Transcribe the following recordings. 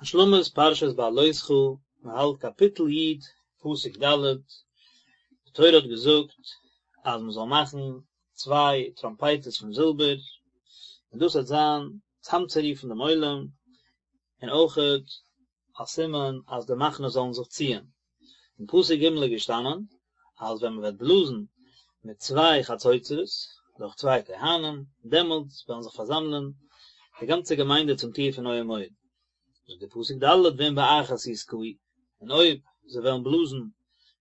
השלמת פרשת בהעלותך, מען האלט קאפיטל י', פסוק ד', די תורה האט געזאגט אז מען זאל מאכן צוויי טראמפייטערס פון זילבער, און דאס וועט זיין צאמצורופן דעם עולם, און אויכעט א סימן אז די מחנות זאלן זיך ציען. אין פסוק ג' איז געשטאנען אז ווען מען וועט בלאזן מיט צוויי חצוצרות דורך צוויי כהנים, דעמאלטס וועלן זיך פארזאמלען די גאנצע געמיינדע צום טיר פון אוהל מועד. זאגט דער פסוק ד' ואם באחת יתקעו, און אויב זיי וועלן בלאזן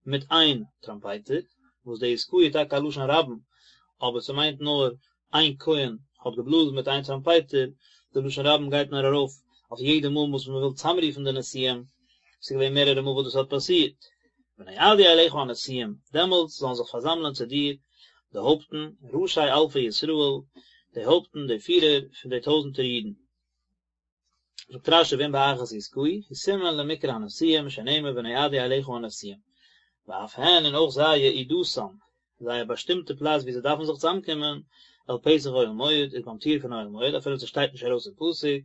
מיט איין טראמפייטער, וואס די יתקעו איז טאקע א לשון רבים, אבער ס'מיינט נאר איין כהן האט געבלאזן מיט איין טראמפייטער, די לשון רבים גייט נאר ארויף אויף יעדע מאל וואס מען וויל צאמרופן די נשיאים, ס'איז געווען מערערע מאל וואס דאס האט פאסירט. ונועדו אליך הנשיאים, דעמאלטס זאלן זיך פארזאמלען צו דיר די הויפטן, ראשי אלפי ישראל, די הויפטן, די פירער פון די טויזנטער אידן. זאגט רשי ואם באחת יתקעו, הוא סימן למקרא הנשיאים שנאמר ונועדו אליך הנשיאים, ואף הן און אויך זיי יעודתם, זייער באשטימטע פלאץ וואו זיי דארפן זיך צוזאמקומען, אל פתח אוהל מועד, איז ביים טיר פון אוהל מועד, אפילו ס'שטייט נישט ארויס אין פסוק,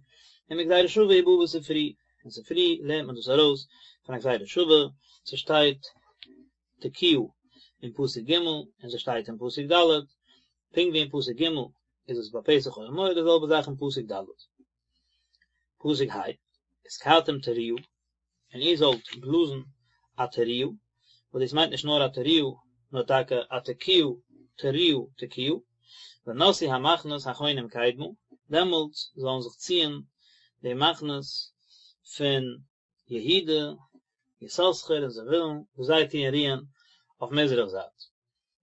ומגזירה שווה הוא בא בספרי, אין ספרי לערנט מען דאס ארויס פון א גזירה שווה, ס'שטייט תקיעה אין פסוק ג' און ס'שטייט אין פסוק ד', פונקט ווי אין פסוק ג' איז עס ביי פתח אוהל מועד די זעלבע זאך אין פסוק ד'. פסוק ה', ותקעתם תרועה, און איר זאלט בלאזן א תרועה, וואס דאס מיינט נישט נאר א תרועה, נאר טאקע א תקיעה, תרועה, תקיעה, ונסעו המחנות החונים קדמה, דעמאלטס זאלן זיך ציען די מחנות פון יהודה, יששכר און זבולון, וואס זיי טוען רוען אויף מזרח זייט.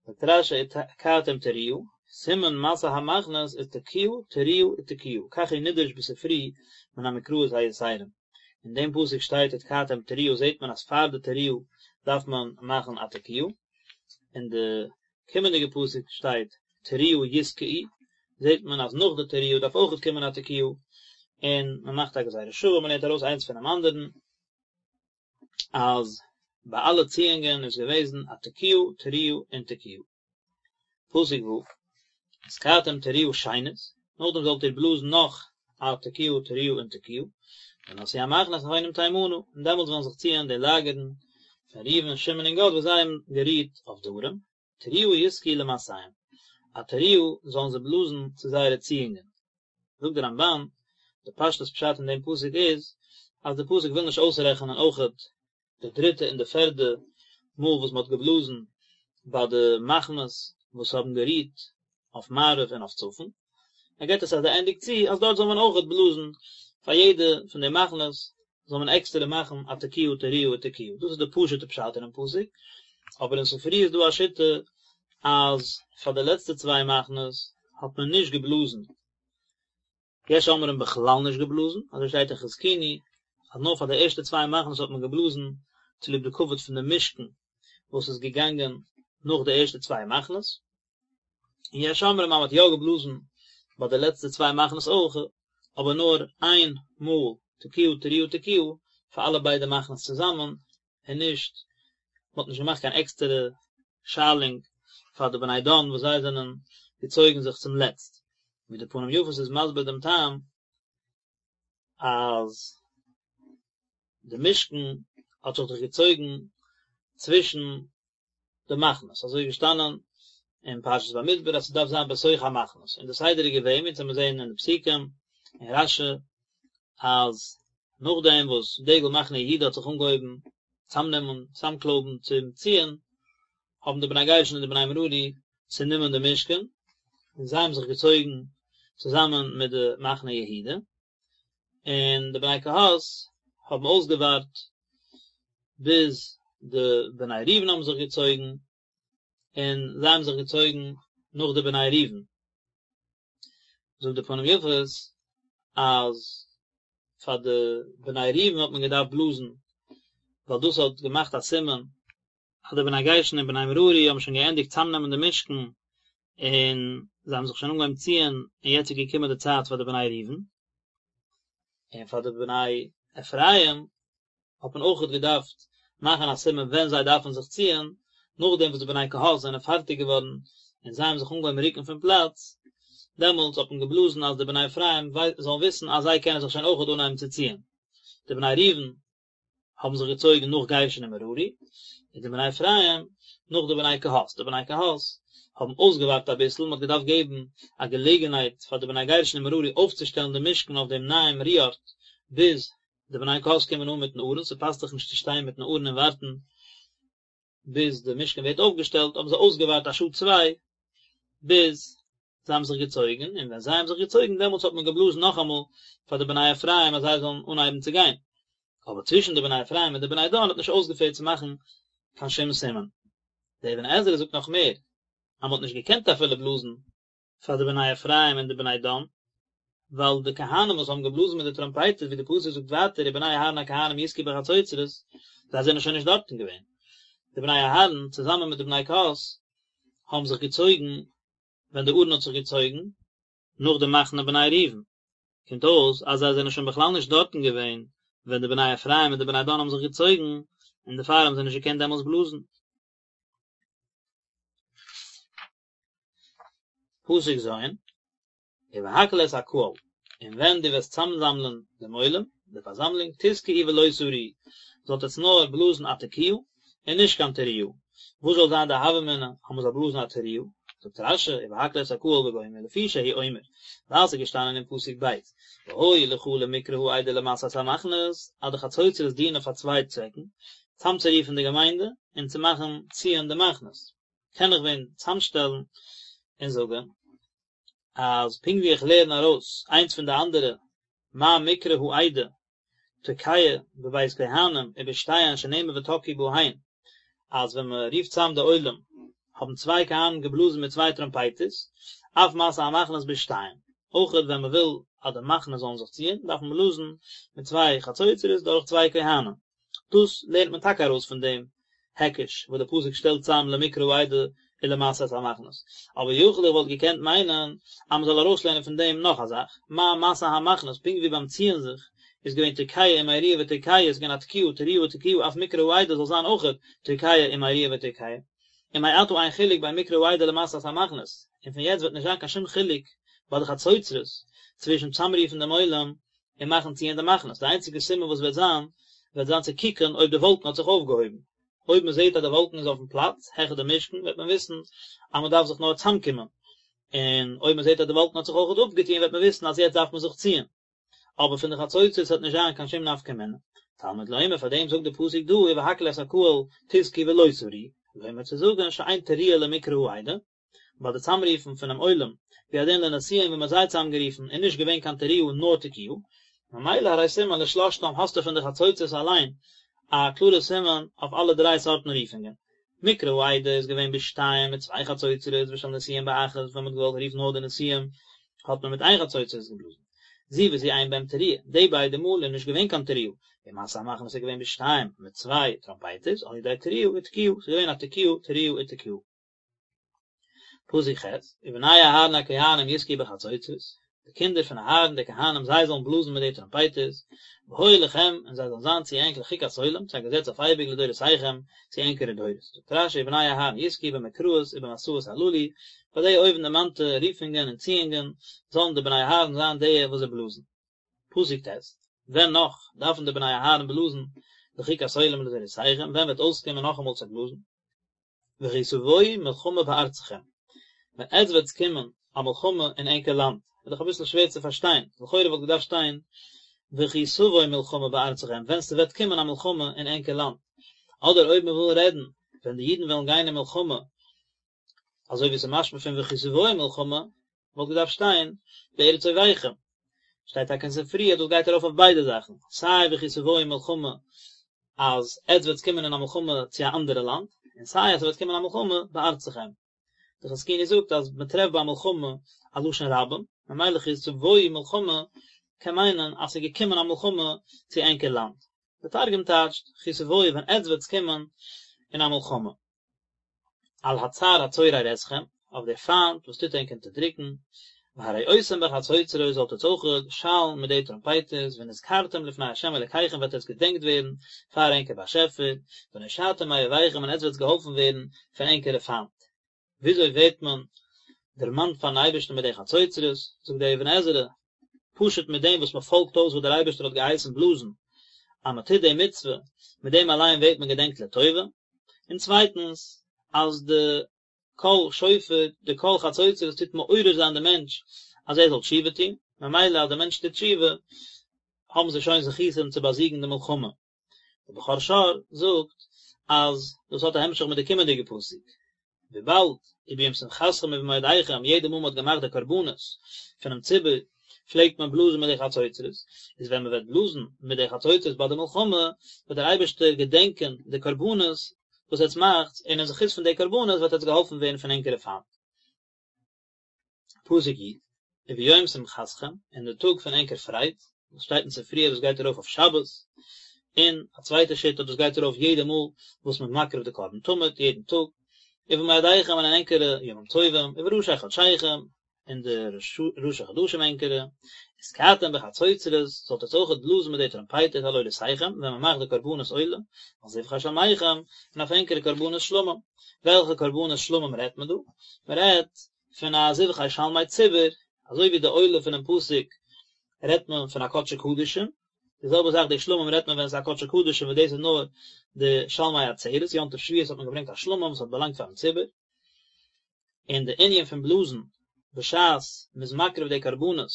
זאגט רשי ותקעתם תרועה, סימן מסע המחנות איז תקיעה תרועה ותקיעה, כך הוא נדרש בספרי מן המקראות היתרים. אין דעם פסוק שטייט ותקעתם תרועה זעט מען אז פאר די תרועה דארף מען מאכן א תקיעה, אין די קומענדיגע פסוק שטייט תרועה יתקעו, זעט מען אז נאך די תרועה דארף אויכעט קומען א תקיעה, און מען מאכט א גזירה שוה, מען לערנט ארויס איינס פונעם אנדערן, אז ביי אלע ציאונגען איז געוועזן א תקיעה, תרועה און תקיעה. פסוק ו', ותקעתם תרועה שנית, נאכדעם זאלט איר בלאזן נאך א תקיעה, תרועה און תקיעה, ונסעו המחנות החונים תימנה, און דעמאלטס וועלן זיך ציען די לאגערן פון ראובן, שמעון און גד וואס זיי האבן גערוהט אויף דרום, תרועה יתקעו למסעיהם, א תרועה זאלן זיי בלאזן צו זייערע ציאונגען. זאגט דער רמבן, די פשטות פשט אין דעם פסוק איז, אז די פסוק וויל נישט אויסרעכענען אויכעט די דריטע און די פערדע מאל וואס מען האט געבלאזן ביי די מחנות וואס האבן גערוהט אויף מערב און אויף צפון, ער געבט עס אז ער ענדיגט צו אז דארט זאל מען אויכעט בלאזן פאר יעדע פון די מחנות זאל מען עקסטערע מאכן א תקיעה תרועה ותקיעה, דאס איז די פשוט'ע פשט אינעם פסוק, אבער אין ספרי איז דא א שיטה אז פאר די לעצטע צוויי מחנות האט מען נישט געבלאזן, יש אומרים בכלל נישט געבלאזן, אזוי שטייט אין חזקוני אז נאר פאר די ערשטע צוויי מחנות האט מען געבלאזן צוליב די כבוד פון די משכן וואס איז געגאנגען נאך די ערשטע צוויי מחנות, און יש אומרים אז מען האט יא געבלאזן ביי די לעצטע צוויי מחנות אויך, אבער נאר איין מאל תקיעה תרועה תקיעה פאר אלע ביידע מחנות צוזאמען, און נישט, מען האט נישט געמאכט קיין עקסטערע שיילונג פאר די בני דן וואס זיי זענען געצויגן זיך צום לעצט, ווי די פנים יפות איז מסביר דעם טעם אז די משכן האט זיך דאך געצויגן צווישן די מחנות, אזוי איז געשטאנען אין פרשת במדבר אז ס'דארף זיין בתוך המחנות, און די סדר איז געווען, ווי אונז וועלן זעהן אין די פסוקים אין רשי, אז נאכדעם וואס דגל מחנה יהודה האט זיך אנגעהויבן צאמנעמען, צאמקלויבן צום ציען, האבן די בני גרשון און די בני מררי צענומען די משכן, און זיי האבן זיך געצויגן צוזאמען מיט די מחנה יהודה, און די בני קהת האבן אויסגעווארט ביז די בני ראובן האבן זיך געצויגן, און זיי האבן זיך געצויגן נאך די בני ראובן. זאגט די פנים יפות אז פאר די בני ראובן האט מען געדארפט בלאזן, ווייל דאס האט געמאכט א סימן אז די בני גרשון און בני מררי האבן שוין געענדיגט צאמנעמען די משכן, און זיי האבן זיך שוין אנגעהויבן ציען, און יעצט איז געקומען די צייט פאר די בני ראובן, און פאר די בני אפרים האט מען אויכעט געדארפט מאכן א סימן ווען זיי דארפן זיך ציען, נאכדעם וואס די בני קהת זענען פארטיג געווארן און זיי האבן זיך אנגעהויבן רוקן פון פלאץ, דעמאלטס האט מען געבלאזן אז די בני אפרים זאלן וויסן אז זיי קענען זיך שוין אויכעט אנהייבן צו ציען. די בני ראובן האבן זיך געצויגן נאך גרשון און מררי, און די בני אפרים נאך די בני קהת, די בני קהת האבן אויסגעווארט אביסל, מען האט געדארפט געבן א געלעגנהייט פאר די בני גרשון און מררי אויפצושטעלן די משכן אויף דעם נייעם רו ארט, ביז די בני קהת קומען אן מיטן ארון, ס'פאסט זיך נישט צו שטיין מיטן ארון און ווארטן ביז די משכן ווערט אויפגעשטעלט, האבן זיי אויסגעווארט א שעה צוויי ביז זיי האבן זיך געצויגן, און ווען זיי האבן זיך געצויגן דעמאלטס האט מען געבלאזן נאכאמאל פאר די בני אפרים אז זיי זאלן אנהייבן צו גיין, אבער צווישן די בני אפרים און די בני דן האט נישט אויסגעפעלט צו מאכן קיין שום סימן. דער אבן עזרא זאגט נאך מער, אז מען האט נישט געקענט אפילו בלאזן פאר די בני אפרים און די בני דן, ווייל די כהנים וואס האבן געבלאזן מיט די טראמפייטערס, ווי די פסוק זאגט ווייטער ובני אהרן הכהנים יתקעו בחצוצרות, זיי זענען שוין נישט דארטן געווען. די בני אהרן צוזאמען מיט די בני קהת האבן זיך געצויגן ווען די ארון האט זיך געצויגן, נאך די מחנה בני ראובן, קומט אויס אז זיי זענען שוין בכלל נישט דארטן געווען ווען די בני אפרים און די בני דן האבן זיך געצויגן, און דערפאר האבן זיי נישט געקענט דעמאלס בלאזן. פסוק ז', ובהקהל את הקהל, און ווען דו וועסט צאמזאמלען דעם עולם, די פארזאמלונג, תתקעו ולא תריעו, זאלט עטס נאר בלאזן א תקיעה, און נישט קיין תרועה. וואס זאל זיין די הוה אמינא אז מען זאל בלאזן א תרועה? זאגט רש"י, ובהקהל את הקהל וגומר, לפי שהוא אומר, ווייל ס'איז געשטאנען אין פסוק ב', והיו לך למקרא העדה ולמסע את המחנות, אז די חצוצרות דינען פאר צוויי צוועקן, צאמצורופן די געמיינדע, און צו מאכן ציען די מחנות. קען איך ווען צאמשטעלן און זאגן, אז פונקט ווי איך לערן ארויס איינס פון די אנדערע, מה מקרא העדה תוקע בב' כהנים ובשתיהן שנאמר ותקעו בהן, אז ווען מען רופט צאם די עולם האבן צוויי כהנים געבלאזן מיט צוויי טראמפייטערס, אף מסע המחנות בשתיים, אויכעט ווען מען וויל אז די מחנות זאלן זיך ציען דארף מען בלאזן מיט צוויי חצוצרות דורך צוויי כהנים. דאס לערנט מען טאקע ארויס פון דעם היקש וואס דער פסוק שטעלט צאם למקרא העדה ולמסע את המחנות, אבער יכול איך וואלט געקענט מיינען אז מען זאל ארויסלערנען פון דעם נאך א זאך, מה מסע המחנות, פונקט ווי ביים ציען זיך איז געווען תוקע ומריע ותוקע, איז געווען א תקיעה תרועה ותקיעה אף מקרא העדה זאל זיין אויכעט תוקע ומריע ותוקע, ומעתה אין חילוק בין מקרא העדה למסע את המחנות, און פון יעצט וועט נישט זיין קיין שום חילוק ביי די חצוצרות צווישן צאמרופן דעם עולם און מאכן ציען די מחנות, די איינציגע סימן וואס וועט זיין, וועט זיין צו קוקן אויב די וואלקן האט זיך אויפגעהויבן, אויב מען זעט אז די וואלקן איז אויפן פלאץ, העכער די משכן, וועט מען וויסן אז מען דארף זיך נאר צאמקומען, און אויב מען זעט אז די וואלקן האט זיך אויכעט אפגעטון וועט מען וויסן אז יעצט דארף מען זיך ציען, אבער פון די חצוצרות וועט נישט זיין קיין שום נפקא מינה. תלמוד לומר, פאר דעם זאגט די פסוק דא ובהקהל את הקהל תתקעו ולא תריעו, לומר צו זאגן שאין תרועה למקרא העדה, ביי די צאמרופן פונעם עולם, והוא הדין לנשיאים ווען מ'האט זיי צאמגערופן איז נישט געווען קיין תרועה נאר תקיעה, ממילא הרי סימן לשלשתם האסטו פון די חצוצרות אליין א קלארע סימן אויף אלע דריי סארטן רופונגען. מקרא העדה איז געווען בשתיים מיט צוויי חצוצרות ושל נשיאים באחת ווען מ'האט געוואלט רופן נאר די נשיאים האט מען מיט איין חצוצרות געבלאזן. זו וזו אין בהם תרועה, די ביידע מאל איז נישט געווען קיין תרועה, ומסע המחנות איז געווען בשתיים מיט צוויי טראמפייטערס על ידי תרועה ותקיעה, ס'איז געווען א תקיעה תרועה ותקיעה. פסוק ח', ובני אהרן הכהנים יתקעו בחצוצרות, די קינדער פון אהרן די כהנים זיי זאלן בלאזן מיט די טראמפייטערס, והיו לכם, און זיי זאלן זיין צו ענק לחוקת עולם, צו א געזעץ אויף אייביג לדורותיכם, צו ענקערע דורות. זאגט רש"י ובני אהרן יתקעו במקראות ובמסעות הללו, ביי די אויבנדערמאנטע רופונגען און ציאונגען, זאלן די בני אהרן זיין די וואס זיי בלאזן. פסוק ט', ווען נאך דארפן די בני אהרן בלאזן לחוקת עולם לדורותיכם, ווען וועט אויסקומען נאכאמאל צו בלאזן? וכי תבואו מלחמה בארצכם, ווען עטס וועטס קומען א מלחמה אין ענקער לאנד, איז דאך אביסל שווער צו פארשטיין, לכאורה וואלט געדארפט שטיין וכי תבוא מלחמה בארצכם, ווען ס'וועט קומען א מלחמה אין ענקער לאנד, אדער אויב מ'וויל רעדן ווען די אידן וועלן גיין אין מלחמה, אזוי ווי ס'איז משמע פון וכי תבואו מלחמה, וואלט געדארפט שטיין בארץ אויביכם. שטייט טאקע אין ספרי אז דאס גייט ארויף אויף ביידע זאכן, סיי וכי תבואו מלחמה אז עטס וועטס קומען אין א מלחמה צו א אנדערע לאנד, און סיי אז ס'וועט קומען א מלחמה בארצכם. די חזקוני זאגט אז מ'טרעפט ביי מלחמה א לשון רבים, ממילא וכי תבואו מלחמה קען מיינען אז ס'איז געקומען א מלחמה צו ענקער לאנד. די תרגום טייטשט וכי תבואו ווען עטס וועטס קומען אין א מלחמה. על הצר הצורר אתכם, אויף דער פיינט וואס טוט ענק אונטערדריקן, והרעותם בחצוצרות זאלט עטס אויך שאלן מיט די טראמפייטערס, ונזכרתם לפני ה' אלקיכם וועט עטס געדענקט ווערן פאר ענקער באשעפער, ונושעתם מאויביכם און עטס וועטס געהאלפן ווערן פון ענקערע פיינט. וויאזוי ווערט מען דערמאנט פארן אייבערשטן מיט די חצוצרות? זאגט דער אבן עזרא, פשוט מיט דעם וואס מען פאלגט אויס וואס דער אייבערשטער האט געהייסן בלאזן. אז מען טוט די מצוה, מיט דעם אליין ווערט מען געדענקט לטובה, און צווייטנס אז די קול שופר, די קול חצוצרות טוט מעורר זיין די מענטש אז ער זאל תשובה טון, ממילא אז די מענטש טוט תשובה האבן זיי שוין זכותים צו באזיגן די מלחמה. דער בכור שור זאגט אז דאס האט א המשך מיט די קומענדיגע פסוק, וויבאלד וביום שמחתכם ובמועדיכם יעדע מאל מען האט געמאכט די קרבנות פונעם ציבור פלעגט מען בלאזן מיט די חצוצרות, איז ווען מען וועט בלאזן מיט די חצוצרות ביי די מלחמה וועט דער אייבערשטער געדענקען די קרבנות וואס עטס מאכטס, און אין זכות פון די קרבנות וועט עטס געהאלפן ווערן פון ענקערע פיינט. פסוק י', וביום שמחתכם, אין די טאג פון ענקער פרייד, וואס שטייט אין ספרי אז דאס גייט ארויף אויף שבת, און א צווייטע שיטה דאס גייט ארויף יעדע מאל וואס מ'איז מקריב די קרבן תמיד, יעדן טאג, ובמועדיכם און אין ענקערע ימים טובים, ובראשי חדשיכם, אין די ראשי חדשים ענקערע, ותקעתם בחצוצרות, זאלט עטס אויכעט בלאזן מיט די טראמפייטער על עולותיכם, ווען מען מאכט די קרבנות עולה, ועל זבחי שלמיכם, און אויף ענקערע קרבנות שלמים. וועלכע קרבנות שלמים רעדט מען דא? מען רעדט פון א זבחי שלמי ציבור, אזוי ווי די עולה פונעם פסוק רעדט מען פון א קדשי קדשים, די זעלבע זאך די שלמים רעדט מען ווען עס איז א קדשי קדשים וואס דאס איז נאר די שלמי עצרת, יום טוב שבועות האט מען געברענגט א שלמים וואס האט באלאנגט פארן ציבור. און די ענין פון בלאזן בשעת מען איז מקריב די קרבנות,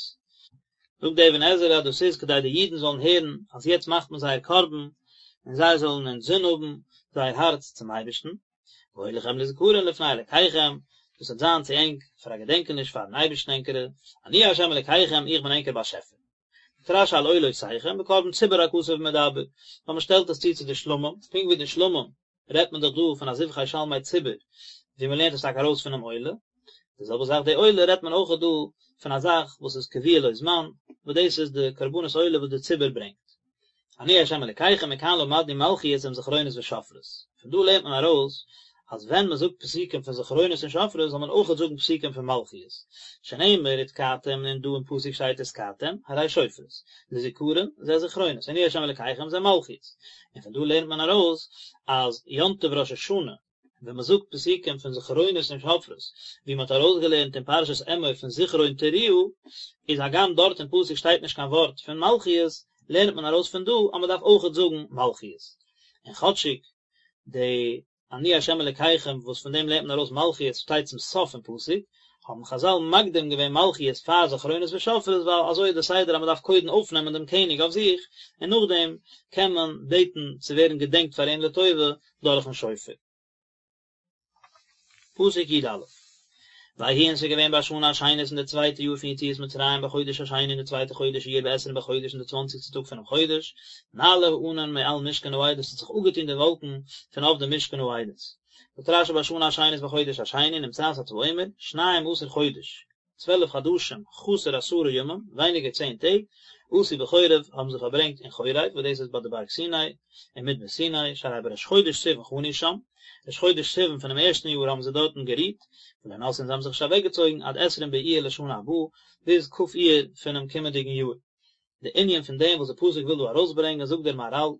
זאגט די אבן עזרא אז דאס איז כדי די אידן זאלן הערן אז יעצט מאכט מען זייער קרבן, און זיי זאלן אינזין האבן זייער הארץ צום אייבערשטן, והיה לכם לזכרון לפני אלקיכם, דאס וועט זיין צו ענק פאר א געדענקעניש פארן אייבערשטן ענקערע, אני ה' אלקיכם, איך בין ענקער באשעפער. זאגט רש"י על עולותיכם, בקרבן ציבור הכתוב מדבר, ווייל מען שטעלט עס צו צו די שלמים, פונקט ווי די שלמים רעדט מען דאך דא פון א זבחי שלמי ציבור, ווי מען לערנט עס טאקע ארויס פונעם עולה, די זעלבע זאך די עולה רעדט מען אויך דא פון א זאך וואס איז קבוע לו זמן, וואס דאס איז די קרבנות עולה וואס די ציבור ברענגט. אני ה' אלקיכם מכאן למדנו מלכיות עם זכרונות ושופרות. פון דא לערנט מען ארויס אז ווען מען זאגט פסוקים פון זכרונות און שופרות זאל מען אויכעט זאגן פסוקים פון מלכיות, שנאמר ותקעתם און דא אין פסוק שטייט ותקעתם, הרי שופרות, לזכרון, זה זכרונות, אני ה' אלקיכם זה מלכיות. און פון דא לערנט מען ארויס אז יום טוב ראש השנה, ווען מען זאגט פסוקים פון זכרונות און שופרות, ווי מען האט ארויסגעלערנט אין פרשת אמור פון זכרון תרועה, איז הגם דארט אין פסוק שטייט נישט קיין ווארט פון מלכיות, לערנט מען ארויס פון דא אז מען דארף אויכעט זאגן מלכיות. און כאטשיג די אני ה' אלקיכם וואס פון דעם לערנט מען ארויס מלכיות שטייט צום סוף פון פסוק, האבן חזל מקדים געווען מלכיות פאר זכרונות ושופרות ווייל אזוי איז די סדר אז מען דארף קודם אויפנעמען דעם קעניג אויף זיך און נאכדעם קען מען בעטן צו ווערן געדענקט פאר אים לטובה דורכן שופר. פסוק י"א ויהי און ס'איז געווען בשנה השנית אין די צווייטע יאר פון יציאת מצרים בחודש השני אין די צווייטע חודש אייר בעשרים בחודש אין די צוואנציגסטע טאג פונעם חודש נעלה הענן מעל משכן העדות ס'האט זיך אפגעטון די וואלקן פון אויף די משכן העדות. זאגט רש"י בשנה השנית בחודש השני נמצאת אתה אומר שניים עשר חודש 12 חדשים חסר עשרה ימים, ווייניגער צען טעג, עשו בחורב, האבן זיי פארברענגט אין חורב, וואס דאס איז ביי די בארג סיני, אין מדבר סיני, שהרי בראש חודש סיוון חנו שם, ראש חודש סיוון פונעם ערשטן יאר האבן זיי דארטן גערוהט, ולא נסעו און זיי האבן זיך נישט אוועקגעצויגן עד עשרים באייר לשנה הבאה, ביז כ' אייר פונעם קומענדיגן יאר. די ענין פון דעם וואס די פסוק וויל דא ארויסברענגען זאגט דער מהר"ל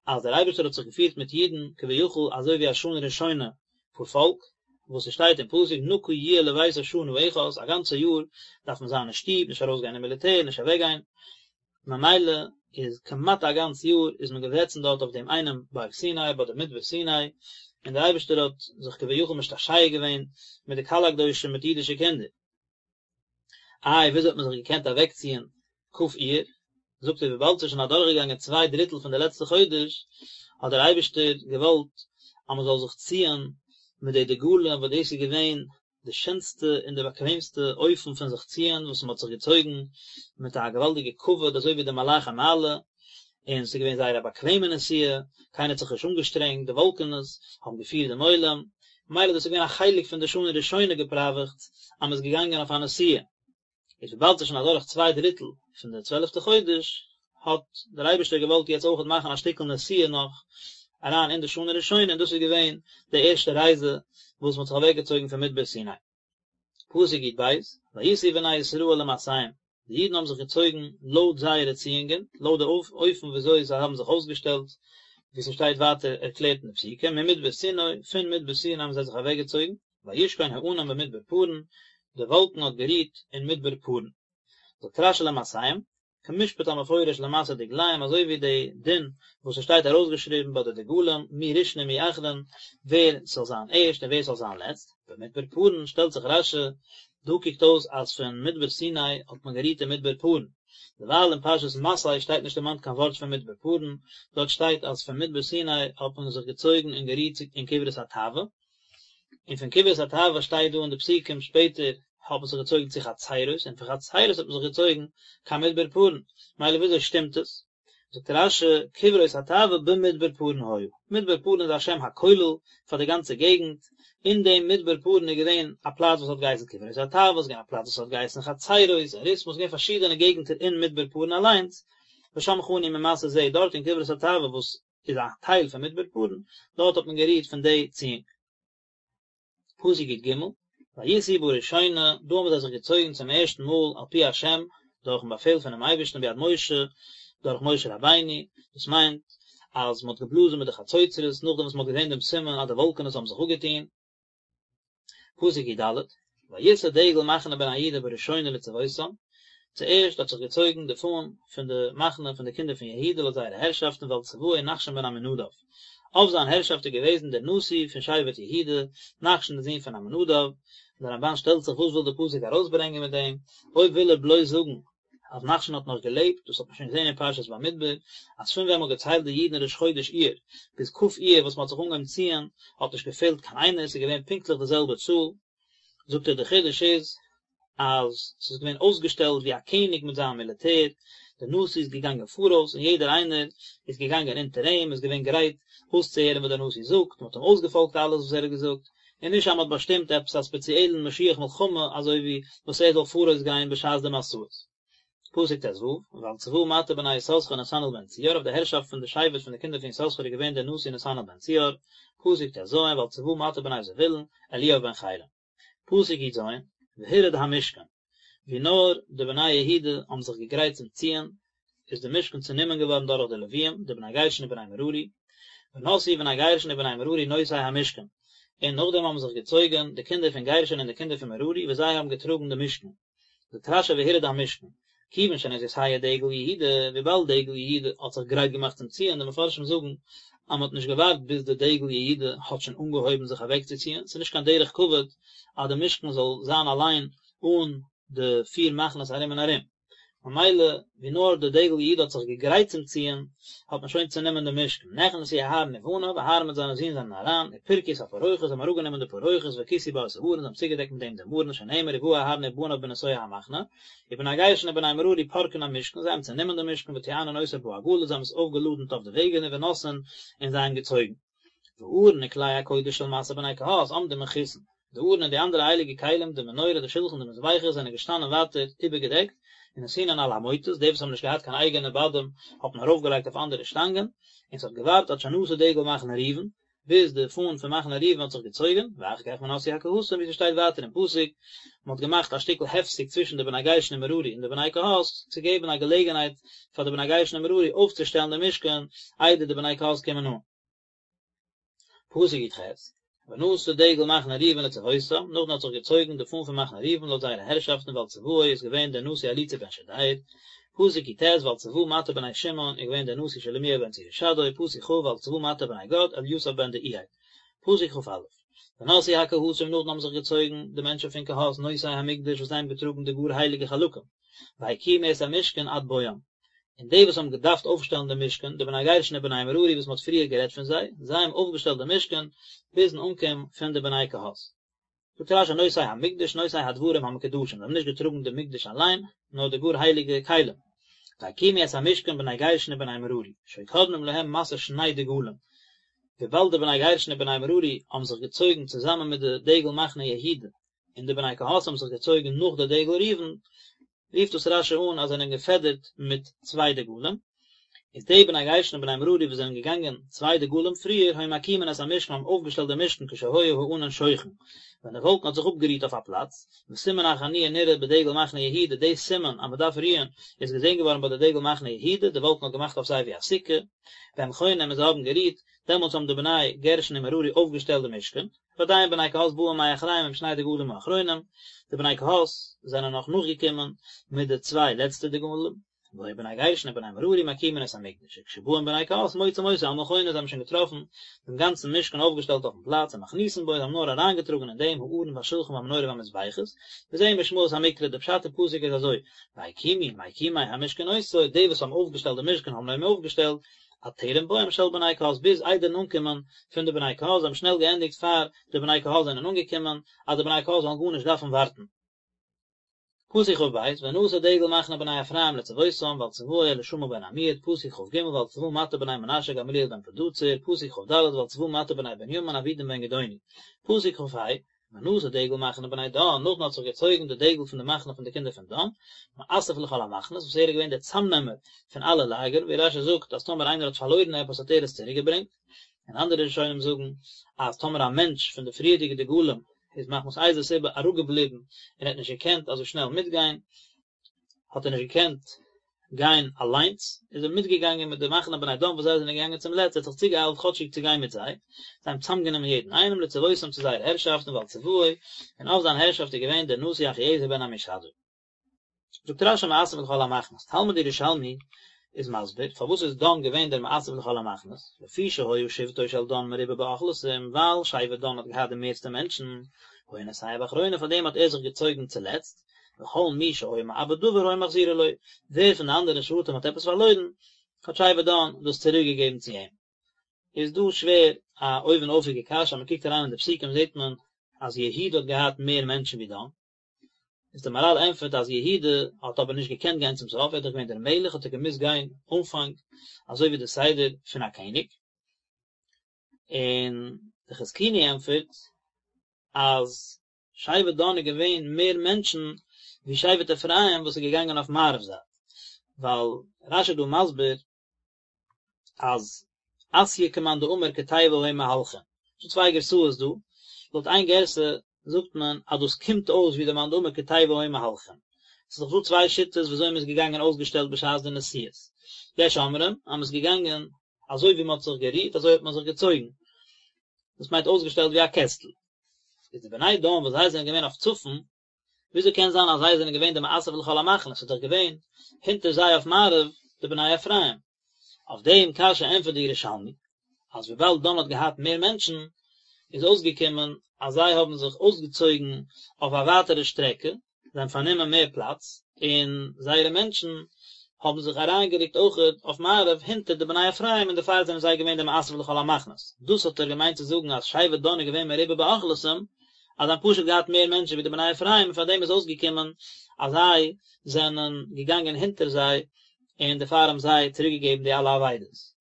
אז דער אייבערשטער האט זיך געפירט מיט אידן כביכול אזוי ווי א שנה ראשונה פארפאלק, וואס עס שטייט אין פסוק נקי יהיה לביתו שנה אחת, א גאנצע יאר דארף מען זיין אין שטוב, נישט ארויסגיין אין מיליטער, נישט אוועקגיין, ממילא איז כמעט א גאנץ יאר איז מען געזעצן דארט אויף דעם איינעם בארג סיני ביי די מדבר סיני, און דער אייבערשטער האט זיך כביכול משתעשע געווען מיט די קהל הקדושים מיט אידישע קינדער. איי וויאזוי האט מען זיך געקענט אוועקציען כ' אייר? זאגט ער וויבאלד ס'איז שוין אדורכגעגאנגען צוויי דריטל פון די לעצטע חודש, האט דער אייבערשטער געוואלט אז מען זאל זיך ציען מיט די דגלים וואס דאס איז געווען די שענסטע און די באקוועמסטע אופן פון זיך ציען וואס מען האט זיך געצויגן מיט א געוואלדיגע כבוד אזוי ווי די מלאכי מעלה, און ס'איז געווען זייער א באקוועמע נסיעה, קיינער האט זיך נישט אנגעשטרענגט, די וואלקענעס האבן געפירט דעם עולם, ממילא דאס איז געווען א חלק פון די שנה ראשונה געפראוועכטס אז מ'איז געגאנגען אויף א נסיעה. איז וויבאלד ס'איז שוין אדורך צוויי דריטל פון די צוועלפטע חודש, האט דער אייבערשטער געוואלט יעצט אויכעט מאכן א שטיקל נסיעה נאך אריין אין די שנה ראשונה, און דאס איז געווען די ערשטע רייזע וואס מ'האט זיך אוועקגעצויגן פון מדבר סיני. פסוק י"ב, ויסעו בני ישראל למסעיהם, די אידן האבן זיך געצויגן לויט זייערע ציאונגען, לויט די אופן ווי אזוי זיי האבן זיך אויסגעשטעלט, ווי ס'שטייט ווייטער ערקלערט אין די פסוקים, ממדבר סיני, פון מדבר סיני האבן זיי זיך אוועקגעצויגן, וישכון הענן במדבר פארן, די וואלקן האט גערוהט אין מדבר פארן. זאגט רש"י למסעיהם. כמשפט המפורש למסע דגליהם אזוי ווי די דין וואס עס שטייט ארויסגעשריבן ביי די דגלים מי ראשון ומי אחרון ווער ס'זאל זיין ערשט און ווער ס'זאל זיין לעצט, במדבר פארן שטעלט זיך רש"י, דא קוקט אויס אז פון מדבר סיני האט מען גערוהט אין מדבר פארן, דערווייל אין פרשת מסעי שטייט נישט דערמאנט קיין ווארט פון מדבר פארן, דארט שטייט אז פון מדבר סיני האט מען זיך געצויגן און גערוהט אין קברות התאווה, און פון קברות התאווה שטייט דא אין די פסוקים שפעטער האט מען זיך געצויגן צו חצרות און פון חצרות האט מען זיך געצויגן קיין מדבר פארן, מילא וויאזוי שטימט עס? זאגט רש"י, קברות התאווה במדבר פארן היו, מדבר פארן איז א שם הכולל פאר די גאנצע געגנט, אין דעם מדבר פארן איז געווען א פלאץ וואס האט געהייסן קברות התאווה, ס'איז געווען א פלאץ וואס האט געהייסן חצרות, און רתמה, ס'איז געווען פארשידענע געגנטער אין מדבר פארן אליינס, ושם חנו ממסע זה, דארט אין קברות התאווה וואס איז א טייל פון מדבר פארן, דארט האט מען גערוהט פון די ציאונג. פסוק י"ג, ויסעו בראשונה, דא האבן זיי זיך געצויגן צום ערשטן מאל על פי השם, דורכן באפעל פונעם אייבערשטן ביד משה, דורך משה רבינו, דאס מיינט אז מען האט געבלאזן מיט די חצוצרות נאכדעם וואס מען האט געזען דעם סימן אז די וואלקענעס האבן זיך אפגעטון. פסוק י"ד, ויסע דגל מחנה בני יהודה בראשונה לצבאותם, צוערשט האט זיך געצויגן די פאן פון די מחנה פון די קינדער פון יהודה לויט זייערע הערשאפטן ועל צבאו נחשון בן עמינדב, אויף זיין הערשאפט איז געוועזן דער נשיא פון שבט יהודה, נחשון דער זון פון עמינדב, און דער רמב"ן שטעלט זיך וואס וויל דער פסוק ארויסברענגען מיט דעם, אויב וויל ער בלויז זאגן אז נחשון האט נאך געלעבט, דאס האט מען שוין געזען אין פרשת במדבר, אז פון ווען מען האט געציילט די אידן ראש חודש אייר, ביז כ' אייר וואס מען האט זיך אנגעהויבן ציען, האט נישט געפעלט קיין איינער, עס איז געווען פונקטליך די זעלבע צאל, זאגט ער די חידוש איז, אז ס'איז געווען אויסגעשטעלט ווי א קעניג מיט זיין מיליטער, דער נשיא איז געגאנגען פאראויס און יעדער איינער איז געגאנגען אונטער אים, איז געווען גרייט אויסצוהערן וואס דער נשיא זאגט, מען האט אים אויסגעפאלגט אלעס וואס ער האט געזאגט, און נישט אז מען האט באשטימט עפעס א ספעציעלן משוח מלחמה אזוי ווי וואס ער זאל פאראויס גיין בשעת די מסעות. פסוק ט"ו, ועל צבא מטה בני יששכר נתנאל בן צוער, אויף די הערשאפט פון די שבט פון די קינדער פון יששכר איז געווען דער נשיא נתנאל בן צוער, פסוק ט"ז, ועל צבא מטה בני זבולון, אליאב בן חילון. פסוק י"ז, והורד המשכן, ווי נאר די בני יהודה האבן זיך געגרייט צום ציען, איז די משכן צענומען געווארן דורך די לוויים, די בני גרשון און בני מררי, ונסעו בני גרשון ובני מררי נושאי המשכן, און נאכדעם האבן זיך געצויגן די קינדער פון גרשון און די קינדער פון מררי וואס זיי האבן געטראגן די משכן. זאגט רש"י והורד המשכן, כיוון שנתייסע דגל יהודה, וויבאלד דגל יהודה האט זיך גרייט געמאכט צום ציען, די מפרשים זאגן אז מען האט נישט געווארט ביז די דגל יהודה האט שוין אנגעהויבן זיך אוועקצוציען, ס'איז נישט קיין דרך כבוד אז די משכן זאל זיין אליין אן די פיר מחנות ארום און ארום. ממילא ווי נאר די דגל יהודה האט זיך געגרייט צום ציען, האט מען שוין צענומען די משכן, נכנסו אהרן ובניו, אהרן מיט זיינע זין זענען אריין, ופרקו את הפרוכת, זיי האבן אראפגענומען די פרוכת, וכסו בה את הארון, זיי האבן צוגעדעקט מיט דעם דעם ארון, שנאמר ובא אהרן ובניו בנסוע המחנה, ובני גרשון ובני מררי פורקין המשכן, זיי האבן צענומען די משכן וטוענין אותו בעגלות, זיי האבן עס אויפגעלאדנט אויף די וועגענער ונושאין, און זיי האבן געצויגן. והארון וכלי הקודש של משא בני קהת עומדים מכוסין, די ארון און די אנדערע הייליגע כלים, די מנורה, די שלחן, די מזבחות, זענען געשטאנען ווייטער איבערגעדעקט, ונתונין על המוטות, די וואס האבן נישט געהאט קיין אייגענע בדים האט מען ארויפגעלייגט אויף אנדערע שטאנגען, און ס'האט געווארט עד שנסע דגל מחנה ראובן, ביז די פאן פון מחנה ראובן האט זיך געצויגן, ואחר כך ונסעו הקהתים, ווי ס'שטייט ווייטער אין פסוק, מען האט געמאכט א שטיקל הפסק צווישן די בני גרשון און מררי און די בני קהת, צו געבן א געלעגנהייט פאר די בני גרשון און מררי אויפצושטעלן די משכן איידער די בני קהת קומען אן. פסוק י"ח, ונסע דגל מחנה ראובן לצבאותם, נאכדעם האט זיך געצויגן די פאן פון מחנה ראובן לויט זייערע הערשאפטן ועל צבאו איז געווען דער נשיא אליצור בן שדיאור, פסוק י"ט, ועל צבא מטה בני שמעון איז געווען דער נשיא שלומיאל בן צורישדי, פסוק כ, ועל צבא מטה בני גד, אליסף בן דעואל. פסוק כ"א, ונסעו הקהתים נאכדעם האבן זיך געצויגן די מענטשן פון קהת נושאי המקדש וואס זיי האבן געטראגן די גאר הייליגע חלקים, והקימו את המשכן עד בואם. און די וואס האבן געדארפט אויפשטעלן די משכן, די בני גרשון און בני מררי וואס מען האט פריער גערעדט פון זיי, זיי האבן אויפגעשטעלט די משכן ביזן אנקום פון די בני קהת. זאגט רש"י נושאי המקדש נושאי הדברים המקודשים, זיי האבן נישט געטראגן די מקדש אליין, נאר די גאר הייליגע כלים. והקימו את המשכן בני גרשון ובני מררי, שהיו קודמים להם מסע שני דגלים, וויבאלד די בני גרשון און בני מררי האבן זיך געצויגן צוזאמען מיט די דגל מחנה יהודה, און די בני קהת האבן זיך געצויגן נאך די דגל ראובן, רופט דאס רש"י אן אז זיי זענען געפעדערט מיט צוויי דגלים, איז די בני גרשון און בני מררי וואס זענען געגאנגען צוויי דגלים פריער היו מקימין את המשכן האבן אויפגעשטעלט די משכן כשהיה הענן שוכן, ווען די וואלקן האט זיך אפגערוהט אויף א פלאץ, וסימן החניה נראה בדגל מחנה יהודה, די סימן אז מען דארף רוען איז געזען געווארן ביי די דגל מחנה יהודה, די וואלקן האט געמאכט אויף זיי ווי א סוכה, והם חונים און זיי האבן גערוהט, דעמאלטס האבן די בני גרשון און מררי אויפגעשטעלט די משכן. ועדיין בני קהת באים מאחריהם עם שני דגלים האחרונים, די בני קהת זענען נאך נאכגעקומען מיט די צוויי לעצטע דגלים. והיו בני גרשון ובני מררי מקימין את המקדש, וכשבאין בני קהת מוצאים אותו על מכונו, זיי האבן שוין געטראפן דעם גאנצן משכן אויפגעשטעלט אויפן פלאץ, ומכניסין בו, זיי האבן נאר אריינגעטראגן אין דעם הארון והשולחן והמנורה והמזבחות, וזה משמעות המקרא, די פשט אין פסוק איז אזוי, והקימו מקימי המשכן אותו, די וואס האבן אויפגעשטעלט די משכן האבן אים אויפגעשטעלט, עד טרם בואם של בני קהת ביז איידערן אנקומען פון די בני קהת, זיי האבן שנעל געענדיגט פאר די בני קהת זענען אנגעקומען, אז די בני קהת זאלן גארנישט דארפן ווארטן. פסוק כ"ב, ונשא דגל מחנה בני אפרים לצבאותם ועל צבאו אלישמע בן עמיהוד, פסוק כ"ג, ועל צבא מטה בני מנשה גמליאל בן פדהצור, פסוק כ"ד, ועל צבא מטה בני בנימין אבידן בן גדעוני, פסוק כ"ה, ונשא דגל מחנה בני דן, נאכדעם האט זיך געצויגן די דגל פון די מחנה פון די קינדער פון דן, מאסף לכל המחנות, וואס ער איז געווען דער צאמנעמער פון אלע לאגערן, ווי רש"י זאגט אז טאמער איינער האט פארלוירן עפעס האט ער עס צוריקגעברענגט, און אנדערע ראשונים זאגן אז טאמער א מענטש פון די פריערדיגע דגלים איז מחמת איזה סיבה אראפגעבליבן און האט נישט געקענט אזוי שנעל מיטגיין, האט ער נישט געקענט גיין אליינס, איז ער מיטגעגאנגען מיט די מחנה בני דן וואס זיי זענען געגאנגען צום לעצט, ער האט זיך צוגעאיילט כאטשיג צו גיין מיט זיי, זיי האבן צוזאמגענומען יעדן איינעם לצבאותם צו זייער הערשאפט און ועל צבאו, און אויף זיין הערשאפט איז געווען דער נשיא אחיעזר בן עמישדי. זאגט רש"י מאסף לכל המחנות, תלמוד ירושלמי איז מסביר פארוואס איז דן געווען דער מאסף לכל המחנות, לפי שהיה שבטו של דן מרובה באוכלוסין, ווייל שבט דן האט געהאט די מערסטע מענטשן, היה נוסע באחרונה פאר דעם האט ער זיך געצויגן צולעצט, וכל מי שהיה מאבד דבר היו מחזירין לו, ווער פון די אנדערע שבטים האט עפעס פארלוירן, האט שבט דן דאס צוריק געגעבן צו אים. איז דא שווער א אויבן אויפיגע קשיא, אז מען קוקט אריין אין די פסוקים זעט מען אז יהודה האט געהאט מער מענטשן ווי דן, איז דער מהר"ל ענטפערט אז יהודה האט אבער נישט געקענט גיין צום סוף, ער איז דאך געווען דער מלך האט ער געמוזט גיין אנפאנג אזוי ווי די סדר פון א קעניג, און די חזקוני ענטפערט אז שבט דן איז געווען מער מענטשן ווי שבט אפרים וואס איז געגאנגען אויף מערב זייט, ווייל רש"י איז דא מסביר אז אתיא כמאן דאמר כתיבה היו מהלכין, ס'דא צוויי גרסאות דא, לויט איין גרסה זאגט מען אז דאס קומט אויס ווי די מאן דאמר כתיבה היו מהלכין, ס'איז דאך דא צוויי שיטות ווי אזוי מ'איז געגאנגען אויסגעשטעלט בשעת די נסיעות, יש אומרים אז מ'איז געגאנגען אזוי ווי מ'האט זיך גערוהט אזוי האט מען זיך געצויגן, דאס מיינט אויסגעשטעלט ווי א קעסטל. איז די בני דן וואס זיי זענען געווען אויף צפון, וויאזוי קען זיין אז זיי זענען געווען די מאסף לכל המחנות, ס'איז דאך געווען הונטער זיי אויף מערב די בני אפרים. אויף דעם קשיא ענטפערט די ירושלמי, אז וויבאלד דן האט געהאט מער מענטשן, איז אויסגעקומען אז זיי האבן זיך אויסגעצויגן אויף א ווייטערע שטרעקע, זיי האבן פארנומען מער פלאץ, און זייערע מענטשן האבן זיך אריינגערוקט אויכעט אויף מערב הינטער די בני אפרים און דערפאר זענען זיי געווען די מאסף לכל המחנות. דאס האט ער געמיינט צו זאגן אז שבט דן איז געווען מרובה באוכלוסין, אז זיי האבן פשוט געהאט מער מענטשן ווי די בני אפרים און פארדעם איז אויסגעקומען אז זיי זענען געגאנגען הינטער זיי און דערפאר האבן זיי צוריקגעגעבן די אלע אבידות.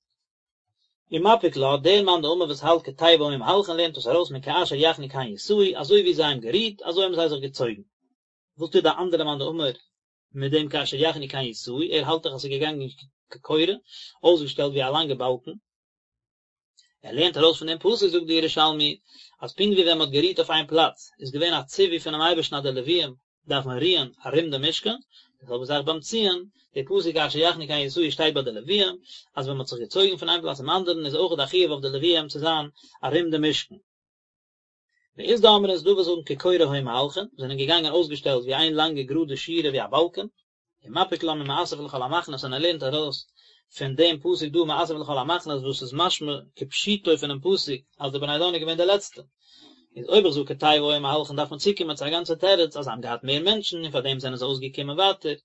ומפיק לה, דער מאן דאמר וואס האלט כתיבה היו מהלכין לערנט דאס ארויס מכאשר יחנו כן יסעו, אזוי ווי זיי האבן גערוהט, אזוי האבן זיי זיך געצויגן. וואס טוט די אנדערע מאן דאמר מיט דעם כאשר יחנו כן יסעו, ער האלט דאך אז ס'איז געגאנגען כקורה, אויסגעשטעלט ווי א לאנגע באלקן. ער לערנט ארויס פון דעם פסוק זאגט די ירושלמי, אז פונקט ווי ווען מ'האט גערוהט אויף איין פלאץ, איז געווען א ציווי פונעם אייבערשטן אז די לוויים דארפן רוען ארום די משכן, די זעלבע זאך ביים ציען, די פסוק כאשר יחנו כן יסעו שטייט ביי די לוויים, אז ווען מען האט זיך געצויגן פון איין פלאץ צום אנדערן איז אויך א חיוב אויף די לוויים צו זיין ארום די משכן. ואית דאמרי ס'איז דא וואס זאגן כקורה היו מהלכין, זענען געגאנגען אויסגעשטעלט ווי איין לאנגע גראדע שורה ווי א באלקען, ומפיק לה ממאסף לכל המחנות און ער לערנט ארויס פון דעם פסוק דא מאסף לכל המחנות וואס איז משמע כפשוטו פונעם פסוק אז די בני דן איז געווען די לעצטע. איז אויב איך זאג כתיבה היו מהלכין דארף מען צוקומען צו א גאנצע תירוץ אז זיי האבן געהאט מער מענטשן און פארדעם זענען זיי אויסגעקומען ווייטער,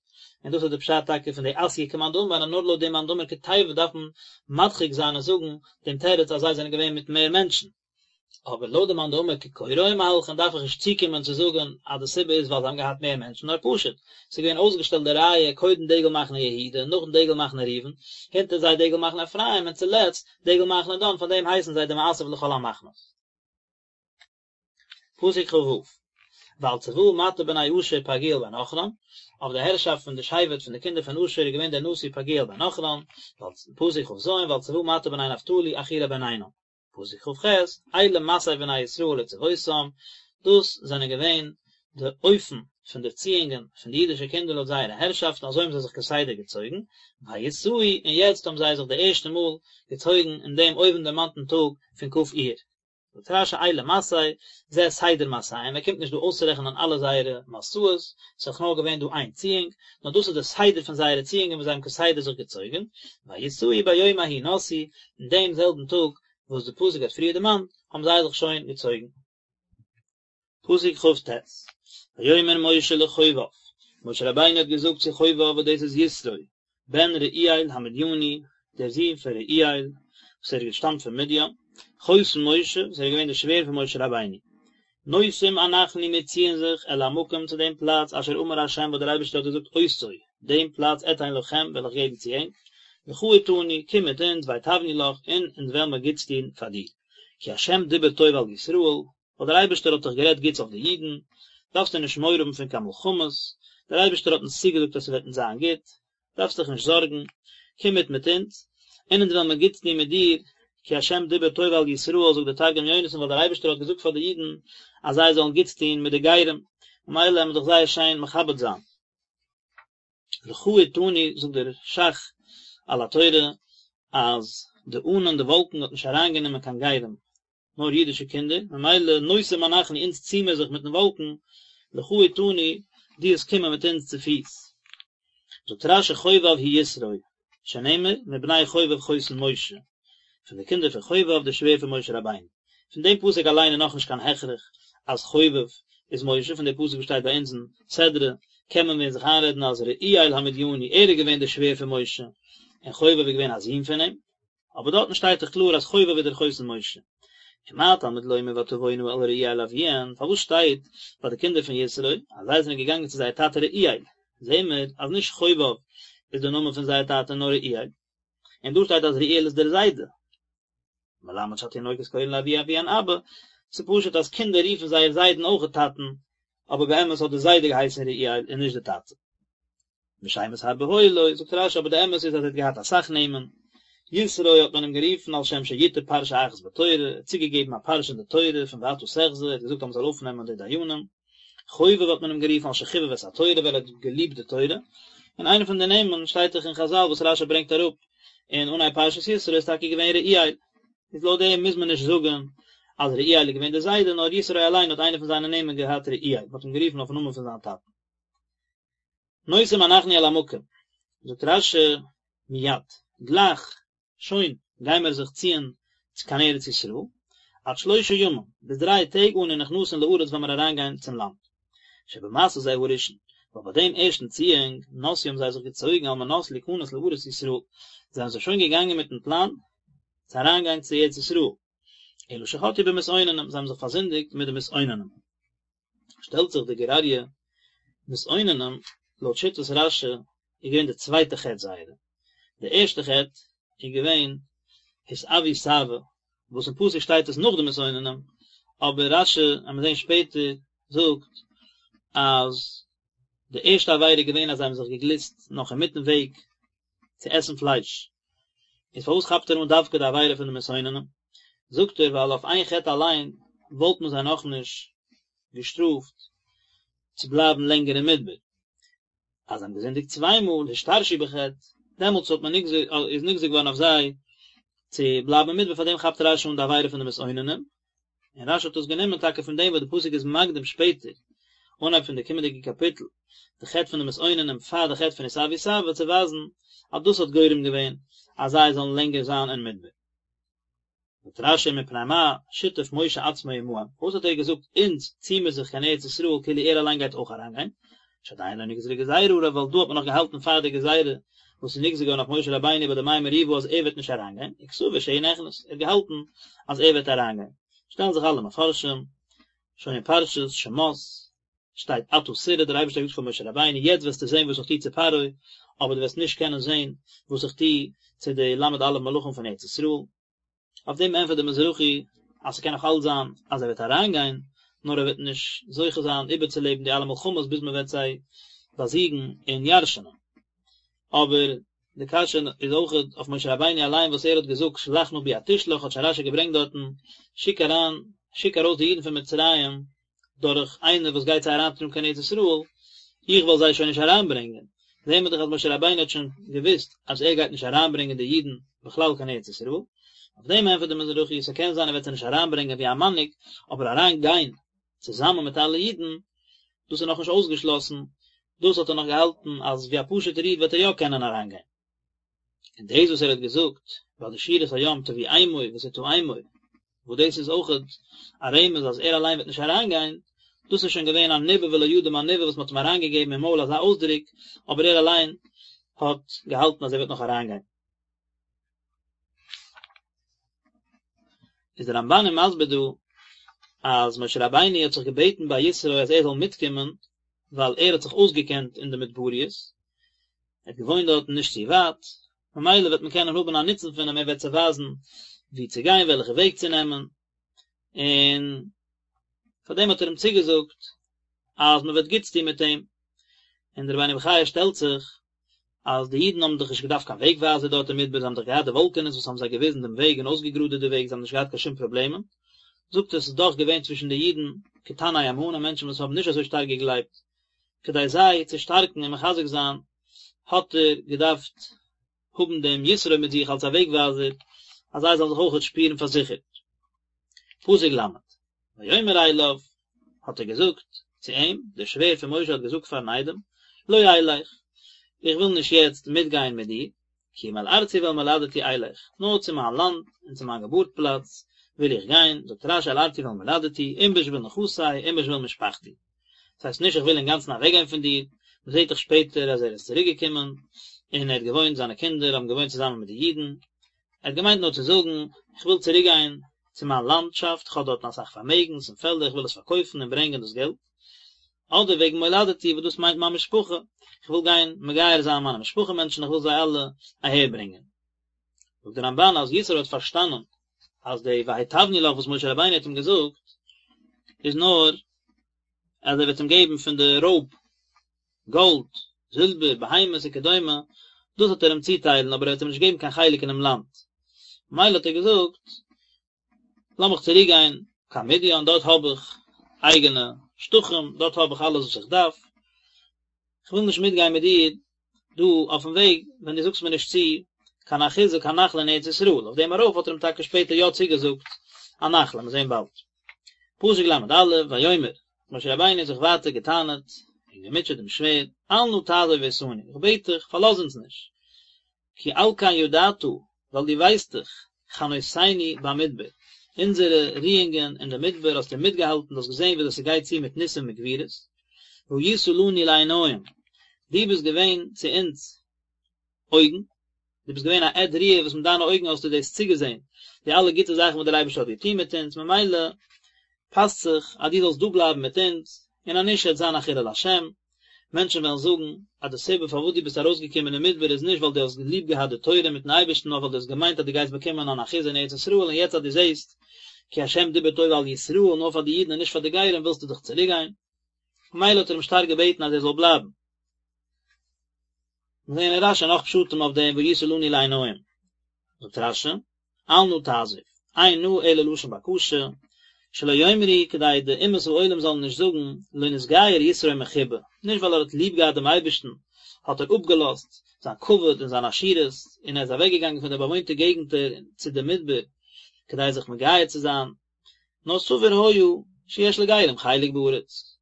און דאס איז די פשט טאקע פון די אתיא כמאן דאמר אז נאר לויט דעם מאן דאמר כתיבה דארף מען מדחיק זיין און זאגן דעם תירוץ אז זיי זענען געווען מיט מער מענטשן. אבער לויט די מאן דאמר כקורה היו מהלכין דארף איך נישט צוקומען צו זאגן אז די סיבה איז ווייל זיי האבן געהאט מער מענטשן נאר פשוט ס'איז געווען אויסגעשטעלט די רייע קודם דגל מחנה יהודה נאכדעם דגל מחנה ראובן הונטער זיי דגל מחנה אפרים און צולעצט דגל מחנה דן פאר דעם הייסן זיי די מאסף לכל המחנות. פסוק כ"ו, ועל צבא מטה בני אשר פגעיאל בן עכרן, אויף די הערשאפט פון די שבט פון די קינדער פון אשר איז געווען דער נשיא פגעיאל בן עכרן, פסוק כ"ז, ועל צבא מטה בני נפתלי אחירע בן עינן. פסוק כ"ח, אלה מסעי בני ישראל לצבאותם, דאס זענען געווען די אופן פון די ציאונגען פון די אידישע קינדער לויט זייערע הערשאפטן, אזוי האבן זיי זיך כסדר געצויגן, ויסעו, און יעצט האבן זיי זיך די ערשטע מאל געצויגן אין דעם אויבנדערמאנטן טאג פון כ' אייר. זאגט רש"י אלה מסעי, זה סדר מסעיהם, ער קומט נישט דא אויסצורעכענען אלע זייערע מסעות, ס'איז דאך נאר געווען דא איין ציאונג, נאר דאס איז די סדר פון זייערע ציאונגען וואס זיי האבן כסדר זיך געצויגן, ויסעו ביום ההוא נסעו, אין דעם זעלבן טאג וואס די פסוק האט פריער דערמאנט, האבן זיי זיך שוין געצויגן. פסוק כ"ט, ויאמר משה לחובב, משה רבינו האט געזאגט צו חובב וואס דאס איז יתרו, בן רעואל המדיני, דער זון פון רעואל, וואס ער האט געשטאמט פון מדין, חותן משה, וואס ער איז געווען דער שווער פון משה רבינו. נוסעים אנחנו מיר ציען זיך אל המקום צו דעם פלאץ אשר אמר ה' וואס דער אייבערשטער האט געזאגט אותו, דעם פלאץ אתן לכם וועל איך געבן צו ענק, לכה אתנו, קום מיט אונז, והטבנו לך, און אונז וועלן מיר גוטס טון פאר דיר. כי ה' דיבר טוב על ישראל, ווייל דער אייבערשטער האט דאך גערעדט גוטס אויף די אידן, דארפסטו נישט מורא האבן פון קיין מלחמות, דער אייבערשטער האט אונז צוגעזאגט אז ס'וועט אונז זיין גוט, דארפסט דיך נישט זארגן, קום מיט מיט אונז, און אונז וועלן מיר גוטס טון מיט דיר, כי ה' דיבר טוב על ישראל, זאגט דער תרגום יונתן, ווייל דער אייבערשטער האט געזאגט פאר די אידן אז זיי זאלן גוטס טון מיט די גרים, ממילא וועלן מיר דיך זייער שיין מכבד זיין. לכה אתנו זאגט דער ש"ך על התורה אז די ענן די וואלקן האט נישט אריינגענומען קיין גרים נאר אידישע קינדער ממילא נוסעים אנחנו אונז צי מיר זיך מיטן וואלקן לכה אתנו דו וועסט קומען מיט אונז צופיס זאגט רש"י חובב הוא יתרו שנאמר מבני חובב חותן משה פון די קינדער פון חובב דער שווער פון משה רבינו. פון דעם פסוק אליין איז נאכנישט קיין הכרח אז חובב איז משה, פון די פסוק וואס שטייט ביי אונז אין סדרה קען מען ווען זיך איינרעדן אז רעואל המדיני ער איז געווען דער שווער פון משה און חובב איז געווען א זון פון אים, אבער דארטן שטייט דאך קלאר אז חובב איז דער חותן משה. ומה תלמוד לומר ותבאנה אל רעואל אביהן, פארוואס שטייט ביי די קינדער פון יתרו אז זיי זענען געגאנגען צו זייער טאטע רעואל, זעהן מיר אז נישט חובב איז דער נאמען פון זייער טאטע נאר רעואל. און דא שטייט אז רעואל איז דער זיידע. מלמד שהתינוקות קורין לאבי אביהן אבא, ס'איז פשוט אז קינדער רופן זייער זיידן אויך טאטן, אבער באמת האט דער זיידע געהייסן רעואל און נישט דער טאטע. ושמות הרבה היו לו, זאגט רש"י אבער די אמת איז אז ער האט געהאט אסאך נעמען, יתרו האט מען אים גערופן על שם שיתר פרשה אחת בתורה, ער האט צוגעגעבן א פרשה אין די תורה פון ואתה תחזה, ער האט געזאגט אז מען זאל אויפנעמען די דיינים. חובב האט מען אים גערופן על שחיבב את התורה ווייל ער האט געליבט די תורה, און איינע פון די נעמען שטייט דאך אין חז"ל וואס רש"י ברענגט אראפ אין אנהייב פרשת יתרו איז טאקע געווען רעואל, איז לויט דעם מוז מען נישט זאגן אז רעואל איז געווען דער זיידע נאר יתרו אליין האט איינע פון זיינע נעמען געהאט רעואל, מען האט אים גערופן אויפן נאמען פון זיין טאטן. נוסעים אנחנו אל המקום, זאגט רש"י מיד, גלייך שוין גיימער זיך ציען צו קיין ארץ ישראל, עד שלושה ימים, ביז דריי טעג אנו נכנסין לארץ וועלן מיר אריינגיין צום לאנד. שבמסע זה הראשון, ווייל ביי דעם ערשטן ציאונג, נסעו האבן זיי זיך געצויגן על מנת להיכנס לארץ ישראל, זענען זיי שוין געגאנגען מיטן פלאן צו אריינגיין צו ארץ ישראל, אלא שחטאו במתאוננים, זיי האבן זיך פארזינדיגט מיט די מתאוננים. שטעלט זיך די גור אריה, מתאוננים, לויט שיטת רש"י, איז געווען די צווייטע חטא זייערע, די ערשטע חטא איז געווען התאוו תאוה, וואס אין פסוק שטייט עס נאך די מתאוננים, אבער רש"י, וועט מען זען שפעטער, זאגט אז די ערשטע עבירה איז געווען אז זיי האבן זיך געגליסט נאך אינמיטן וועג צו עסן פלייש, איז פארוואס כאפט ער אן דווקא די עבירה פון די מתאוננים? זאגט ער ווייל אויף איין חטא אליין וואלט מען זיי נאכנישט געשטראפט צו בלייבן לענגער אין מדבר, אז זיי האבן געזינדיגט צוויי מאל השתרשו בחטא, דעמאלטס האט מען נגזר איז נגזר געווארן אויף זיי צו בלייבן אין מדבר, פאר דעם כאפט רש"י אן די עבירה פון די מתאוננים, און רש"י האט עס גענומען טאקע פון דעם וואס די פסוק איז מקדים שפעטער, אנהייב פון די קומענדיגע קאפיטל, די חטא פון די מתאוננים פאר די חטא פון התאוו תאוה צו ווייזן אז דאס האט גורם געווען אז זיי זאלן לענגער זיין אין מדבר. זאגט רש"י מפני מה שיתף משה עצמו עמהם, פארוואס האט ער געזאגט אונז צי מיר זיך קיין ארץ ישראל כאילו ער אליין גייט אויך אריינגיין, שעדיין לא נגזרה גזירה עליו ווייל דא האט מען נאך געהאלטן פאר די גזירה וואס איז נגזר געווארן אויף משה רבינו ביי די מי מריבה אז ער וועט נישט אריינגיין, וקסבר שהוא נכנס, ער האט געהאלטן אז ער וועט אריינגיין. שטעלן זיך אלע מפרשים, שוין אין פרשת שמות שטייט עתה תראה, דער אייבערשטער האט געזאגט פאר משה רבינו יעצט וועסטו זען וואס איך טו צו פרעה, אבער דו וועסט נישט קענען זען וואס איך טו צו די ל"א מלכים פון ארץ ישראל. אויף דעם ענטפערט דער מזרחי אז ס'קען נאך אלץ זיין אז ער וועט אריינגיין, נאר ער וועט נישט זוכה זיין איבערצולעבן די אלע מלחמות ביז מען וועט זיי באזיגן און ירש'נען. אבער די קשיא איז אויך אויף משה רבינו אליין וואס ער האט געזאגט שלח נא ביד תשלח האט שוין רש"י געברענגט דארטן, שיק אריין, שיק ארויס די אידן פון מצרים דורך איינער וואס גייט זיי אריינטראגן קיין ארץ ישראל, איך וועל זיי שוין נישט אריינברענגען. זעהן מיר דאך אז משה רבינו האט שוין געוואוסט אז ער גייט נישט אריינברענגען די אידן. בכלל קיין ארץ ישראל, אויף דעם ענטפערט דער מזרחי, ס'קען זיין ער וועט זיי נישט אריינברענגען ווי א מנהיג, אבער אריין גיין צוזאמען מיט אלע אידן, דאס איז נאכנישט אויסגעשלאסן, דאס האט ער נאך געהאלטן אז ווי א פשוט'ער איד וועט ער יא קענען אריינגיין. און דאס וואס ער האט געזאגט ביי די שירת הים תביאמו ותטעמו, וואס דאס איז אויכעט א רמז אז ער אליין וועט נישט אריינגיין, דאס איז שוין געווען א ניבא ולא ידע מה ניבא וואס מען האט אים אריינגעגעבן אין מויל אזא אויסדרוק, אבער ער אליין האט געהאלטן אז ער וועט נאך אריינגיין. איז דער רמבן איז מסביר דא אז משה רבינו האט זיך געבעטן ביי יתרו אז ער זאל מיטקומען ווייל ער האט זיך אויסגעקענט אין די מדבריות, ער האט געוואוינט דארטן נישט צו ווייט, ממילא וועט מען קענען האבן א נוצן פון אים, ער וועט זיי ווייזן וואו צו גיין, וועלכע וועג צו נעמען, און פאר דעם האט ער אים צוגעזאגט אז מען וועט גוטס טון מיט אים, און דער רבינו בחיי שטעלט זיך אז די אידן האבן דאך נישט געדארפט קיין וועג ווייזער דארט אין מדבר, זיי האבן דאך געהאט די וואלקענעס וואס האבן זיי געוויזן דעם וועג און אויסגעגראדעט די וועג, זיי האבן נישט געהאט קיין שום פראבלעמען, זאגט ער ס'איז דאך געווען צווישן די אידן קטני אמונה, מענטשן וואס האבן נישט אזוי שטארק געגלייבט, כדי זיי צו שטארקן און מחזק זיין האט ער געדארפט האבן דעם יתרו מיט זיך אלס א וועג ווייזער, אז זיי זאלן זיך אויכעט שפירן פארזיכערט. פסוק ל', ויאמר אליו, האט ער געזאגט צו אים, דער שווער פון משה האט געזאגט פארן איידעם, לא אלך, איך וויל נישט יעצט מיטגיין מיט דיר, כי אם אל ארצי ואל מולדתי אלך, נאר צו מיין לאנד און צו מיין געבורט פלאץ וויל איך גיין, זאגט רש"י אל ארצי ואל מולדתי, אם בשביל נכסי, אם בשביל משפחתי. דאס הייסט נישט איך וויל אינגאנצן אוועקגיין פון דיר, מען זעט דאך שפעטער אז ער איז צוריק געקומען, און ער האט געוואוינט, זיינע קינדער האבן געוואוינט צוזאמען מיט די אידן, ער האט געמיינט נאר צו זאגן, איך וויל צוריק גיין צו מיין לאנדשאפט, איך האב דארטן אסאך פארמעגנס און פעלדער, איך וויל עס פארקויפן און ברענגען דאס געלט. אדער וועגן מולדתי וואס דאס מיינט מיין משפחה, איך וויל גיין מגייר זיין מיינע משפחה מענטשן, איך וויל זיי אלע אהער ברענגען. זאגט דער רמב"ן אז יתרו האט פארשטאנען אז די והיטבנו לך וואס משה רבינו האט אים געזאגט איז נאר אז ער וועט אים געבן פון די רויב, גאלד, זילבער, בהמות וכדומה, דאס וועט ער אים צוטיילן אבער ער וועט אים נישט געבן קיין חלק אינעם לאנד. ממילא האט ער געזאגט, לאמיך צוריק גיין קיין מדיין, דארט האב איך אייגענע שטחים, דארט האב איך אלעס וואס איך דארף, איך וויל נישט מיטגיין מיט דיר דא אויפן וועג ווען דו זאגסט מיר נישט צו קיין אחוזה קיין נחלה אין ארץ ישראל, אויף דעם ארויף האט ער אים טאקע שפעטער יא צוגעזאגט א נחלה, מיר זעהן באלד. פסוק ל"א, ויאמר, משה רבינו האט זיך ווייטער געטענה'ט און געמוטשעט דעם שווער, אל נא תעזוב אותנו, איך בעט דיך, פארלאז אונז נישט, כי על כן ידעת, ווייל דו ווייסט דאך, חנותנו במדבר, אונזערע רואונגען אין די מדבר האסטו מיטגעהאלטן, דו האסט געזען וויאזוי ס'גייט צו מיט ניסים וגבורות, והיית לנו לעיניים, דו ביסט געווען צו אונז אויגן, דו ביסט געווען א עד ראי' וואס מיט דיינע אויגן האסטו דאס צוגעזען, די אלע גוטע זאכן וואס דער אייבערשטער האט געטון מיט אונז, ממילא פאסט זיך אז דו זאלסט דא בלייבן מיט אונז, און אז נישט וועט זיין א חילול השם, מענטשן וועלן זאגן אז די סיבה פארוואס דו ביסט ארויסגעקומען אין מדבר איז נישט ווייל דו האסט ליב געהאט די תורה מיטן אייבערשטן נאר ווייל דו האסט געמיינט אז דו גייסט באקומען אן אחוזה אין ארץ ישראל און יעצט אז דו זעסט כי השם דיבר טוב על ישראל נאר פאר די אידן און נישט פאר די גרים ווילסטו דאך צוריקגיין. ממילא האט ער אים שטארק געבעטן אז ער זאל בלייבן. מיר זעען אין רש"י נאך פשטים אויף דעם והיית לנו לעיניים. זאגט רש"י, אל נא תעזוב, אין נא אלא לשון בקשה, שלא יאמרו כדי די אומות העולם זאלן נישט זאגן, לא נתגייר יתרו מחיבה, נישט ווייל ער האט ליב געהאט דעם אייבערשטן האט ער אפגעלאזט זיין כבוד און זיין עשירות און ער איז אוועקגעגאנגען פון די באוואוינטע געגנטער צו די מדבר כדי זיך מגייר צו זיין, נאר סבור היה שיש לגרים חלק בארץ.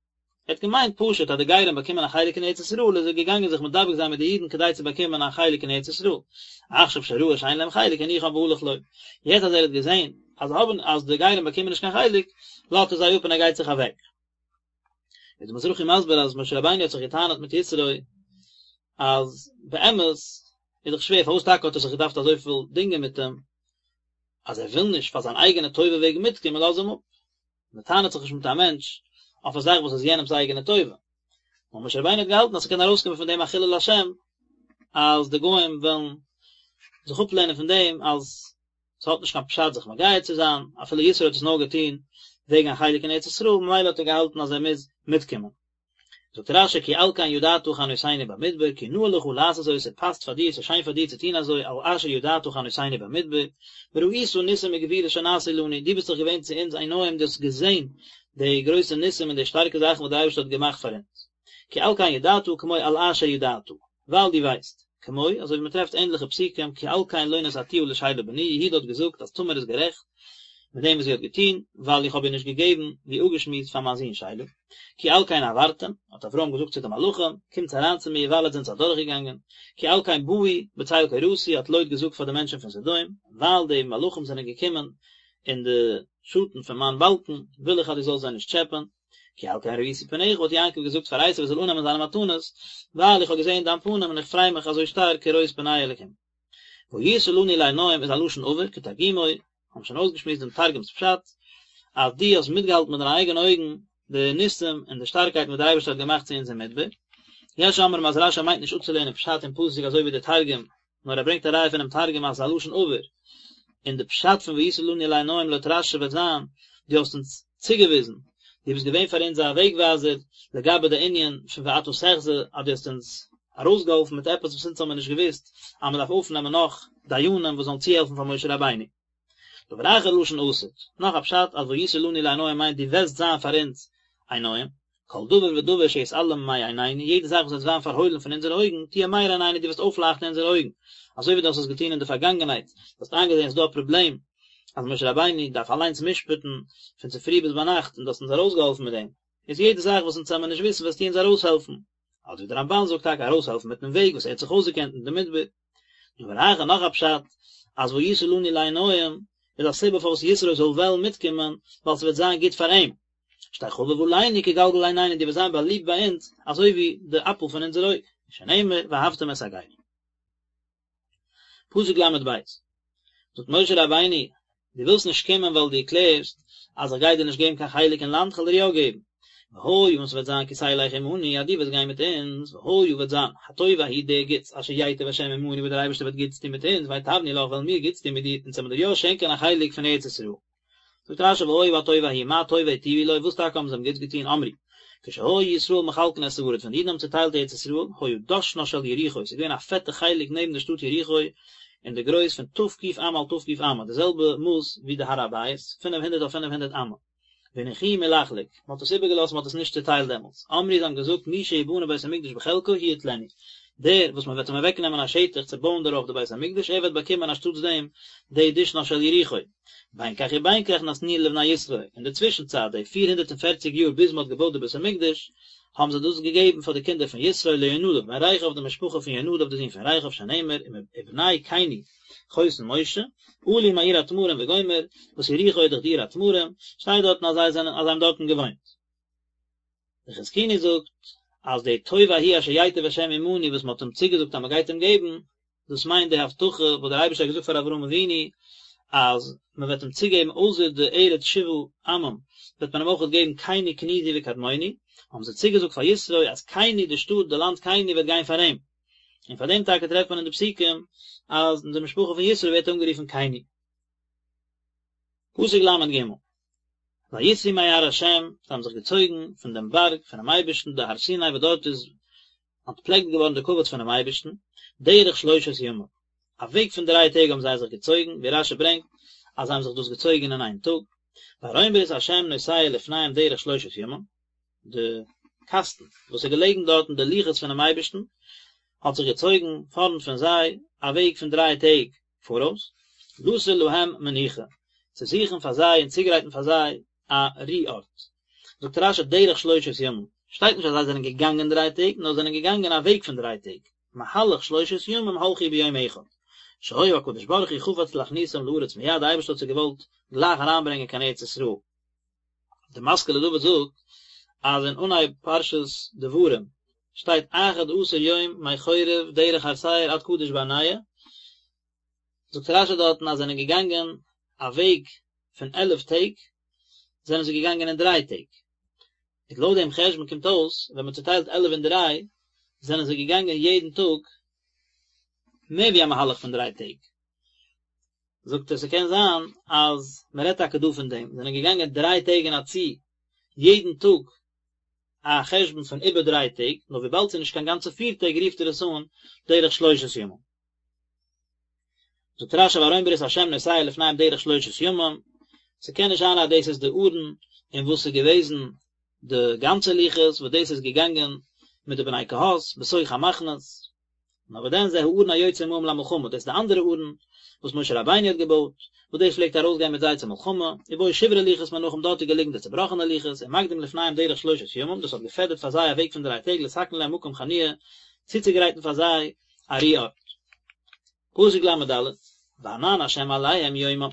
ער האט געמיינט פשוט אז די גרים באקומען א חלק אין ארץ ישראל איז ער געגאנגען זיך מדבק זיין מיט די אידן כדי צו באקומען א חלק אין ארץ ישראל, עכשיו שראה שאין להם חלק הניחם והלך לו, יעצט אז ער האט געזען אז האבן אז די גרים באקומען נישט קיין חלק, לאזט ער זיי אפ און ער גייט זיך אוועק. איז די מזרחי מסביר אז משה רבינו האט זיך געטענה'ט מיט יתרו אז באמת איז דאך שווער פארוואס טאקע האט ער זיך געדארפט אזויפיל דינגען מיט אים אז ער וויל נישט פאר זיין אייגענע טובה וועגן מיטקומען לאז אים אפ. מען טענה'ט זיך נישט מיט א מענטש אויף א זאך וואס איז יענעמ'ס אייגענע טובה. נאר משה רבינו האט געהאלטן אז ס'קען ארויסקומען פון דעם א חילול השם, אז די גוים וועלן זיך אפלערנען פון דעם אז ס'האט נישט קיין פשט זיך מגייר צו זיין, אפילו יתרו האט עס נאר געטון וועגן א חלק אין ארץ ישראל, ממילא האט ער געהאלטן אז ער מוז מיטקומען. זאגט רש"י כי על כן ידעת חנותנו במדבר כי נאה לך לעשות זאת ס'פאסט פאר דיר ס'שיין פאר דיר צו טון אזוי על אשר ידעת חנותנו במדבר וראית ניסים וגבורות שנעשו לנו דו ביסט דאך געווען צו אונז עיניים דו האסט געזען די גרויסע ניסים און די שטארקע זאכן וואס דער אייבערשטער האט געמאכט פאר אונז כי על כן ידעת כמו על אשר ידעת ווייל דו ווייסט. כמו, אזוי ווי מען טרעפט ענדליכע פסוקים, כי על כן לא נתתיה לשלה בני, יהודה האט געזאגט אז תמר איז גערעכט מיט דעם וואס זי האט געטון, ווייל איך האב איר נישט געגעבן, ווי אפגעשמועסט, פאר מיין זון שלה. כי על כן עברתם, האט אברהם געזאגט צו די מלאכים, קומטס אריין צו מיר, ווייל עטס זענטס אדורכגעגאנגען. כי על כן באו בצל קורתי, האט לוט געזאגט פאר די מענטשן פון סדום, ווייל די מלאכים זענען געקומען אין די שאטן פון מיין באלקן, וויל איך אז דו זאלסט זיי נישט טשעפען. כי על כן ראיתי פניך האט יעקב געזאגט פאר עשו ער זאל אננעמען זיינע מתנות, ווייל איך האב געזען דיין פנים און איך פריי מיך אזוי שטארק כראות פני אלקים. והיית לנו לעינים איז א לשון עבר, כתרגומו, האבן שוין אויסגעשמועסט דעם תרגום'ס פשט, אז דו האסט מיטגעהאלטן מיט דיינע אייגענע אויגן די ניסים און די שטארקייט וואס דער אייבערשטער האט געמאכט צו אונז אין מדבר. יש אומרים אז רשי מיינט נישט אפצולערנען פשט אין פסוק אזוי ווי דער תרגום, נאר ער ברענגט א ראיה פונעם תרגום אז עס איז א לשון עבר, און די פשט פון והיית לנו לעינים לויט רשי וועט זיין, דו האסט אונז צוגעוויזן, דו ביסט געווען פאר אונז א וועגווייזער לגבי די ענין פון ואתה תחזה, אז דו האסט אונז ארויסגעהאלפן מיט עפעס וואס אונז האבן מיר נישט געוואוסט, אז מען דארף אויפנעמען נאך דיינים וואס זאלן צוהעלפן פאר משה רבינו. דבר אחר לשון עתיד, נאך א פשט אז והיית לנו לעיניים מיינט דו וועסט זיין פאר אונז עיניים, כל דבר ודבר שיתעלם מעינינו, יעדע זאך וואס וועט ווערן פארהוילן פון אונזערע אויגן, תהיה מאיר עינינו, דו וועסט אויפלייכטן אונזערע אויגן, אזוי ווי דו האסט עס געטון אין די פארגאנגענהייט, דו האסט איינגעזען עס איז דא א פראבלעם אז משה רבינו דארף אליינס משפט'ן פון צופרי ביז ביינאכט און דו האסט אונז ארויסגעהאלפן מיט דעם, איז יעדע זאך וואס אונז וועמיר נישט וויסן וועסטו אונז ארויסהעלפן. אדער ווי דער רמבן זאגט טאקע ארויסהעלפן מיטן וועג וואס ער האט זיך אויסגעקענט אין די מדבר. דבר אחר נאך א פשט, אז והיית לנו לעיניים איז א סיבה פארוואס יתרו זאל וועלן מיטקומען, ווייל ס'וועט זיין גוט פאר אים. שתהא חביב עלינו כגלגל עינינו דו וועסט זיין באליבט ביי אונז אזוי ווי די אפל פון אונזער אויג, שנאמר ואהבתם את הגר. פסוק ל' ב' זאגט משה רבינו, דו ווילסט נישט קומען ווייל דו קלערסט אז איך גיי דיר נישט געבן קיין חלק אין לאנד, כ'וועל דיר יא געבן. והיה און ס'וועט זיין כי תלך עמנו אז דו וועסט גיין מיט אונז, והיה וועט זיין, הטוב ההוא דער גוטס אשר ייטיב השם עמנו וואס דער אייבערשטער וועט גוטס טון מיט אונז, והטבנו לך וועלן מיר גוטס טון מיט דיר, אונז וועלן מיר דיר יא שענקען א חלק פון ארץ ישראל. זאגט רשי והיה הטוב ההוא מה טובה היטיבו לו, וואס טאקע האבן זיי אים גוטס געטון, אמרו, כשהיו ישראל מחלקין את הארץ, ווען די אידן האבן צוטיילט ארץ ישראל, היה דשנה של יריחו, ס'איז געווען א פעטע חלק נעבן די שטאט יריחו, אין די גרויס פון ת"ק אמה על ת"ק אמה, די זעלבע מאס ווי די הר הבית, פינף הונדערט אויף פינף הונדערט אמה. והניחוהו מלחלוק, מען האט עס איבערגעלאזט, מען האט עס נישט צוטיילט דעמאלטס. אמרו זיי האבן געזאגט מי שיבנה בית המקדש בחלקו הוא יטלנו, דער וואס מען וועט אים אוועקנעמען א שטח צו בויען דערויף די בית המקדש, ער וועט באקומען אנשטאטס דעם די דשנה של יריחו. בין כך ובין כך נתנוהו לבני יתרו, אין די צווישן צייט, די 440 יאר ביז מען האט געבויט די בית המקדש, האבן זיי דאס געגעבן פאר די קינדער פון יתרו ליונדב בן רכב די משפחה פון יונדב די זון פון רכב שנאמר ובני קיני חותן משה, עלו מעיר התמרים וגומר, וואס יריחו איז דאך די עיר התמרים, שטייט דארטן אז זיי זענען אז זיי האבן דארטן געוואוינט. דער חזקוני זאגט אז די טוב ההוא אשר ייטיב השם עמנו וואס מען האט אים צוגעזאגט אז מען גייט אים געבן, דאס מיינט די הבטחה וואס דער אייבערשטער האט געזאגט פאר אברהם אבינו אז מען וועט אים צוגעבן אויסער די ארץ שבעה עמים וועט מען אים אויך געבן קיני קניזי וקדמוני, האבן זיי צוגעזאגט פאר יתרו אז קיני די שטאט די לאנד קיני וועט גיין פאר אים, און פאר דעם טאקע טרעפט מען אין די פסוקים אז די משפחה פון יתרו ווערט אנגערופן קיני. פסוק ל' ג' ויסעו מהר ה', זיי האבן זיך געצויגן פון דעם בארג פונעם אייבערשטן, די הר סיני וואס דארט איז אנטפלעקט געווארן די כבוד פונעם אייבערשטן, דרך שלושת ימים, א וועג פון דריי טעג האבן זיי זיך געצויגן, ווי רשי ברענגט אז זיי האבן זיך דאס געצויגן אין איין טאג, וארון ברית ה' נוסע לפניהם דרך שלושת ימים, די קאסטן וואס איז געלעגן דארטן די לוחות פונעם אייבערשטן האט זיך געצויגן פארנט פון זיי א וועג פון דריי טעג פאראויס, לתור להם מנוחה, צו זוכן פאר זיי און צוגרייטן פאר זיי א רו ארט. זאגט רשי דרך שלושת ימים, שטייט נישט אז זיי זענען געגאנגען דריי טעג, נאר זענען געגאנגען א וועג פון דריי טעג, מהלך שלושת ימים הלכו ביום אחד, שהיה הקדוש ברוך הוא חפץ להכניסם לארץ מיד, די אייבערשטער האט זיי געוואלט גלייך אריינברענגען קיין ארץ ישראל. די משכיל לדוד זאגט אז אין אנהייב פרשת דברים שטייט אחד עשר יום מחורב דרך הר שעיר עד קדש ברנע, זאגט רשי דארטן אז זענען געגאנגען א וועג פון עלף טעג, זענען זיי געגאנגען אין דריי טעג, איז לויט דעם חשבון קומט אויס ווען מען צוטיילט עלף אין דריי, זענען זיי געגאנגען יעדן טאג מער ווי א מהלך פון דריי טעג. זאגט ער ס'קען זיין אז מ'רעדט טאקע דא פון דעם, זענען געגאנגען דריי טעג אין א צי, יעדן טאג א חשבון פון איבער דריי טעג, נאר וויבאלד ס'איז נישט קיין גאנצע פיר טעג רופט ער עס אן דרך שלושת ימים. זאגט רשי וארון ברית השם נוסע לפניהם דרך שלושת ימים, ס'קען נישט זיין אז דאס איז די ארון אין וואס ס'איז געוועזן די גאנצע לוחות וואס דאס איז געגאנגען מיט די בני קהת בתוך המחנות. נאר וואס דען זה הארון היוצא עמהם למלחמה, דאס איז די אנדערע ארון וואס משה רבינו האט געבויט, וואס דאס פלעגט ארויסגיין מיט זיי צו מלחמה, ובו שברי לוחות מונחים דארט איז געליגן די צובראכענע לוחות, ומקדים לפניהם דרך שלושת ימים, דאס האט געפעדערט פאר זיי א וועג פון דריי טעג לתקן להם מקום חניה, צוצוגרייטן פאר זיי א רו ארט. פסוק ל"ד, וענן השם עליהם יומם,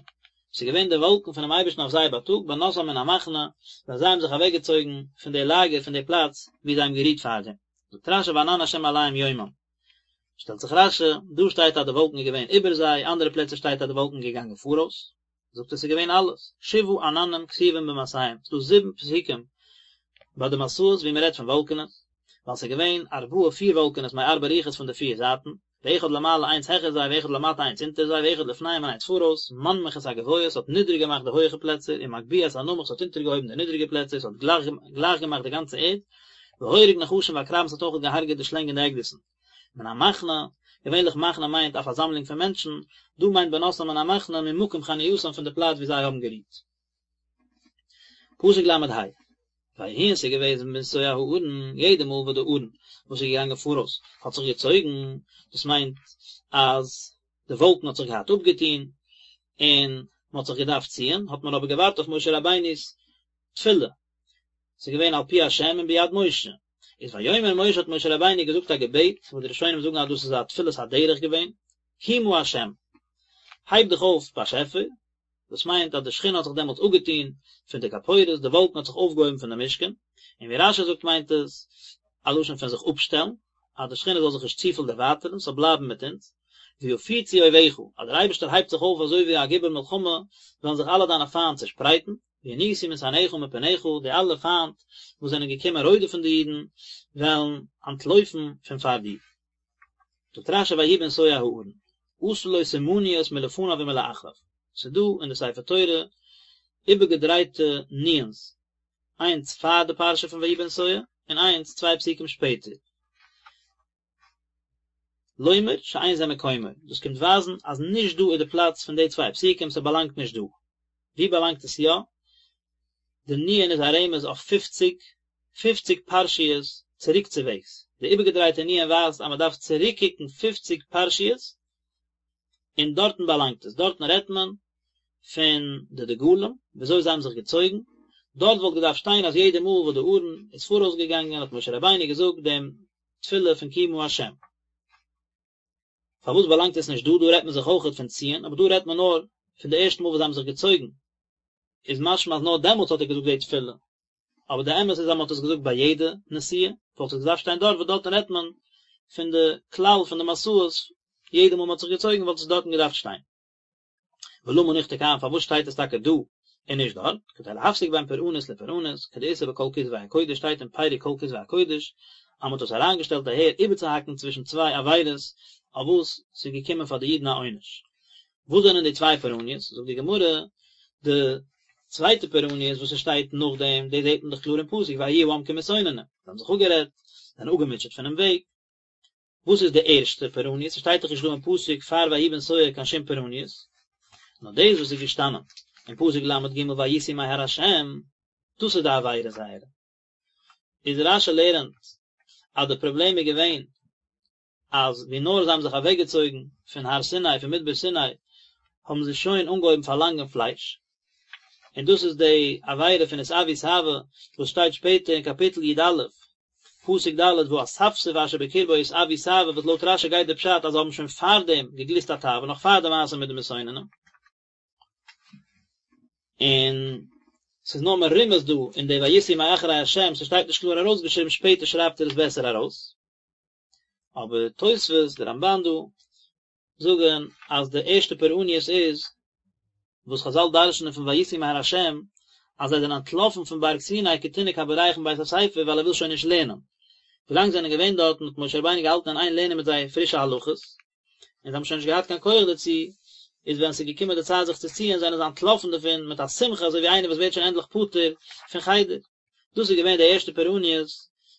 ס'איז געווען די וואלקן פונעם אייבערשטן אויף זיי בייטאג, בנסעם מן המחנה, ווען זיי האבן זיך אוועקגעצויגן פון די לאגער, פון די פלאץ וואו זיי האבן גערוהט פארדעם. זאגט רש"י וענן השם עליהם יומם. שטעלט זיך רש"י, דא שטייט אז די וואלקן איז געווען איבער זיי, אנדערע פלעצער שטייט אז די וואלקן איז געגאנגען פאראויס. זאגט ער ס'איז געווען אלעס, שבעה עננים כתובים במסעיהם, ס'איז דא זיבן פסוקים ביי די מסעות ווי מ'רעדט פון וואלקענעס, ווייל ס'איז געווען ארבעה פיר וואלקענעס מארבע רוחות פון די פיר זייטן, ואחד למעלה איינס העכער זיי ואחד למטה איינס אונטער זיי ואחד לפניהם און איינס פאראויס, מנמיך את הגבוה ס'האט נידריג געמאכט די הויעכע פלעצער, ומגביה את הנמוך ס'האט אונטערגעהויבן די נידריגע פלעצער, ס'האט גלייך געמאכט די גאנצע ערד, והורג נחשים ועקרבים ס'האט אויך געהארגעט די שלענג און די עקדיסן. מן המחנה, געווענליך מחנה מיינט א פארזאמלונג פון מענטשן, דא מיינט בנסעם מן המחנה ממקום חנייתם פון די פלאץ ווי זיי האבן גערוהט. פסוק ל"ה, ויהי און ס'איז געוועזן בנסוע הארון, יעדע מאל וואס די ארון וואס איז געגאנגען פאראויס האט זיך געצויגן, דאס מיינט אז די וואלקן האט זיך געהאט אפגעטון און מען האט זיך געדארפט ציען, האט מען אבער געווארט אויף משה רבינו'ס תפילה, ס'איז געווען על פי השם און ביד משה. איז ויאמר משה האט משה רבינו געזאגט א געבעט, וואס די ראשונים זאגן אז דאס איז א תפילת הדרך געווען, קומה השם, הייב דיך אויף באשעפער, דאס מיינט אז די שכינה האט זיך דעמאלטס אפגעטון פון די כפורת, די וואלקן האט זיך אויפגעהויבן פון די משכן, און ווי רש"י זאגט מיינט עס א לשון פון זיך אפשטעלן, אז די שכינה זאל זיך נישט צופיל דערווייטערן, ס'זאל בלייבן מיט אונז, ויפוצו אויביך, אז דער אייבערשטער הייבט זיך אויף אזוי ווי א גיבור מלחמה, וועלן זיך אלע דיינע פיינט צעשפרייטן, וינוסו משנאיך מפניך, די אלע פיינט וואס זענען געקומען רודפ'ן די אידן, וועלן אנטלויפן פון פאר דיר. זאגט רש"י ויהי בנסוע הארון, עשה לו סימניות מלפניו ומלאחריו, ס'איז דא אין די ספר תורה איבערגעדרייטע נו"ן'ס, איינס פאר די פרשה פון ויהי בנסוע, און איינס צוויי פסוקים שפעטער. לומר שאין זה מקומו, דאס קומט ווייזן אז נישט דא איז די פלאץ פון די צוויי פסוקים, ס'באלאנגט נישט דא. וואו באלאנגט עס יא? די נו"ן איז א רמז אויף פופציג, פופציג פרשיות צוריקצוועגס, די איבערגעדרייטע נו"ן ווייזט אז מען דארף צוריקקוקן פופציג פרשיות, און דארטן באלאנגט עס, דארטן רעדט מען פון די דגלים, וויאזוי זיי האבן זיך געצויגן, דארט וואלט געדארפט שטיין אז יעדע מאל וואס די ארון איז פאראויס געגאנגען האט משה רבינו געזאגט דעם תפילה פון קומה השם. פארוואס באלאנגט עס נישט דא? דא רעדט מען זיך אויכעט פון ציען, אבער דא רעדט מען נאר פון די ערשטע מאל וואס זיי האבן זיך געצויגן, איז משמע אז נאר דעמאלטס האט ער געזאגט די תפילה, אבער די אמת איז אז מען האט עס געזאגט ביי יעדע נסיעה, וואלט עס געדארפט שטיין דארט, וואס דארטן רעדט מען פון די כלל פון די מסעות, יעדע מאל מען האט זיך געצויגן וואלט עס דארטן געדארפט שטיין. ולמה נכתב כאן פארוואס שטייט עס טאקע דא און נישט דארט, כדי להפסיק בין פורענות לפורענות, כדאיתא בכל כתבי הקודש שטייט אין פרק כל כתבי הקודש אז מען האט עס אריינגעשטעלט אהער איבערצוהאקן צווישן צוויי עבירות אויף וואס ס'איז געקומען פאר די אידן א עונש. וואס זענען די צוויי פורעניות? זאגט די גמרא, די צווייטע פורעניות וואס עס שטייט נאכדעם, דאס זעט מען דאך קלאר אין פסוק ויהי העם כמתאוננים, זיי האבן זיך אפגערעדט, זענען אפגעמוטשעט פונעם וועג. וואס איז די ערשטע פורעניות? ס'שטייט דאך נישט דא אין פסוק פאר ויהי בנסוע קיין שום פורעניות, נאר דאס וואס איז געשטאנען אין פסוק ל"ג ויסעו מהר השם, דאס איז די עבירה זייערע. איז רש"י לערנט אז די פראבלעם איז געווען אז ווי נאר זיי האבן זיך אוועקגעצויגן פון הר סיני, פון מדבר סיני, האבן זיי שוין אנגעהויבן פארלאנגען פלייש, און דאס איז די עבירה פון התאוו תאוה וואס שטייט שפעטער אין קאפיטל י"א, פסוק ד' והאספסוף אשר בקרבו התאוו תאוה וואס לויט רש"י גייט די פשט אז זיי האבן שוין פארדעם געגליסט א תאווה נאך פאר די מעשה מיט די מתאוננים. און ס'איז נאר מרומז דא אין די ויסעו מאחרי השם, ס'שטייט נישט קלאר ארויסגעשריבן, שפעטער שרייבט ער עס בעסער ארויס. אבער תוספות, די רמב"ן דא, זאגן אז די ערשטע פורעניות איז וואס חזל דרש'נען פון ויסעו מהר השם אז זיי זענען אנטלאפן פון בארג סיני כתינוק הבורח מבית הספר ווייל ער וויל שוין נישט לערנען. ווילאנג זיי זענען געווען דארטן האט משה רבינו געהאלטן אין איין לערנען מיט זיי פרישע הלכות, און זיי האבן שוין נישט געהאט קיין כח דערצו, איז ווען ס'איז געקומען די צייט זיך צו ציען זענען זיי אנטלאפן דערפון מיט א שמחה אזוי ווי איינער וואס ווערט שוין ענדליך פטור פון חדר. דאס איז געווען די ערשטע פורעניות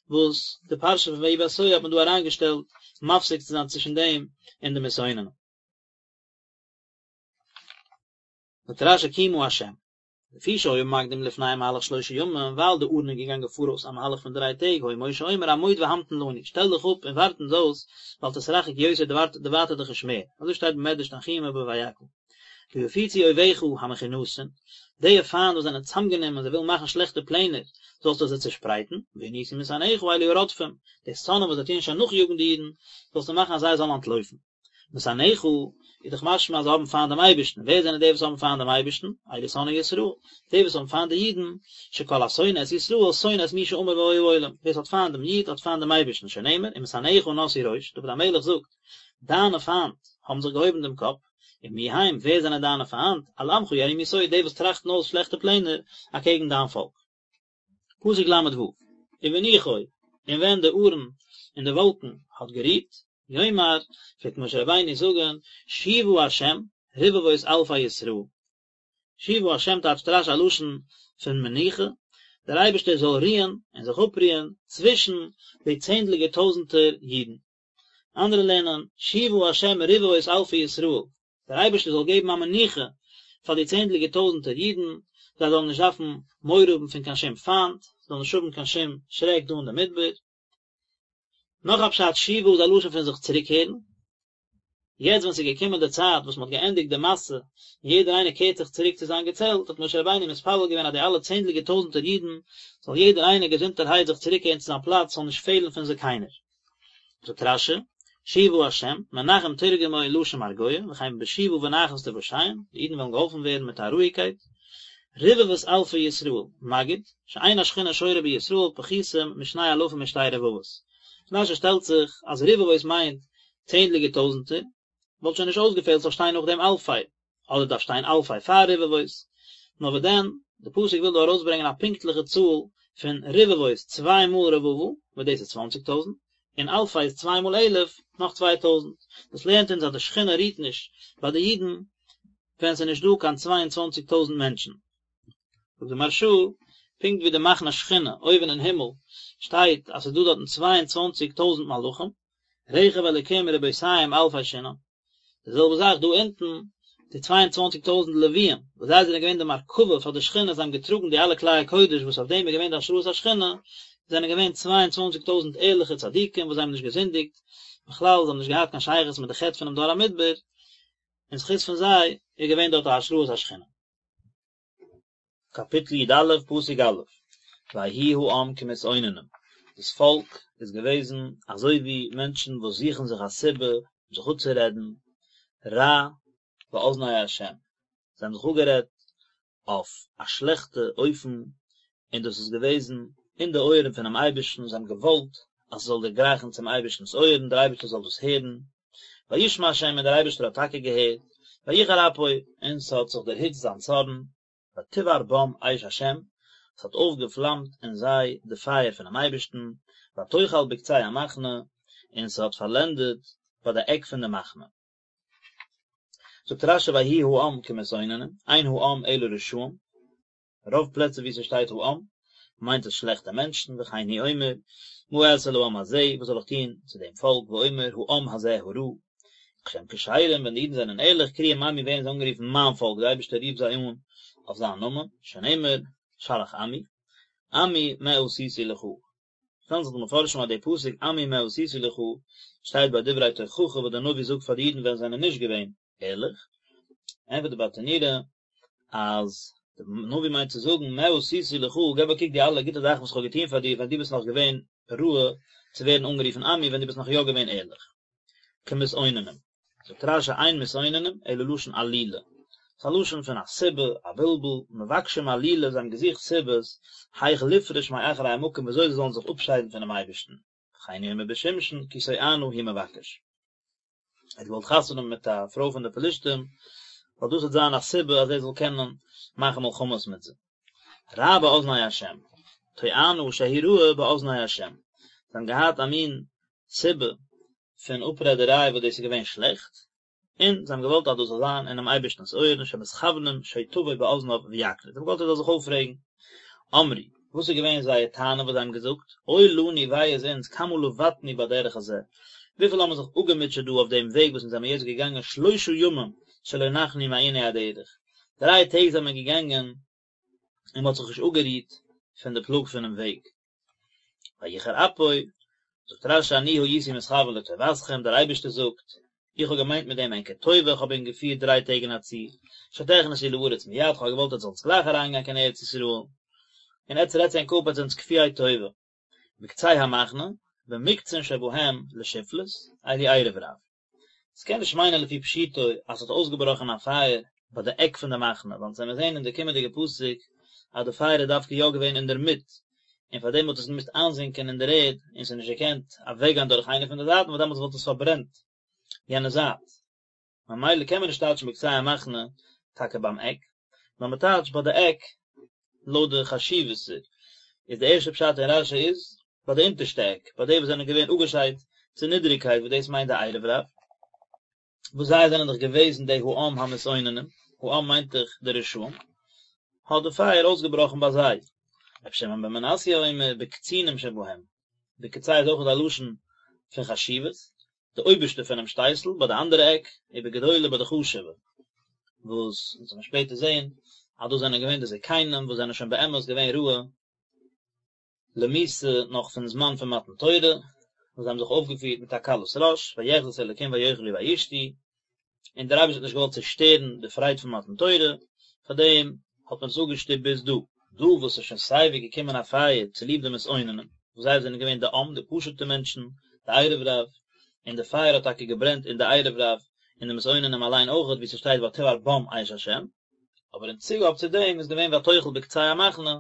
וואס די פרשה פון ויהי בנסוע האט מען דא אריינגעשטעלט מפסיק צו זיין צווישן דעם און די מתאוננים. זאגט רש"י קומה השם. לפי שהיה מקדים לפניהם מהלך שלושה ימים, ווייל די ארון איז געגאנגען פאראויס א מהלך פון דריי טעג, היה משה אומר עמוד והמתן לנו, שטעל דיך אפ און ווארט אונז אויס, ואל תתרחק יותר דערווייטער דיך נישט מער, אזוי שטייט במדרש תנחומא בויקהל. ויפוצו אויביך המכונסין, די פיינט וואס זענען צאמגענומען, זיי ווילן מאכן שלעכטע פלענער, זאלסטו זיי צעשפרייטן, וינוסו משנאיך אלו הרודפים, די שונאים וואס זיי טוען שוין נאכיאגן די אידן, זאלסטו מאכן אז זיי זאלן אנטלויפן. משנאיך, איז דאך משמע אז זיי האבן פיינט דעם אייבערשטן, ווער זענען די וואס האבן פיינט דעם אייבערשטן? אלו שונאי ישראל, די וואס האבן פיינט די אידן, שכל השונא את ישראל שונא את מי שאמר והיה העולם, ווער עס האט פיינט דעם איד האט פיינט דעם אייבערשטן, שנאמר, ומשנאיך נשאו ראש, דוד המלך זאגט, דיינע פיינט האבן זיך געהויבן דעם קאפ, ומי הם, ווער זענען דיינע פיינט? על עמך יערימו סוד, די וואס טראכטן אויס שלעכטע פלענער אקעגן דיין פאלק. פסוק ל ו, ובנוחו, און ווען די ארון אין די וואלקן האט גערוהט, יאמר, פלעגט משה רבינו זאגן, שובה השם, רבבות אלפי ישראל. שובה השם טייטשט רש י א לשון פון מנוחה, דער אייבערשטער זאל רוען און זיך אפרוען צווישן די צענדליגער טויזנטער אידן. אנדערע לערנען, שובה השם רבבות אלפי ישראל, דער אייבערשטער זאל געבן א מנוחה פאר די צענדליגער טויזנטער אידן, זיי זאלן נישט דארפן מורא האבן פון קיין שום פיינט, זיי זאלן נישט האבן קיין שום שרעק דא אין די מדבר. נאך א פשט, שובה איז א לשון פון זיך צוריקקערן, יעצט ווען ס'איז געקומען די צייט וואס מ'האט געענדיגט די מסע, און יעדער איינער קערט זיך צוריק צו זיין געצעלט, האט משה רבינו מתפלל געווען אז די אלע צענדליגער טויזנטער אידן, זאל יעדער איינער געזונטערהייט זיך צוריקקערן צו זיין פלאץ, ס'זאל נישט פעלן פון זיי קיינער. זאגט רש י, שובה השם, מנחם תרגמו לשון מרגוע, וכן בשובה ונחת תושעון, די אידן וועלן געהאלפן ווערן מיט א רואיגקייט. רבבות אלפי ישראל, מגיד, שאין השכינה שורה בישראל פחותים משני אלפים ושתי רבבות. רש י שטעלט זיך אז רבבות מיינט צענדליגער טויזנטער, וואלט שוין נישט אויסגעפעלט ס'זאל שטיין נאך דעם אלפי, אדער דארף שטיין אלפי פאר רבבות, נאר וואס דען, די פסוק וויל דא ארויסברענגען א פונקטליכע צאל פון רבבות, צוויי מאל רבבה, וואס דאס איז צוואנציג טויזנט, און אלפי איז צוויי מאל אלף, נאך צוויי טויזנט. דאס לערנט אונז אז די שכינה רוהט נישט ביי די אידן ווען ס'איז נישט דא קיין צוויי און צוואנציג טויזנט מענטשן. זאגט די מהרשא, פונקט ווי די מחנה שכינה אויבן אין הימל שטייט אז ס'איז דא דארטן צוויי און צוואנציג טויזנט מלאכים, רכב אלקים רבותים אלפי שנאן, די זעלבע זאך דא אונטן, די צוויי און צוואנציג טויזנט לוויים, וואס זיי זענען געווען די מרכבה פאר די שכינה, זיי האבן געטראגן די אלע כלי הקודש וואס אויף דעם איז געווען די השראת השכינה, זענען געווען צוויי און צוואנציג טויזנט ערליכע צדיקים וואס זיי האבן נישט געזינדיגט, בכלל זיי האבן נישט געהאט קיין שייכות מיט די חטא פונעם דור המדבר, אין זכות פון זיי איז געווען דארט א השראת השכינה. קאפיטל י א פסוק א', ויהי העם כמתאוננים, דאס פאלק איז געוועזן אזוי ווי מענטשן וואס זוכן זיך א סיבה זיך אפצורעדן, רע באזני ה', זיי האבן זיך אפגערעדט אויף א שלעכטע אופן, און דאס איז געוועזן אין די אויערן פונעם אייבערשטן, זיי האבן געוואלט אז עס זאל דערגרייכן צום אייבערשטנ'ס אויערן, דער אייבערשטער זאל דאס הערן, וישמע ה' און דער אייבערשטער האט טאקע געהערט, ויחר אפו, און ס'האט זיך דערהיצט זיין צארן, ותבער בם אש השם, ס'האט אויפגעפלאמט אין זיי די פייער פונעם אייבערשטן, ותאכל בקצה המחנה, און ס'האט פארלענדעט ביי די עק פון די מחנה. זאגט רשי ויהי העם כמתאוננים, אין העם אלא רשעים, רוב פלעצער וואו ס'שטייט העם מיינט עס שלעכטע מענטשן, וכן הוא אומר, מה אעשה לעם הזה, וואס זאל איך טון צו דעם פאלק, ואומר העם הזה הרע. כשהם כשרים, ווען די אידן זענען ערליך, קרויים עמי ווערן זיי אנגערופן מיין פאלק, דער אייבערשטער רופט זיי אן אויף זיין נאמען, שנאמר, שלח עמי, עמי מה עשיתי לך. שטעלן זיך די מפרשים אז די פסוק עמי מה עשיתי לך שטייט ביי דברי תוכחה וואס דער נביא זאגט פאר די אידן ווען זיי זענען נישט געווען ערליך, ענטפערט די ברטנורא אז די נביא מיינט צו זאגן מה עשיתי לך, געב א קוק די אלע גוטע זאכן וואס איך האב געטון פאר דיר ווען דו ביסט נאך געווען ראוי צו ווערן אנגערופן עמי ווען דו ביסט נאך יא געווען ערליך. כמתאוננים. זאגט רשי אין מתאוננים אלא לשון עלילה. ס'איז א לשון פון א סיבה, א בלבול, מבקשים עלילה, זיי האבן געזוכט סיבות, היאך לפרוש מאחרי המקום וויאזוי זיי זאלן זיך אפשיידן פונעם אייבערשטן. וכן הוא אומר בשמשון כי תואנה הוא מבקש. ער האט געוואלט חתונה האבן מיט א פרוי פון די פלישתים, ווייל דאס וועט זיין א סיבה אז ער זאל קענען מאכן מלחמות מיט זיי. רע באזני השם, תואנה שהיא רעה באזני השם. זיי האבן געהאט א מין סיבה פון אפרעדעריי וואס דאס איז געווען שלעכט, און זיי האבן געוואלט אז דאס זאל זיין אינעם אייבערשטנ'ס אויערן שמתכוונים שתבוא באזניו ויקניט, זיי האבן געוואלט ער זאל זיך אויפרעגן. אמרו, וואס איז געווען זייער טענה וואס זיי האבן געזאגט, אוי לנו וויי איז אונז כמה לבטנו בדרך הזה, וויפיל האבן מיר זיך אפגעמוטשעט דא אויף דעם וועג וואס אונז זעמיר יעצט געגאנגען שלושה ימים שלא נחנו מעיני הדרך, דריי טעג זעמיר געגאנגען. און מען האט זיך נישט אפגערוהט פון די פלאג פונעם וועג. ויחר אפו, זאגט רש"י אני הייתי מתכוין לטובתכם, דער אייבערשטער זאגט, איך האב געמיינט מיט דעם ענקער טובה, איך האב ענק געפירט דריי טעג אין א צי, שתכנסו לארץ מיד, איך האב געוואלט עטס זאלטס גלייך אריינגיין קיין ארץ ישראל, און עטס רעדטס ענק אפ עטס זענטס כפויי טובה. בקצה המחנה, במוקצין שבהם לשפלות, אלו ערב רב. ס'קען נישט מיינען לפי פשוטו אז ס'האט אויסגעבראכן א פייער ביי די עק פון די מחנה, ווייל אונז וועמיר זעהן אין די קומענדיגע פסוק אז די פייער איז דווקא יא געווען אינדערמיט, און פארדעם האט עס געמוזט איינזינקען אין דער ערד און ס'איז נישט געקענט אוועקגיין דורך איינע פון די זייטן ווייל דעמאלטס וואלט עס פארברענט יענע זייט. ממילא קען מען נישט טייטשן בקצה המחנה טאקע ביים עק, נאר מען טייטשט ביי די עק לויט די חשיבות. איז די ערשטע פשט אין רש"י איז ביי די אונטערשטע עק, ביי די וואס זענען געווען אפגעשיידט צו נידעריגקייט וואס דאס מיינט די ערב רב, וואס זיי זענען דאך געוועזן די העם המתאוננים, העם מיינט דאך די רשעים, האט די פייער אויסגעבראכן ביי זיי. רבי שמעון בן מנסיא אומר בקצינים שבהם, בקצה איז אויך א לשון פון חשיבות, די אויבערשטע פונעם שטייסל ביי די אנדערע עק, ובגדולי ביי די חשובע, וואס אונז וועלן שפעטער זען אז דאס זענען געווען די זקנים וואס זענען שוין באמת געווען ראוי למיתה נאך פון זמן פון מתן תורה, וואס זיי האבן זיך אויפגעפירט מיט א קלות ראש, ויחזו את האלקים ויאכלו וישתו, און דער אייבערשטער האט נישט געוואלט צושטערן די פרייד פון מתן תורה, פאר דעם האט מען עס אפגעשטופט ביז דא. דא וואס איז שוין סייווי געקומען א פייער צוליב די מתאוננים, וואס זיי זענען געווען די עם, די פשוט'ע מענטשן, די ערב רב, און די פייער האט טאקע געברענט אין די ערב רב, און די מתאוננים אליין אויכעט, ווי ס'שטייט ותבער בם אש השם, אבער אין צוגאב צו דעם איז געווען ותאכל בקצה המחנה,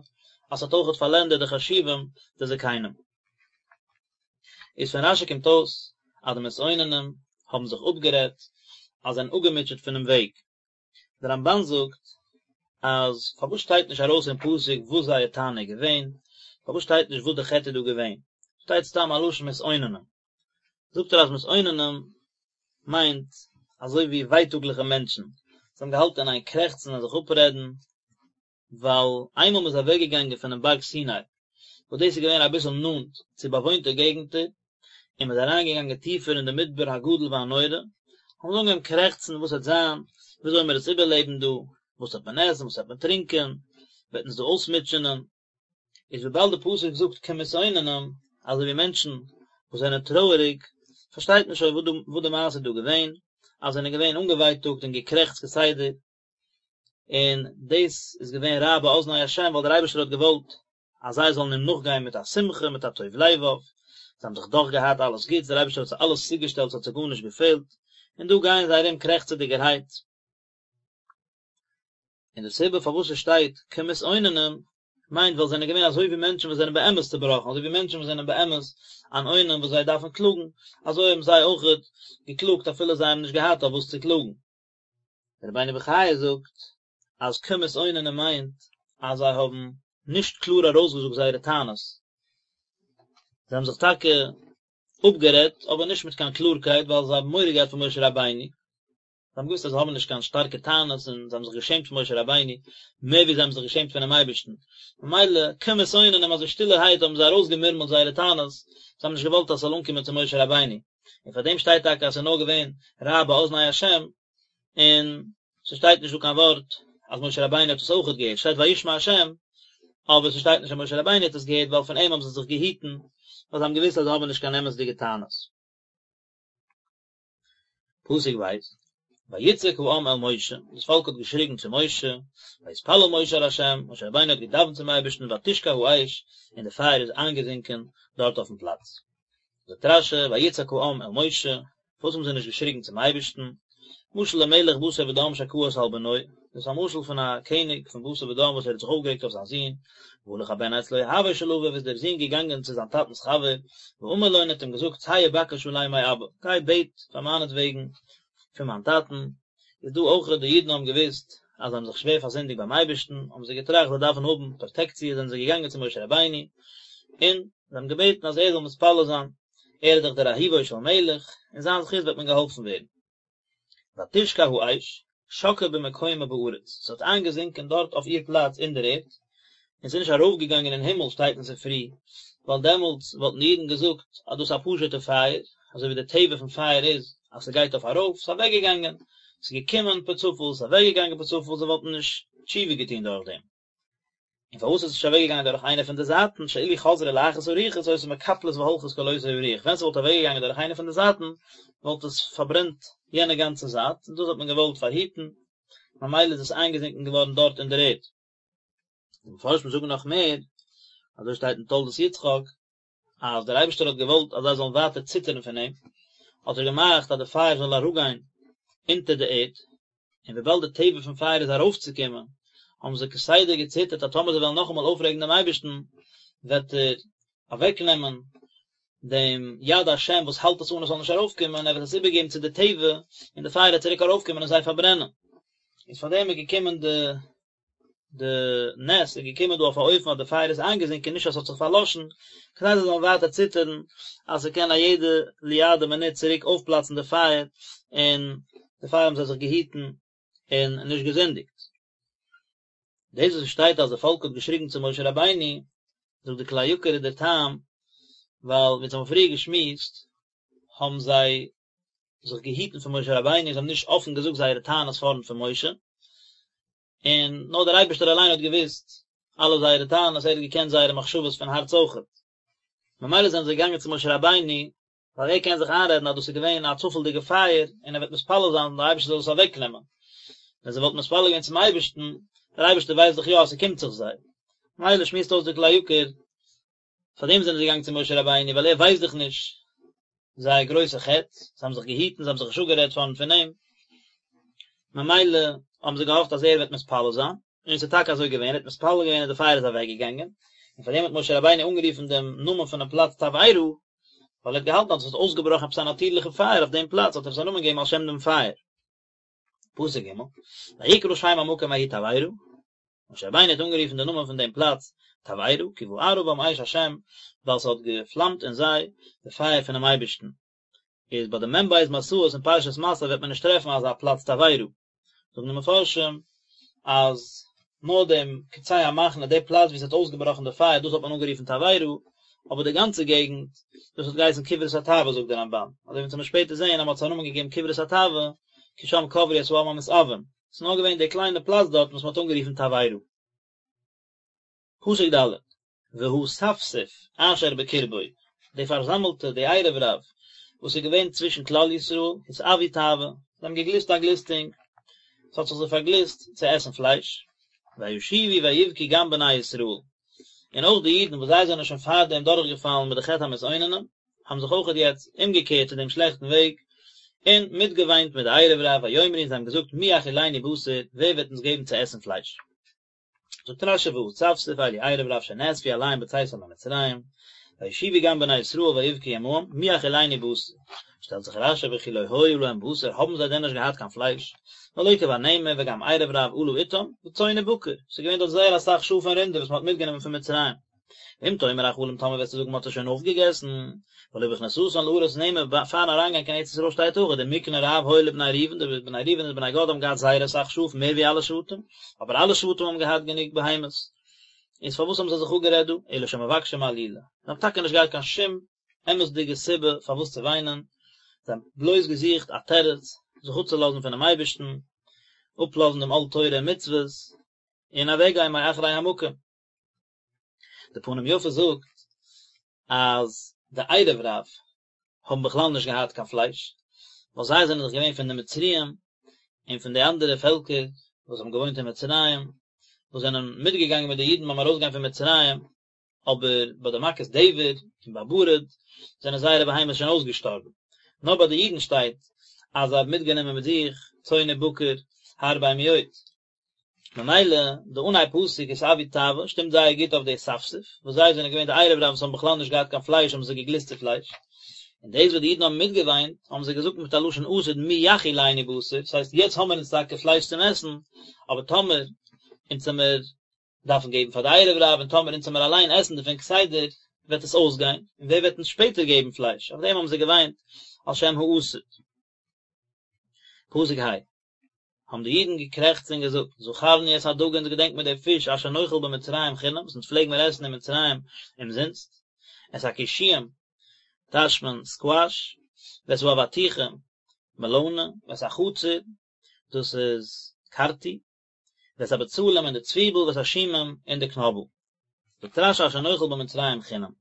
אז ס'האט אויכעט פארלענדערט די חשובים, די זקנים. איז פון רש"י קומט אויס אז די מתאוננים האבן זיך אפגערעדט אז זיי זענען אפגעמוטשעט פונעם וועג. דער רמב"ן זאגט אז פארוואס שטייט נישט ארויס אין פסוק וואס זייער טענה איז געווען, פארוואס שטייט נישט וואס די חטא איז דא געווען, שטייט סתם א לשון מתאוננים. זאגט ער אז מתאוננים מיינט אזוי ווי ווייטאגליכע מענטשן, זיי האבן געהאלטן אין איין קרעכצן און זיך אפרעדן, ווייל איינמאל מ'איז אוועקגעגאנגען פונעם בארג סיני, וואס דאס איז געווען אביסל נאנט צו באוואוינטע געגנטער, און מ'איז אריינגעגאנגען טיפער אין די מדבר הגדול והנורא, האבן זיי אנגעהויבן קרעכצן, וואס וועט זיין, וויאזוי וועלן מיר עס איבערלעבן דא, וואס וועט מען עסן, וואס וועט מען טרינקען, וועט אונז דא אויסמוטשענען. איז וויבאלד די פסוק זאגט כמתאוננים, אזוי ווי מענטשן וואס זענען טרויעריג, פארשטייט מען שוין וואס די מעשה איז דא געווען, אז זיי זענען געווען אנגעווייטאגט און געקרעכצט כסדר, און דאס איז געווען רע באזני השם ווייל דער אייבערשטער האט געוואלט אז זיי זאלן אים נאכגיין מיט א שמחה מיט א טוב לבב, זיי האבן זיך דאך געהאט אלעס גוטס, דער אייבערשטער האט זיי אלעס צוגעשטעלט ס'האט זיי גארנישט געפעלט, און דא גייען זיי ארום קרעכצעדיגערהייט. און די סיבה פארוואס עס שטייט כמתאוננים מיינט ווייל זיי זענען געווען אזוי ווי מענטשן וואס זענען באמת צובראכן, אזוי ווי מענטשן וואס זענען באמת אן אונן וואס זיי דארפן קלאגן, אזוי האבן זיי אויכעט געקלאגט אפילו זיי האבן נישט געהאט אויף וואס צו קלאגן. דער רבינו בחיי זאגט אז כמתאוננים מיינט אז זיי האבן נישט קלאר ארויסגעזאגט זייערע טענות, זיי האבן זיך טאקע אפגערעדט אבער נישט מיט קיין קלארקייט ווייל זיי האבן מורא געהאט פון משה רבינו, זיי האבן געוואוסט אז זיי האבן נישט קיין שטארקע טענות און זיי האבן זיך געשעמט פון משה רבינו מער ווי זיי האבן זיך געשעמט פונעם אייבערשטן, ממילא כמתאוננים אזוי שטילערהייט האבן זיי ארויסגעמורמלט זייערע טענות, זיי האבן נישט געוואלט אז ס'זאל אנקומען צו משה רבינו. און פאר דעם שטייט טאקע אז ס'איז נאר געווען רע באזני השם, און ס'שטייט נישט דא קיין ווארט אז משה רבינו האט עס אויכעט געהערט, שטייט וישמע השם, אבער ס'שטייט נישט אז משה רבינו האט עס געהערט ווייל פון אים האבן זיי זיך געהיטן, ווייל זיי האבן געוואוסט אז זיי האבן נישט קיין אמת'דיגע טענות. פסוק ב', ויצעק העם אל משה, דאס פאלק האט געשריגן צו משה, ויתפלל משה אל ה', משה רבינו האט געדאווענט צום אייבערשטן ותשקע האש, און די פייער איז איינגעזינקען דארט אויפן פלאץ. זאגט רש"י, ויצעק העם אל משה, פארוואס האבן זיי נישט געשריגן צום אייבערשטן? משל למלך בשר ודם שכעס על בנו, דאס איז א משל פון א קעניג פון בשר ודם וואס ער האט זיך אויפגערעגט אויף זיין זון, והלך הבן אצל אוהבו של אביו איז דער זון געגאנגען צו זיין טאטנ'ס חבר, ואמר לו און האט אים געזאגט צא ובקש עלי מאבא, גיי בעט פאר מיינעטוועגן פון מיין טאטן, איז דא אויך די אידן האבן געוואוסט אז זיי האבן זיך שווער פארזינדיגט ביים אייבערשטן, האבן זיי געטראכט זיי דארפן האבן פראטעקציע זענען זיי געגאנגען צו משה רבינו, און זיי האבן געבעטן אז ער זאל מתפלל זיין, ער איז דאך דער אהובו של מלך, אין זיין זכות וועט מען געהאלפן ווערן. ותשקע האש, שקעה במקומה בארץ, ס'האט איינגעזינקען דארט אויף איר פלאץ אין דער ערד, און ס'איז נישט ארויפגעגאנגען אין הימל שטייט אין ספרי, ווייל דעמאלטס וואלטן די אידן געזאגט אז דאס איז א פשוט'ע פייער, אזוי ווי די טבע פון פייער איז אז ס'גייט אויף ארויף, ס'איז אוועקגעגאנגען, ס'איז געקומען פער צופאל, ס'איז אוועקגעגאנגען פער צופאל, זיי וואלטן נישט תשובה געטון דורך דעם. און פארוואס איז עס נישט אוועקגעגאנגען דורך איינע פון די זייטן, שאילו חזרה לאחת הרוחות היתה מקפלת והולכת כל אותה הרוח, ווען ס'וואלט אוועקגעגאנגען דורך איינע פון די זייטן, וואלט עס פארברענט יענע גאנצע זייט, און דאס האט מען געוואלט פארהיטן, ממילא איז עס איינגעזינקען געווארן דארט אין דער ערד. די מפרשים זאגן נאך מער, אזוי שטייט אין תולדות יצחק, אז דער אייבערשטער האט געוואלט אז זיי זאלן ווייטער ציטערן פון אים, האט ער געמאכט אז די פייער זאל אראפגיין אונטער די ערד, און וויבאלד די טבע פון פייער איז ארויפצוקומען, האבן זיי כסדר געציטערט אז טאמער זיי וועלן נאכאמאל אויפרעגן דעם אייבערשטן, וועט ער אוועקנעמען דעם יד השם וואס האלט עס אן עס זאל נישט ארויפקומען, ער וועט עס איבערגעבן צו די טבע, און די פייער וועט צוריק ארויפקומען און זיי פארברענען. איז פאר דעם איז געקומען די די נס איז געקומען דא אויף א אופן אז די פייער איז איינגעזינקען נישט אז ס'האט זיך פארלאשן, כדי זיי זאלן ווייטער ציטערן אז ס'קען א יעדע ליאדע מינוט צוריק אויפפלאצן די פייער, און דערפאר האבן זיי זיך געהיטן און נישט געזינדיגט. דאס וואס שטייט אז די פאלק האט געשריגן צו משה רבינו, זאגט די כלי יקר איז דער טעם, ווייל ווי אונז האבן פריער געשמועסט, האבן זיי זיך געהיטן פון משה רבינו, זיי האבן נישט אפן געזאגט זייערע טענות פארנט פון משה, און נאר דער אייבערשטער אליין האט געוואוסט אלע זייערע טענות, ער האט געקענט זייערע מחשבות פון הארץ אויכעט. ממילא זענען זיי געגאנגען צו משה רבינו, ווייל ער קען זיך איינרעדן אז דאס איז געווען א צופעלדיגע פייער, און ער וועט מתפלל זיין דער אייבערשטער זאל עס אוועקנעמען. ווען זיי וואלטן מתפלל געווען צום אייבערשטן, דער אייבערשטער ווייסט דאך יא אז ס'קומט זיך זיי. ממילא שמועסט אויס דער כלי יקר, פאר דעם זענען זיי געגאנגען צו משה רבינו, ווייל ער ווייסט דאך נישט זייער גרויסע חטא, זיי האבן זיך געהיטן, זיי האבן זיך נישט אפגערעדט פארנט פון אים, ממילא האבן זיי געהאפט אז ער וועט מתפלל זיין, און עס איז טאקע אזוי געווען, ער האט מתפלל געווען און די פייער איז אוועק געגאנגען, און פאר דעם האט משה רבינו אנגערופן דעם נאמען פונעם פלאץ תבערה, ווייל ער האט געהאלטן אז עס האט אויסגעבראכן עפעס א נאטירליכע פייער אויף דעם פלאץ, האט ער עס א נאמען געגעבן על שם דעם פייער. פסוק ג', ויקרא שם המקום ההוא תבערה, משה רבינו האט אנגערופן די נאמען פון דעם פלאץ תבערה, כי בערה בם אש השם, ווייל ס'האט געפלאמט אין זיי די פייער פונעם אייבערשטן. איז ביי די מ"ב מסעות אין פרשת מסעי וועט מען נישט טרעפן אזא פלאץ תבערה. זאגן די מפרשים אז נאר דעם קצה המחנה, די פלאץ וואו ס'האט אויסגעבראכן די פייער, דאס האט מען אנגערופן תבערה, אבער די גאנצע געגנט, דאס האט געהייסן קברות התאווה זאגט דער רמב"ן, אזוי ווי אונז וועלן שפעטער זען אז מען האט עס א נאמען געגעבן קברות התאווה, כי שם קברו את העם המתאוים, ס'איז נאר געווען די קליינע פלאץ דארט וואס מען האט אנגערופן תבערה. פסוק ד', והאספסוף אשר בקרבו, די פארזאמלטע, די ערב רב, וואס איז געווען צווישן כלל ישראל, התאוו תאווה, זיי האבן געגליסט א גליסטונג, עס האט זיך זיי פארגליסט צו עסן פלייש, וישובו ויבכו גם בני ישראל, און אויך די אידן וואס זיי זענען שוין פארדעם דורכגעפאלן מיט די חטא המתאוננים, האבן זיך אויכעט יעצט אומגעקערט צו דעם שלעכטן וועג, און מיטגעוויינט מיט די ערב רב, ויאמרו און זיי האבן געזאגט מי יאכילנו בשר, ווער וועט אונז געבן צו עסן פלייש? זאגט רש"י והאספסוף אלו ערב רב שנאספו אליהם בצאתם ממצרים, וישובו גם בני ישראל ויבכו עמהם, מי יאכילנו בשר? שטעלט זיך רש"י וכי לא היה להם בשר, האבן זיי דען נישט געהאט קיין פלייש? והלא כבר נאמר וגם ערב רב עלה אתם, וצאן ובקר, ס'איז געווען דארט זייער אסאך שאף און רינדער וואס מ'האט מיטגענומען פון מצרים. ואם תאמר אכלום טאמער וועסטו זאגן מ'האט עס שוין אויפגעגעסן, והלא בכניסתן לארץ נאמר פארן אריינגיין קיין ארץ ישראל שטייט אויך ומקנה רב היה לבני ראובן די בני ראובן און די בני גד האבן געהאט זייער אסאך שאף מער ווי אלע שבטים, אבער אלע שבטים האבן געהאט גענוג בהמות, איז פארוואס האבן זיי זיך אפגערעדט דא, אלא שמבקשים עלילה, זיי האבן טאקע נישט געהאט קיין שום אמת'דיגע סיבה פארוואס צו וויינען, זיי האבן בלויז געזוכט א תירוץ זיך אפצולאזן פונעם אייבערשטן, אפלאזן דעם עול תורה און מצוות, און אוועקגיין מאחרי המקום. די פנים יפות זאגט אז די ערב רב האבן בכלל נישט געהאט קיין פלייש, ווייל זיי זענען דאך געווען פון די מצריים און פון די אנדערע פעלקער וואס האבן געוואוינט אין מצרים, וואס זענען מיטגעגאנגען מיט די אידן ביים ארויסגיין פון מצרים, אבער ביי די מכת דבר און ביי ברד זענען זייערע בהמות שוין אויסגעשטארבן. נאר ביי די אידן שטייט אז זיי האבן מיטגענומען מיט זיך צאן ובקר הרבה מאוד. ממילא די אנהייב פסוק התאוו תאווה שטימט זייער גוט אויף די אספסוף, וואס זיי זענען געווען די ערב רב וואס האבן בכלל נישט געהאט קיין פלייש האבן זיי געגליסט צו פלייש, און דאס וואס די אידן האבן מיטגעוויינט האבן זיי געזאגט מיט א לשון עתיד מי יאכילנו בשר, דאס הייסט יעצט האמיר אונז טאקע פלייש צום עסן, אבער טאמער אונז עמיר דארפן געבן פאר די ערב רב און טאמער אונז עמיר אליין עסן דערפון כסדר וועט עס אויסגיין, און ווער וועט אונז שפעטער געבן פלייש, אויף דעם האבן זיי געוויינט על שם העתיד. פסוק ה'. האבן די אידן געקרעכצט און געזאגט, זכרנו את הדגה אונז געדענק מיר די פיש אשר נאכל במצרים חינם וואס אונז פלעג מיר עסן אין מצרים אומזינסט, את הקישואים, טייטשט מען סקוואש, ואת האבטיחים, מעלאנע, ואת החציר, דאס איז קארטי. ואת הבצלים און די צוויבל ואת השומים און די קנאבל. זאגט רש"י אשר נאכל במצרים חינם.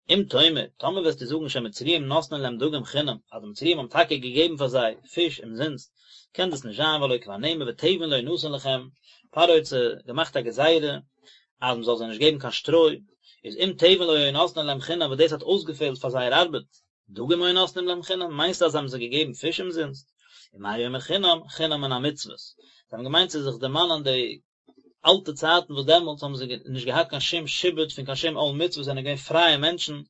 אם תאמר, טאמער וועסטו זאגן שהמצריים נותנין להם דגים חינם, אז די מצריים האבן טאקע געגעבן פאר זיי פיש אומזינסט, קען דאס נישט זיין והלא כבר נאמר ותבן לא ינתן לכם, פרעה האט זיי געמאכט א גזירה אז מען זאל זיי נישט געבן קיין שטרוי, איז אם תבן לא היו נותנין להם חינם וואס דאס האט אויסגעפעלט פאר זייער ארבעט, דגים היו נותנים להם חינם, מיינסטו אז זיי האבן זיי געגעבן פיש אומזינסט? ומה הוא אומר חינם, חינם מן המצוות. זיי האבן געמיינט צו זיך דערמאנען די אלטע צייטן וואס דעמאלטס האבן זיי נישט געהאט קיין שום שעבוד פון קיין שום עול מצוות זענען געווען פרייע מענטשן,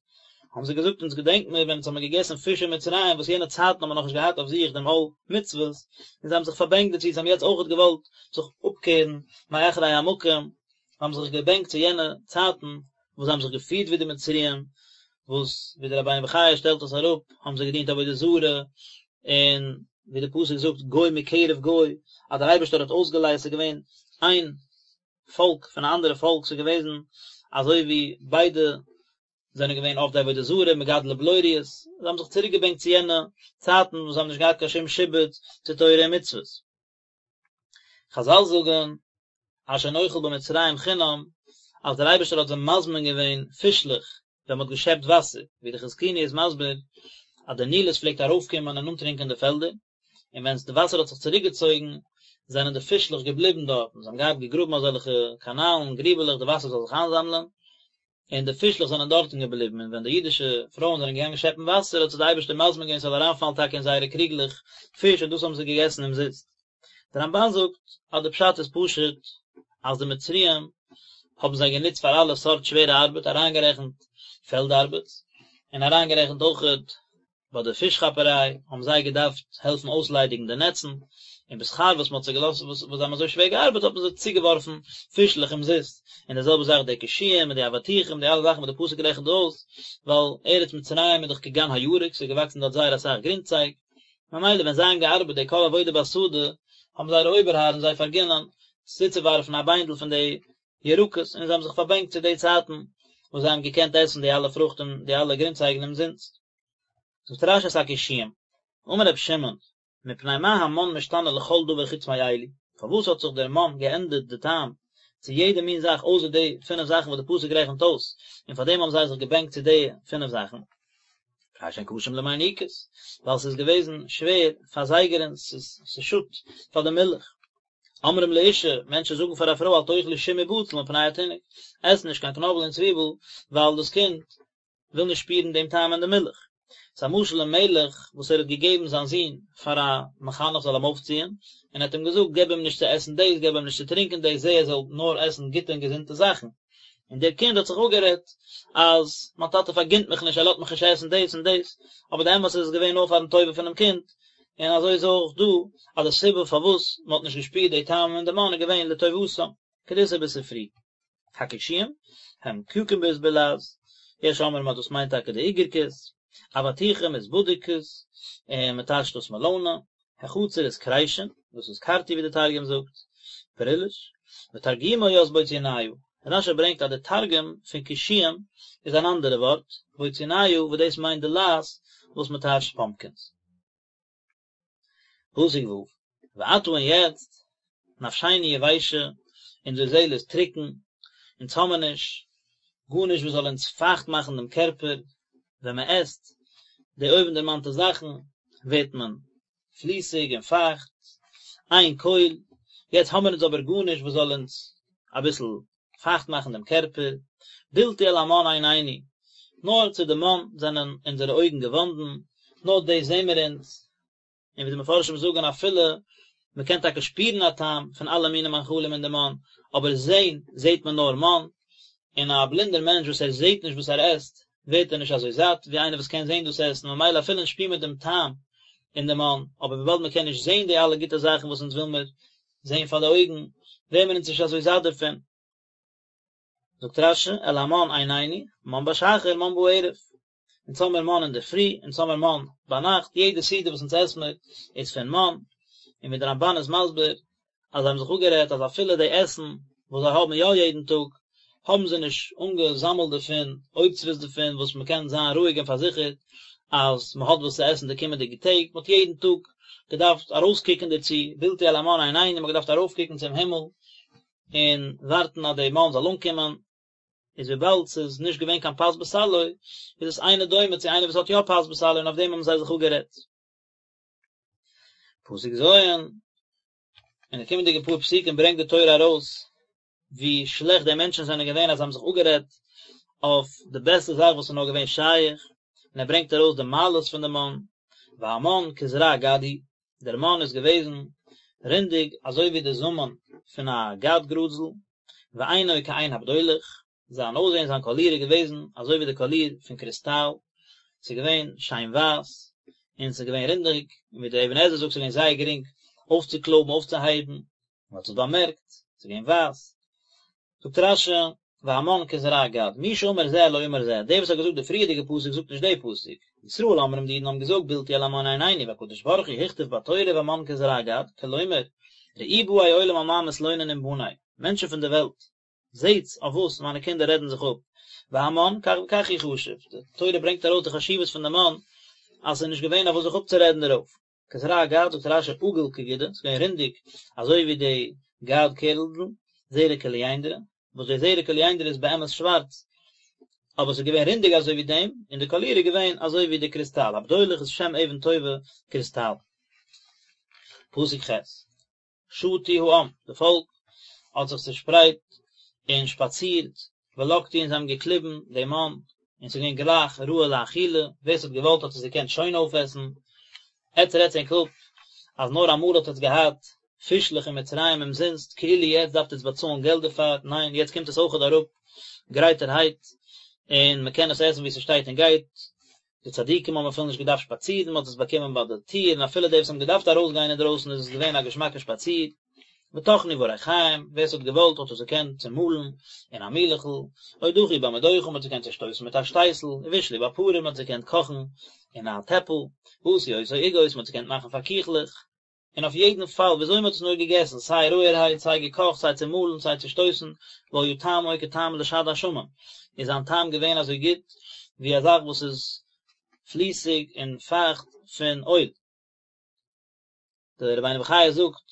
האבן זיי געזאגט אונז געדענק מיר ווען אונז האבן געגעסן פיש אין מצרים וואס יענע צייטן האבן מיר נאכנישט געהאט אויף זיך דעם עול מצוות, און זיי האבן זיך פארבענקט דערצו, זיי האבן יעצט אויכעט געוואלט זיך אפקערן מאחרי המקום, האבן זיך געבענקט צו יענע צייטן וואס זיי האבן זיך געפירט ווי די מצריים, וואס ווי דער רבינו בחיי שטעלט עס אראפ, האבן זיי געדינט עבודה זרה, און ווי דער פסוק זאגט גוי מקרב גוי, אז דער אייבערשטער האט אויסגעלייזט, ס'איז געווען איין פאלק פון א אנדערע פאלק, ס'איז געוועזן אזוי ווי ביידע זענען געווען עובדי עבודה זרה, מגדלי בלוריות, זיי האבן זיך צוריק געבענקט צו יענע צייטן וואס זיי האבן נישט געהאט קיין שום שעבוד צו תורה און מצוות. חזל זאגן אשר נאכל במצרים חינם, אז דער אייבערשטער האט זיי מזמין געווען פישלעך ווען מען האט געשעפט וואסער, ווי די חזקוני איז מסביר אז די נילוס פלעגט ארויפקומען און אנטרינקען די פעלדער, און ווען די וואסער האט זיך צוריקגעצויגן זענען די פישלעך געבליבן דארטן, זיי האבן געהאט געגראבן אזעלכע קאנאלן, גריבעלעך, די וואסער זאל זיך איינזאמלען, און די פישלעך זענען דארטן געבליבן, און ווען די אידישע פרויען זענען געגאנגען שעפן וואסער האט זיי די אייבערשטער מזמין געווען ס'זאל אריינפאלן טאקע אין זייערע קריגלעך פיש און דאס האבן זיי געגעסן אומזיסט. דער רמב"ן זאגט אז די פשט איז פשוט אז די מצריים האבן זיי גענוצט פאר אלע סארט שווערע ארבעט אריינגערעכנט פעלד ארבעט און אריינגערעכנט אויכעט ביי די פיש כאפעריי האבן זיי געדארפט העלפן אויסליידיגן די נעצן, און בשכר וואס מען האט זיי געלאזט וואס זיי האבן אזוי שווער געארבעט האט מען זיי צוגעווארפן פישלעך אומזיסט, און די זעלבע זאך די קישואים און די אבטיחים די אלע זאכן וואס די פסוק רעכנט אויס, ווייל ארץ מצרים איז דאך כגן הירק ס'איז געוואקסן דארט זייער אסאך גרינצייג, ממילא ווען זיי האבן געארבעט די כל עבודה בשדה האבן זייערע אויבערהארן זיי פארגינען צוצואווארפן א ביינדל פון די ירקות, און זיי האבן זיך פארבענקט צו די צייטן וואס זיי האבן געקענט עסן די אלע פרוכט און די אלע גרינצייגן אומזינסט. זאגט רש"י את הקישואים, אמר רבי שמעון, מפני מה המן משתנה לכל דבר חוץ מאלו, פארוואס האט זיך דער מן געענדערט די טעם צו יעדע מין זאך אויסער די פינף זאכן וואס די פסוק רעכנט אויס, און פאר דעם האבן זיי זיך געבענקט צו די פינף זאכן? מפני שהן קשים למיניקות, ווייל ס'איז געוועזן שווער פאר זייגערינס, ס'שאדט פאר די מילך. אומרים לאשה, מענטשן זאגן פאר א פרוי אל תאכלי שום ובצל מפני התינוק, עס נישט קיין קנאבל און צוויבל, ווייל דאס קינד וויל נישט שפירן דעם טעם אין די מילך. ס'איז א משל למלך וואס ער האט געגעבן זיין זון פאר א מחנך זאל אים אויפציען, און ער האט אים געזאגט געב אים נישט צו עסן דאס, געב אים נישט צו טרינקען דאס, זע ער זאל נאר עסן גוטע און געזונטע זאכן. און דער קינד האט זיך אפגערעדט אז מיין טאטע פארגינט מיך נישט, ער לאזט מיך נישט עסן דאס און דאס, אבער די אמת איז עס איז געווען נאר פארן טובה פונעם קינד, און אזוי איז אויך דא, אז די סיבה פארוואס מען האט נישט געשפירט די טעם אין די מן איז געווען לטובתם, כדאיתא בספרי. הקישואים, הם cucumbers בלע"ז, יש אומרים אז דאס מיינט טאקע די איגערקעס, אבטיחים איז בדיקוס, און מען טייטשט דאס מעלאנע, החציר איז כרישין, דאס איז קארטי ווי די תרגום זאגט, פריליש, ותרגומו ית בוציניא, רש"י ברענגט אז די תרגום פון קישואים איז אן אנדערע ווארט, בוציניא, וואס דאס מיינט די לייז וואס מען טייטשט פאמפקינס. פסוק ו', ועתה און יעצט, נפשנו יבשה, אונזער זעהל איז טרוקן, אונז האמיר נישט גארנישט וואס זאל אונז פייכט מאכן דעם קערפער, ווען מען עסט די אויבנדערמאנטע זאכן ווערט מען פליסיג און פייכט, אין כל, יעצט האמיר אונז אבער גארנישט וואס זאל אונז אביסל פייכט מאכן דעם קערפער, בלתי אל המן עינינו, נאר צו די מן זענען אונזערע אויגן געוואנדן, נאר דאס זעען מיר אונז, און ווי די מפרשים זאגן אפילו מען קען טאקע שפירן א טעם פון אלע מיני מאכלים אין די מן, אבער זען זעט מען נאר מן, און א בלינדער מענטש וואס ער זעט נישט וואס ער עסט, ווערט ער נישט אזוי זאט ווי איינער וואס קען זען דאס עסן, ממילא אפילו אונז שפירן מיר דעם טעם אין די מן, אבער וויבאלד מען קען נישט זען די אלע גוטע זאכן וואס אונז וויל מיר זען פאר די אויגן, ווערן מיר אונז נישט אזוי זאט דערפון. זאגט רש"י, אל המן עינינו, מן בשחר, מן בערב. אונז האמיר מן אינדערפרי, אונז האמיר מן ביינאכט, יעדע סעודה וואס אונז עסן מיר איז פון מן, און ווי דער רמב"ן איז מסביר, אז זיי האבן זיך אפגערעדט אז אפילו די עסן וואס זיי האבן יא יעדן טאג, האבן זיי נישט אנגעזאמלט דערפון אוצרות דערפון וואס מען קען זיין רואיג און פארזיכערט אז מען האט וואס צו עסן די קומענדיגע טעג, מען האט יעדן טאג. געדארפט ארויסקוקן דערצו, בלתי אל המן עינינו, מען האט געדארפט ארויפקוקן צום הימל און ווארטן אז די מן זאל אנקומען, איז וויבאלד ס'איז נישט געווען קיין פת בסלו, איז עס אינו דומה צו איינער וואס האט יא פת בסלו און אויף דעם האבן זיי זיך אפגערעדט. פסוק ז', אין די קומענדיגע פאר פסוקים ברענגט די תורה ארויס ווי שלעכט די מענטשן זענען געווען אז זיי האבן זיך אפגערעדט אויף די בעסטע זאך וואס איז נאר געווען שייך, און ער ברענגט ארויס די מעלות פון די מן, והמן כזרע גד הוא, דער מן איז געוועזן רונדיג אזוי ווי די זאמען פון א גד גראזל, ועינו כעין הבדולח, זיין אויסזען זיין קאליר איז געוועזן אזוי ווי די קאליר פון קריסטאל, ס'איז געווען שיין ווייס, און ס'איז געווען רונדיג, און ווי דער אבן עזרא זאגט ס'איז געווען זייער גרינג אויפצוקלויבן אויפצוהייבן, מען האט עס באמערקט, ס'איז געווען ווייס. זאגט רש"י, והמן כזרע גד, מי שאמר זה לא אמר זה, דער וואס האט געזאגט די פריערדיגע פסוק זאגט נישט די פסוק. ישראל אומרים די אידן האבן געזאגט בלתי אל המן עינינו והקדוש ברוך הוא הכתיב בתורה והמן כזרע גד, כלומר, ראו באי עולם על מה מתלוננים בני, מענטשן פון די וועלט, זעטס אויף וואס מיינע קינדער רעדן זיך אפ, והמן כך וכך הוא חשוב, די תורה ברענגט ארויס די חשיבות פון די מן, אז ס'איז נישט געווען אויף וואס זיך אפצורעדן דערויף. כזרע גד זאגט רש"י עגול כגידא, ס'איז געווען רונדיג אזוי ווי די גד קערלדל, זרע קוליינדרא, וואס די זרע קוליינדרא איז באמת שווארץ, אבער ס'איז געווען רונדיג אזוי ווי דעם, און די קאליר איז געווען אזוי ווי די קריסטאל, הבדולח איז שם אבן טובה קריסטאל. פסוק ח'. שטו העם, די פאלק האט זיך צעשפרייט און שפאצירט, ולקטו און זיי האבן געקליבן דעם מן, און ס'איז געווען גלייך ראוי לאכילה, ווער ס'האט געוואלט האט עס געקענט שוין אויפעסן, עטץ רעדטס ענק אפ אז נאר אמאל האט עטץ געהאט פישלעך אין מצרים אומזינסט, כאילו יעצט דארפט עטץ באצאלן געלט דערפאר, ניין יעצט קומט עס אויכעט אראפ גרייטערהייט, און מ'קען עס עסן ווי ס'שטייט און גייט, די צדיקים האבן אפילו נישט געדארפט שפאצירן, מען האט עס באקומען ביי די טיר, און אפילו די וואס האבן געדארפט ארויסגיין אינדרויסן איז עס געווען א געשמאקע שפאציר. וטחנו בריחים, ווער עס האט געוואלט האט עס געקענט צומאלן אין א מילעכל, או דכו במדוכה, מען האט עס געקענט צושטויסן מיט א שטייסל, ובשלו בפרור, מען האט עס געקענט קאכן אין א טעפל, ועשו אותו עוגות, מען האט עס געקענט מאכן פאר קיכלעך. און אויף יעדן פאל וויאזוי מען האט עס נאר געגעסן, סיי רויערהייט, סיי געקאכט, סיי צומאלן, סיי צושטויסן, והיה טעמו כטעם לשד השמן, איז זיין טעם געווען אזוי גוט ווי א זאך וואס איז פליסיג און פייכט פון אויל. דער רבינו בחיי זאגט,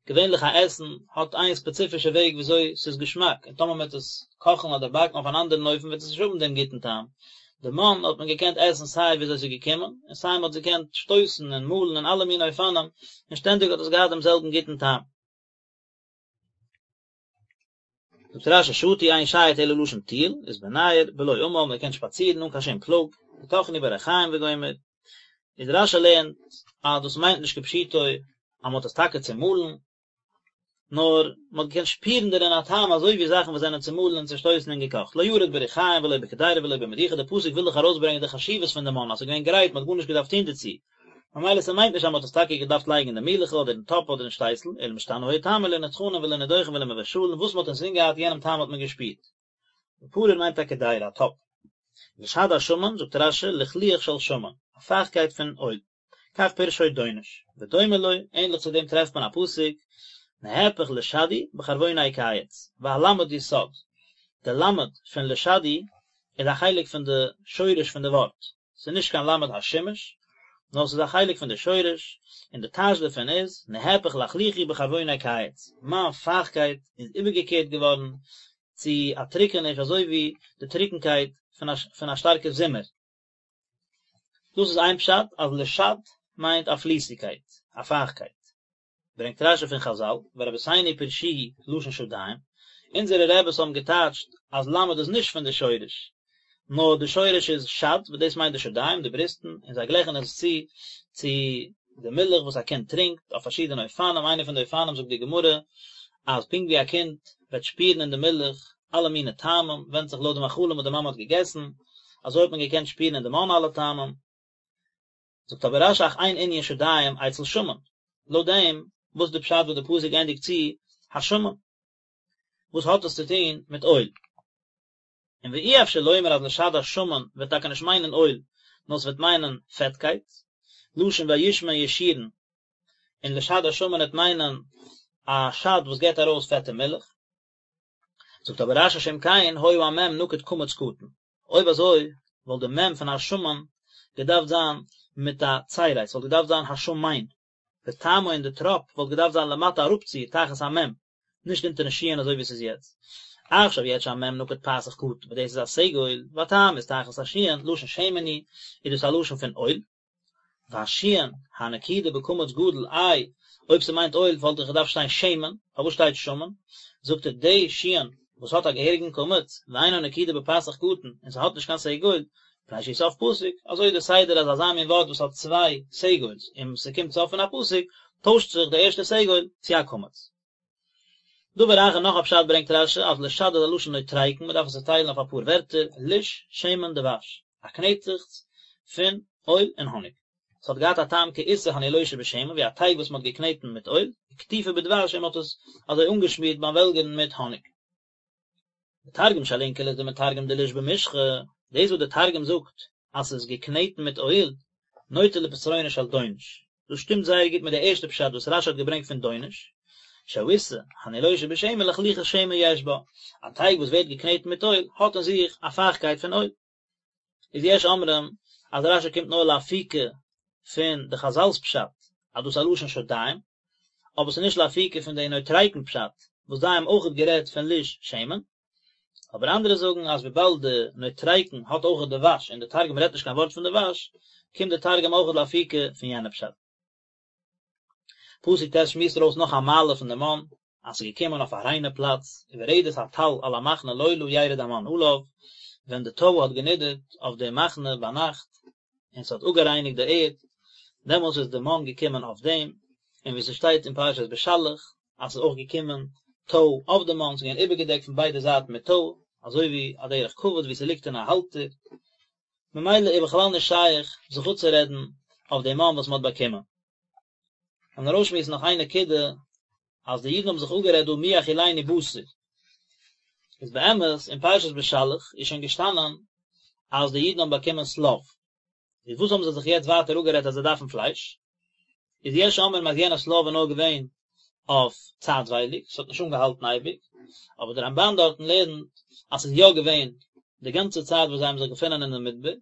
געווענליך א עסן האט איין ספעציפישע וועג וויאזוי ס'איז געשמאק, און טאמער מ'וועט עס קאכן אדער באקן אויף אן אנדערן אופן וועט עס נישט האבן דעם גוטן טעם. די מן האט מען געקענט עסן סיי וויאזוי ס'איז געקומען, און סיי מ'האט עס געקענט שטויסן און מאלן אין אלע מיני אופנים, און שטענדיג האט עס געהאט דעם זעלבן גוטן טעם. זאגט רש"י שטו אין שייט אלא לשון טיול, איז בנייר, בלא עמל, מען קען שפאצירן אן קיין שום פלאג, וטחנו בריחים וגומר. איז רש"י לערנט אז דאס מיינט נישט כפשוטו אז מען האט עס טאקע צומאלן, נאר מען האט געקענט שפירן דערין א טעם אזוי ווי זאכן וואס זענען צומאלן און צושטויסן און געקאכט, לא ירד בריחים ולא בקדירה ולא במדוכה, דער פסוק וויל דאך ארויסברענגען די חשיבות פון די מן אז ס'איז געווען גרייט מען האט גארנישט געדארפט טון דערצו, ממילא ס'מיינט נישט אז מען האט עס טאקע געדארפט לייגן אין די מילעכל אדער אין טאפ אדער אין שטייסל, אלא משתנה היה טעמו לא נטחנין ולא נדוכין ולא מבושלין, וואס מען האט אינזין געהאט יענעם טעם האט מען געשפירט. בפרור מיינט א קדירה, א טאפ. לשד השמן, זאגט רש"י, לחלוח של שמן, א פייכטקייט פון אויל. כך פירשו דונש. ודומה לו, ענליך צו דעם טרעפט מען א פסוק, נהפך לשדי בחרבוני קיץ, והלמד יסוד. די למד פון לשדי איז א חלק פון די שורש פון די ווארט. ס'איז נישט קיין למד השימוש, נאר ס'איז א חלק פון די שורש, און די טייטש דערפון איז, נהפך לחלוחי בחרבוני קיץ, מיין פייכטקייט איז איבערגעקערט געווארן צו א טרוקעניש אזוי ווי די טרוקנקייט פון א שטארקע זומער. דאס איז איין פשט אז לשד מיינט א פליסיגקייט, א פייכטקייט. ברענגט רש"י פון חז"ל, ורבותינו פירשוהו לשון שדיים, אונזערע רעבעס האבן געטייטשט אז למד איז נישט פון די שורש, נאר די שורש איז שד וואס דאס מיינט די שדיים, די בריסטן, און זיי גלייכן עס צו צו די מילך וואס א קינד טרינקט, אויף פארשידענע אופנים, איינע פון די אופנים זאגט די גמרא, אז פונקט ווי א קינד וועט שפירן אין די מילך אלע מיני טעמים, ווענדט זיך לויט די מאכלים וואס די מאמע האט געגעסן, אזוי האט מען געקענט שפירן אין די מן אלע טעמים. זאגט אבער רש"י אך אין ענין שדיים אצל שמן, לויט דעם וואס איז די פשט וואס די פסוק ענדיגט צו השמן? וואס האט עס צו טון מיט אויל? און ואי אפשר לומר אז לשד השמן וועט טאקע נישט מיינען אויל, נאר ס'וועט מיינען פעטקייט, לשון וישמן ישורון, און לשד השמן וועט מיינען א שד וואס געבט ארויס פעטע מילך. זאגט אבער רש"י שאם כן היה המ' נקוד קמץ קטן, אויב אזוי וואלט די מ' פון השמן געדארפט זיין מיט א צירי, ס'וואלט געדארפט זיין השמן. וטעמו און די טראפ וואלט געדארפט זיין למטה אראפצו תחת המ', נישט אונטערן שין אזוי ווי עס איז יעצט. עכשיו יעצט שהמ' נקוד פתח קטן וואס דאס איז א סגול, והטעם איז תחת השין, לשון שמן הוא, איז דאס א לשון פון אויל. והשין הנקודה בקמץ גדול איי אויב ס'מיינט אויל וואלט דאך געדארפט שטיין שמן, פארוואס שטייט שמן? זאגט ער די שין וואס האט א געהעריגן קמץ, ואינה נקודה בפתח קטן, און ס'האט נישט קיין סגול, מפני שהוא סוף פסוק, אזוי איז די סדר אז אזא מין ווארט וואס האט צוויי סגול'ס און ס'קומט סוף פון א פסוק, טוישט זיך די ערשטע סגול צו א קמץ. דבר אחר נאך א פשט ברענגט רש"י אז לשד איז א לשון נוטריקון מען דארף עס צעטיילן אויף אפאר ווערטער, ליש, שמן, דבש, א קנעטעכץ פון אויל און האניג. ס'האט געהאט א טעם כעיסה הנילושה בשמן ווי א טייג וואס מען האט געקנעטן מיט אויל, וקטיפה בדבש און מען האט עס אזוי אנגעשמירט ביים וועלגערן מיט האניג. די תרגום של אונקלוס דמתרגם דליש במשחא, דאס וואס די תרגום זאגט אז ס'איז געקנעטן מיט אויל, נוטה לפתרונו של דונש, דאס שטימט זייער גוט מיט די ערשטע פשט וואס רש"י האט געברענגט פון דונש, שהעיסה הנילושה בשמן לחלוחית שמן יש בה, א טייג וואס ווערט געקנעטן מיט אויל האט אין זיך א פייכקייט פון אויל. איז יש אומרים אז רש"י קומט נאר לאפוקי פון די חזל'ס פשט אז דאס איז א לשון שדיים, אבער ס'איז נישט לאפוקי פון די נוטריקון פשט וואס זיי האבן אויכעט גערעדט פון ליש שמן, אבער אנדערע זאגן אז וויבאלד די נוטריקון האט אויכעט דבש און די תרגום רעדט נישט קיין ווארט פון דבש, קומט די תרגום אויכעט לאפוקי פון יענע פשט. פסוק ט' שמועסט ארויס נאך א מעלה פון די מן, אז ס'איז געקומען אויף א ריינע פלאץ, וברדת הטל על המחנה לילה ירד המן עליו, ווען די טוי האט גענידערט אויף די מחנה ביינאכט, און ס'האט אפגערייניגט די ערד, דעמאלס איז די מן געקומען אויף דעם, און ווי ס'שטייט אין פרשת בשלח, אז ס'איז אויך געקומען טוי אויף די מן, ס'איז געווען איבערגעדעקט פון ביידע זייטן מיט טוי, אזוי ווי א דרך כבוד ווי ס'ליגט אין א האלטער, ממילא איז בכלל נישט שייך זיך אפצורעדן אויף די מן וואס מ'האט באקומען. און ארויסשמועסן נאך איין נקודה, אז די אידן האבן זיך אפגערעדט דא מי יאכילנו בשר, איז באמת אין פרשת בשלח איז שוין געשטאנען אז די אידן האבן באקומען שליו, איז וואס האבן זיי זיך יעצט ווייטער אפגערעדט אז זיי דארפן פלייש? איז יש אומרים אז יענע שליו איז נאר געווען אויף צייטווייליג, ס'האט נישט אנגעהאלטן אייביג, אבער דער רמב"ן דארטן לערנט אז ס'איז יא געווען די גאנצע צייט וואס זיי האבן זיך געפונען אין די מדבר,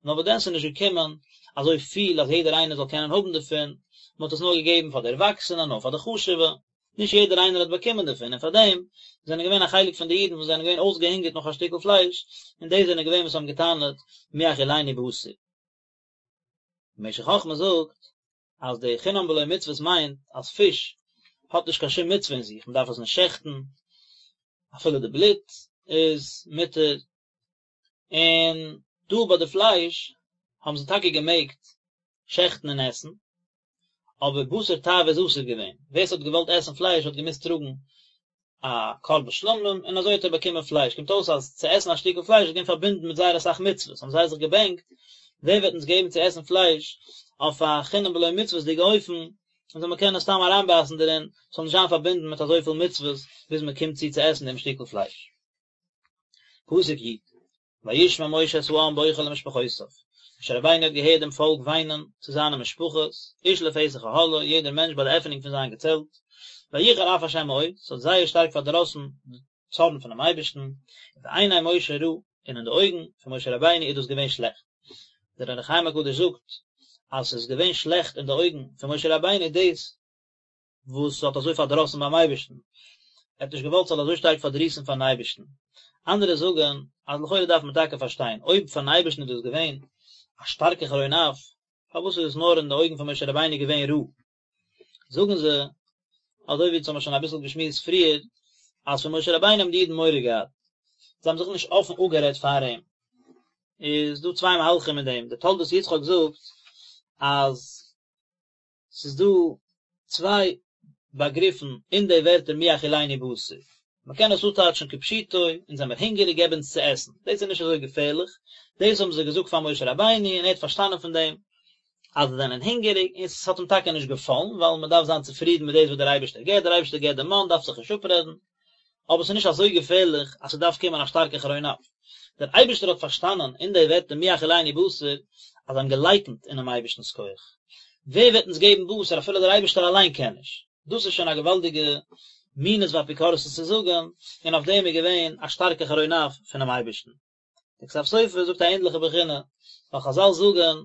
נאר וואס דען ס'איז נישט געקומען אזוי פיל אז יעדער איינער זאל קענען האבן דערפון, מ'האט עס נאר געגעבן פאר די ערוואקסענע, נאר פאר די חשוב'ע, נישט יעדער איינער האט באקומען דערפון, און פאר דעם זענען געווען א חלק פון די אידן וואס זענען געווען אויסגעהונגערט נאך א שטיקל פלייש, און די זענען געווען וואס האבן גע'טענה'ט מי יאכילנו בשר. משך חכמה זאגט אז די חינם בלא מצוות מיינט אז פיש האט נישט קיין שום מצוה אין זיך, מען דארף עס נישט שעכטן, אפילו די בלוט איז מותר, און דא ביי די פלייש האבן זיי טאקע געמעגט שעכטן און עסן, אבער בשר תאווה איז אסור געווען, ווער ס'האט געוואלט עסן פלייש האט געמוזט טראגן א קרבן שלמים און אזוי האט ער באקומען פלייש, קומט אויס אז צו עסן א שטיקל פלייש איז געווען פארבינדן מיט זייער אסאך מצוות, האבן זיי זיך געבענקט ווער וועט אונז געבן צו עסן פלייש אויף א חינם בלא מצוות'דיגע אופן, און זאל מען קענען סתם אריינבייסן דערין, ס'זאל נישט זיין פארבינדן מיט אזויפיל מצוות ביז מען קומט צו צו עסן דעם שטיקל פלייש. פסוק י', וישמע משה את העם בוכה למשפחותיו, משה רבינו האט געהערט דעם פאלק וויינען צו זיינע משפחות, איש לפתח אהלו, יעדער מענטש ביי די עפענונג פון זיין געצעלט, ויחר אף ה' מאוד, ס'האט זייער שטארק פארדראסן די צארן פונעם אייבערשטן, ובעיני משה רע, און אין די אויגן פון משה רבינו איז דאס געווען שלעכט. דער אור החיים הקדוש זאגט אז ס'איז געווען שלעכט אין די אויגן פון משה רבינו דאס וואס האט אזוי פארדראסן ביים אייבערשטן, ער האט נישט געוואלט ס'זאל אזוי שטארק פארדריסן פארן אייבערשטן. אנדערע זאגן אז לכאורה דארף מען טאקע פארשטיין, אויב פארן אייבערשטן איז דאס געווען א שטארקע חרון אף, פארוואס איז עס נאר אין די אויגן פון משה רבינו געווען רע? זאגן זיי, אזוי ווי אונז האבן שוין אביסל געשמועסט פריער, אז פון משה רבינו האבן די אידן מורא געהאט, זיי האבן זיך נישט אפן אפגערעדט פאר אים. איז דא צוויי מהלכים אין דעם, דער תולדות יצחק זאגט אז ס'איז דא צוויי באגריפן אין די ווערטער מי יאכילנו בשר. מ'קען עס אפטייטשן כפשוטו, אונז זעמיר הונגעריג געב אונז צו עסן. דאס איז נישט אזוי געפערליך, דאס האבן זיי געזאגט פאר משה רבינו און ער האט פארשטאנען פון דעם אז זיי זענען הונגעריג און ס'האט אים טאקע נישט געפאלן ווייל מ'דארף זיין צופרידן מיט דאס וואס דער אייבערשטער געבט, דער אייבערשטער געבט די מן דארף זיך נישט אפרעדן. אבער ס'איז נישט אזוי געפערליך אז ס'דארף קומען א שטארקע חרון אף. דער אייבערשטער האט פארשטאנען אין די ווערטער מי יאכילנו בשר אז זיי האבן געלייקנט אינעם אייבערשטנ'ס כח. ווער וועט אונז געבן בשר אפילו דער אייבערשטער אליין קען נישט? דאס איז שוין א געוואלדיגע מינות ואפיקורסות צו זאגן, און אויף דעם איז געווען א שטארקע חרון אף פונעם אייבערשטן. דער כתב סופר זאגט א ענדליכע בחינה, ווייל חזל זאגן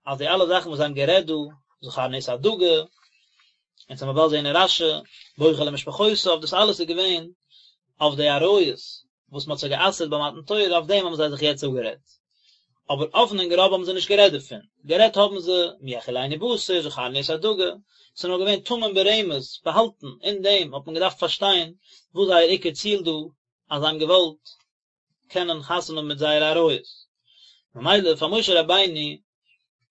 אז די אלע זאכן וואס זיי האבן גערעדט דא, זכרנו את הדגה. אונז וועלן באלד זעהן אין רשי, בוכה למשפחותיו, דאס אלעס איז געווען אויף די עריות וואס מען האט זיי גע'אסר'ט ביי מתן תורה, אויף דעם האבן זיי זיך יעצט אפגערעדט. אבער אפן און גראב האבן זיי נישט גערעדט דערפון, גערעדט האבן זיי, מי יאכילנו בשר, זכרנו את הדגה, ס'איז נאר געווען טמון ברמז, באהאלטן, אין דעם האט מען געדארפט פארשטיין וואס זייער עיקר ציל דא, אז זיי האבן געוואלט קענען חתונה האבן מיט זייערע עריות. ממילא פאר משה רבינו,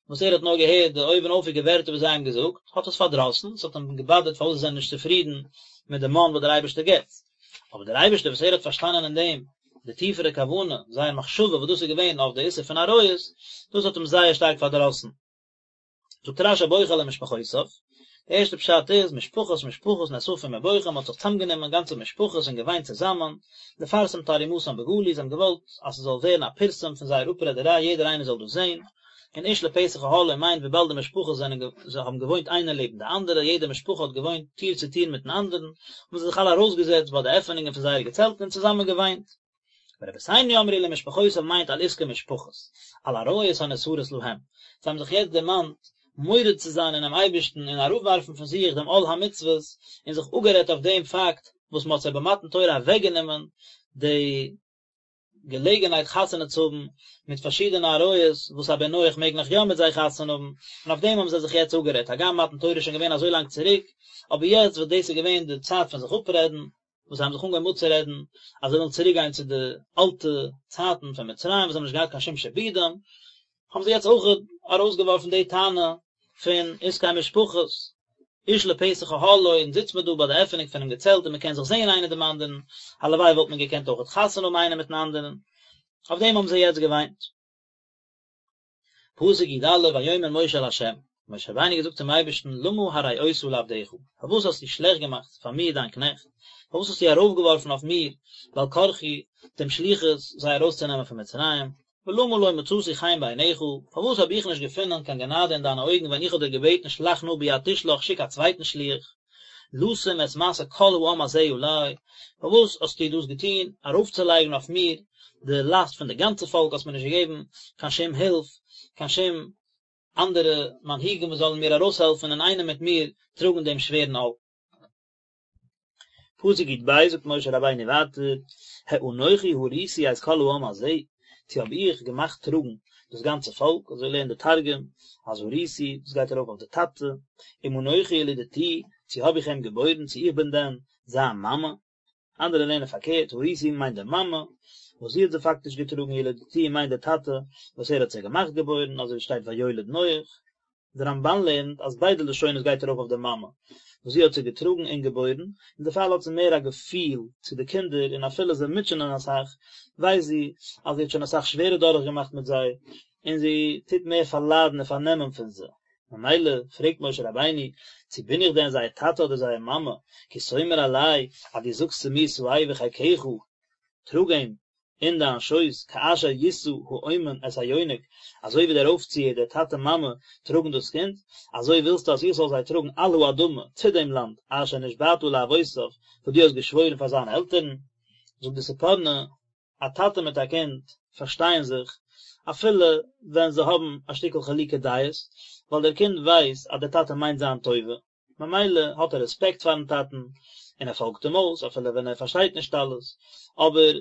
וואס ער האט נאר געהערט די אויבנאויפיגע ווערטער וואס זיי האבן געזאגט, האט עס פארדראסן, עס האט אים געבאדערט פארוואס זיי זענען נישט צופרידן מיט די מן וואס דער אייבערשטער גיבט. אבער דער אייבערשטער וואס ער האט פארשטאנען אין דעם די טיפערע כוונה, זייער מחשבה וואס דאס איז געווען אויף די איסור פון עריות, דאס האט אים זייער שטארק פארדראסן. זאגט רשי בוכה למשפחותיו, די ערשטע פשט איז, משפחות משפחות נאספים ובוכים, מען האט זיך צוזאמגענומען גאנצע משפחות און געוויינט צוזאמען, לפרסם תרעומתן בגלוי, זיי האבן געוואלט אז ס'זאל ווערן א פירסום פון זייער אפרעדעריי יעדער איינער זאל דאס זען, און איש לפתח אהלו מיינט וויבאלד די משפחות זענען האבן געוואוינט איינער לעבן די אנדערע, יעדע משפחה האט געוואוינט טיר צו טיר מיטן אנדערן, האבן זיי זיך אלע ארויסגעזעצט ביי די עפענונגען פון זייערע געצעלטן און צוזאמען געוויינט. ורבותינו אמרו למשפחותיו מיינט על עסקי משפחות, על עריות הנאסרות להם, זיי האבן זיך יעצט דערמאנט מורד צו זיין אינעם אייבערשטן און אראפווארפן פון זיך דעם עול המצוות, און זיך אפגערעדט אויף דעם פאקט וואס מען האט זיי במתן תורה אוועקגענומען די געלעגנהייט חתונה צו האבן מיט פארשידענע עריות וואס א בן נח מעג נאך יא מיט זיי חתונה האבן, און אויף דעם האבן זיי זיך יעצט אפגערעדט, הגם מתן תורה איז שוין געווען אזוי לאנג צוריק, אבער יעצט וואס דאס איז געווען די צייט פון זיך אפרעדן, וואס זיי האבן זיך אנגעהויבן אפצורעדן אז זיי ווילן צוריק גיין צו די אלטע צייטן פון מצרים וואס זיי האבן נישט געהאט קיין שום שעבודים, האבן זיי יעצט אויך ארויסגעווארפן די טענה פון עסקי משפחות, איש לפתח אהלו, אונז זיצט מען דא ביי די עפענונג פונעם געצעלט און מען קען זיך זען איינער דעם אנדערן, הלוואי וואלט מען געקענט אויך חתונה האבן איינער מיטן אנדערן, אויף דעם האבן זיי יעצט געוויינט. פסוק י א, ויאמר משה אל ה', משה רבינו האט געזאגט צום אייבערשטן, למה הרעות לעבדך, פארוואס האסטו שלעכט געמאכט פאר מיר דיין קנעכט, פארוואס האסטו ארויפגעווארפן אויף מיר בעל כרחי דעם שליחות זיי ארויסצונעמען פון מצרים, ולמה לא מצאתי חן בעיניך, פארוואס האב איך נישט געפונען קיין גענאדע אין דיינע אויגן ווען איך האב דיר געבעטן שלח נא ביד תשלח שיק א צווייטן שליח, לשום את משא כל העם הזה עלי, פארוואס האסטו דאס געטון, ארויפצולייגן אויף מיר די לאסט פון די גאנצע פאלק, האסט מיר נישט געגעבן קיין שום הילף, קיין שום אנדערע מנהיגים וואס זאלן מיר ארויסהעלפן אינאיינעם מיט מיר טראגן דעם שווערן עול. פסוק י ב זאגט משה רבינו ווייטער, האנכי הריתי את כל העם הזה, צו האב איך געמאכט טראגן דאס גאנצע פאלק, אזוי לערנט די תרגום, אז הריתי, דאס גייט ארויף אויף די טאטע, אם אנכי ילדתיהו, צו האב איך אים געבוירן, צו איך בין דען זיין מאמע? אנדערע לערנען פארקערט, הריתי מיינט די מאמע, וואס זי האט זיי פאקטיש געטראגן, ילדתיהו מיינט די טאטע, וואס ער האט זיי געמאכט געבוירן, אזוי ווי שטייט ויולד נח. דער רמבן לערנט אז ביידע לשונות גייט ארויף אויף די מאמע, וואס זי האט זיי געטראגן און געבוירן, און דערפאר האט זי מער א געפיל צו די קינדער, און אפילו זיי מוטשענען אסאך, ווייסט זי אז זי האט שוין אסאך שווערער דורכגעמאכט מיט זיי, און זי טוט מער פארליידן און פארנעמען פון זיי. ממילא פרעגט משה רבינו, צו בין איך דען זייער טאטע אדער זייער מאמע, כי תאמר אלי, אז דו זאגסט צו מיר שאהו בחיקך, טראג אים אין דיין שויס, כאשר ישא האומן את היונק, אזוי ווי דער אויפציער, דער טאטע מאמע, טראגן דאס קינד, אזוי ווילסטו אז איך זאל זיי טראגן על האדמה, צו דעם לאנד, אשר נשבעת לאבותיו, וואס דו האסט געשוואוירן פאר זיינע עלטערן. זאגט די ספורנו, א טאטע מיט א קינד פארשטייען זיך, אפילו ווען זיי האבן א שטיקל חילוקי דעות, ווייל דער קינד ווייסט אז דער טאטע מיינט זיין טובה, ממילא האט ער רעספעקט פארן טאטן, און ער פאלגט אים אויס אפילו ווען ער פארשטייט נישט אלעס, אבער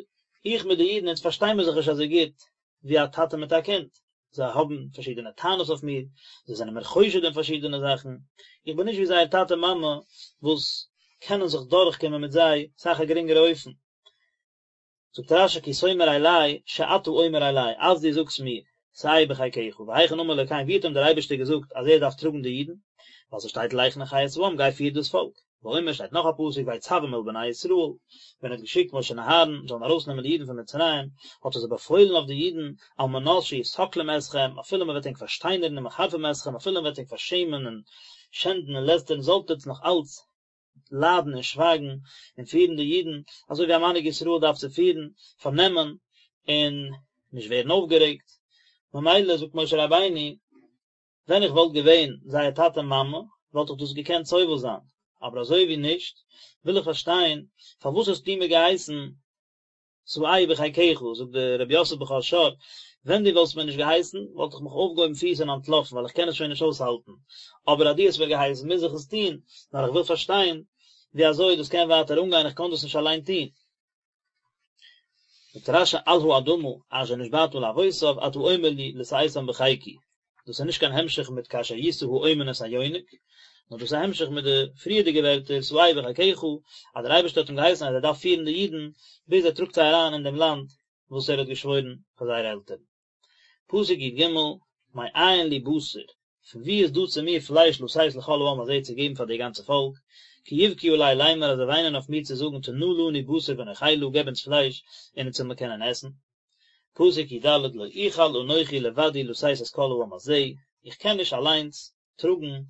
איך מיט די אידן אונז פארשטיי מיר זיך נישט אזוי גוט ווי א טאטע מיט א קינד, זיי האבן פארשידענע טענות אויף מיר, זיי זענען מיר חושד אין פארשידענע זאכן, איך בין נישט ווי זייער טאטע מאמע וואס קענען זיך דורכקומען מיט זיי אסאך א גרינגערע אופן. זאגט רשי כי תאמר אלי שאתה אומר אלי אז דו זאגסט מיר שאהו בחיקך והיכן אמר לו כן ווי האט אים דער אייבערשטער געזאגט אז ער דארף טראגן די אידן ווייל ס'שטייט לך נחה את העם גיי פיר דאס פאלק ואומר שטייט נאך א פסוק ויצום אל בני ישראל ווען ער האט געשיקט משה און אהרן זאלן ארויסנעמען די אידן פון מצרים האט ער זיי באפוילן אויף די אידן על מנת שיסקלום אתכם אפילו מען וועט ענק פארשטיינערן ומחרפים אתכם אפילו מען וועט ענק פארשעמען און שענדן און לעסטערן זאלט עטס נאך אלץ ליידן און שווייגן און פירן די אידן אזוי ווי א מנהיג ישראל דארף צו פירן, פארנעמען און נישט ווערן אויפגערעגט, ממילא זאגט משה רבינו, ווען איך וואלט געווען זייער טאטע מאמע וואלט איך דאס געקענט סובל זיין, אבער אזוי ווי נישט, וויל איך פארשטיין פארוואס האסטו מיר געהייסן שאהו בחיקך, זאגט דער רבי יוסף בכור שור, ווען דו וואלסט מיר נישט געהייסן, וואלט איך מיך אויפגעהויבן פיס און אנטלאפן, ווייל איך קען עס שוין נישט אויסהאלטן, אבער אז דו האסט מיר געהייסן, מוז איך עס טון, נאר איך וויל פארשטיין ווי אזוי דאס קען ווייטער אנגיין, איך קען דאס נישט אליין טון. זאגט רש"י על האדמה אשר נשבעת לאבותם אתה אומר לי לשאתם בחיקי, דאס איז נישט קיין המשך מיט כאשר ישא האומן את היונק, נאר דאס איז א המשך מיט די פריערדיגע ווערטער שאהו בחיקך, אז דער אייבערשטער האט אים געהייסן אז ער דארף פירן די אידן ביז ער טראגט זיי אריין אין דעם לאנד וואס ער האט געשוואוירן פאר זייערע עלטערן. פסוק י"ג, מאין לי בשר, פון וואו איז דא צו מיר פלייש לתת לכל העם הזה צו געבן פאר די גאנצע פאלק, כי יבכו עלי לאמר אז זיי וויינען אויף מיר צו זאגן תנה לנו בשר ונאכלה געב אונז פלייש און אונז זאל מען קענען עסן. פסוק י"ד, לא אוכל אנכי לבדי לשאת את כל העם הזה, איך קען נישט אליינס טראגן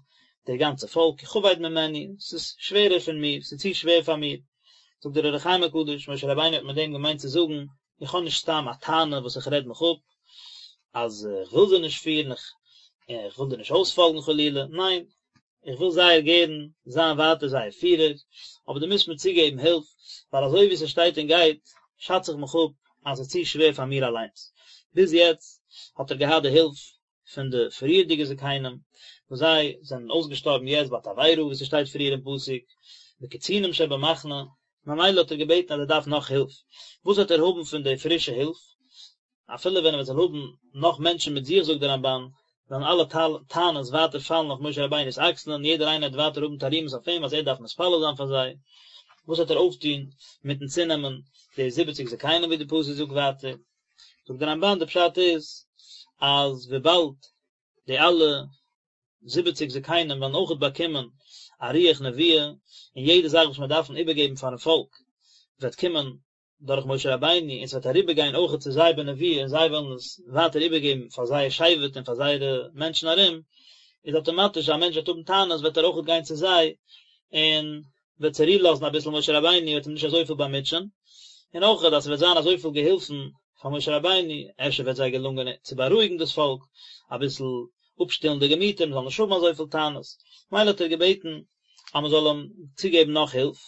דער גאנצע פאלק, כי כבד ממני, ס'איז שווערער פון מיר, ס'איז צו שווער פאר מיר. זאגט דער אור החיים הקדוש, משה רבינו האט מיט דעם געמיינט צו זאגן, איך האב נישט סתם א טענה וואס איך רעד מיך אפ, אז איך וויל זיי נישט פירן, איך וויל דיר נישט אויספאלגן חלילה, ניין, איך וויל זייער גערן זיין ווייטער זייער פירער, אבער דו מוזט מיר צוגעבן הילף, ווייל אזוי ווי ס'שטייט און גייט, שאץ איך מיך אפ אז ס'איז צו שווער פאר מיר אליינס. ביז יעצט האט ער געהאט די הילף פון די פריערדיגע זקנים, וואס זיי זענען אויסגעשטארבן יעצט ביי תבערה, ווי ס'שטייט פריער אין פסוק, וקצינים שבמחנה, ממילא האט ער געבעטן אז ער דארף נאך הילף, וואס וועט ער האבן פון די פרישע הילף? אפילו ווען ער זאל האבן נאך מענטשן מיט זיך זאגט דער רמב"ן, וועלן אלע טענות ווייטער פאלן אויף משה רבינו'ס אקסלען, יעדער איינער וועט ווייטער האבן תרעומות אויף אים אז ער דארף מתפלל זיין פאר זיי, וואס וועט ער אויפטון מיטן צונעמען די זיבעציג זקנים ווי די פסוק זאגט ווייטער? זאגט דער רמב"ן די פשט איז אז וויבאלד די אלע זיבעציג זקנים וועלן אויכעט באקומען א רוח נבואה, און יעדע זאך וואס מיר דארפן איבערגעבן פארן פאלק וועט קומען דורך משה רבינו און ס'וועט אריבערגיין אויכעט צו זיי בנבואה און זיי וועלן עס ווייטער איבערגעבן פאר זייער שבט און פאר זייערע מענטשן ארום, איז אטאמאטיש אז א מענטש וועט האבן טענות וועט ער אויכעט גיין צו זיי און וועט צורו לאזן אביסל משה רבינו וועט אים נישט אזויפיל באמוטשען, און אויכעט אז ס'וועט זיין אזויפיל געהילפן פאר משה רבינו, אפשר וועט זיי געלונגען צו בארואיגן דאס פאלק, אביסל אפשטילן די געמיטער, מ'זאל נישט האבן אזויפיל טענות, מילא האט ער געבעטן אז מ'זאל אים צוגעבן נאך הילף,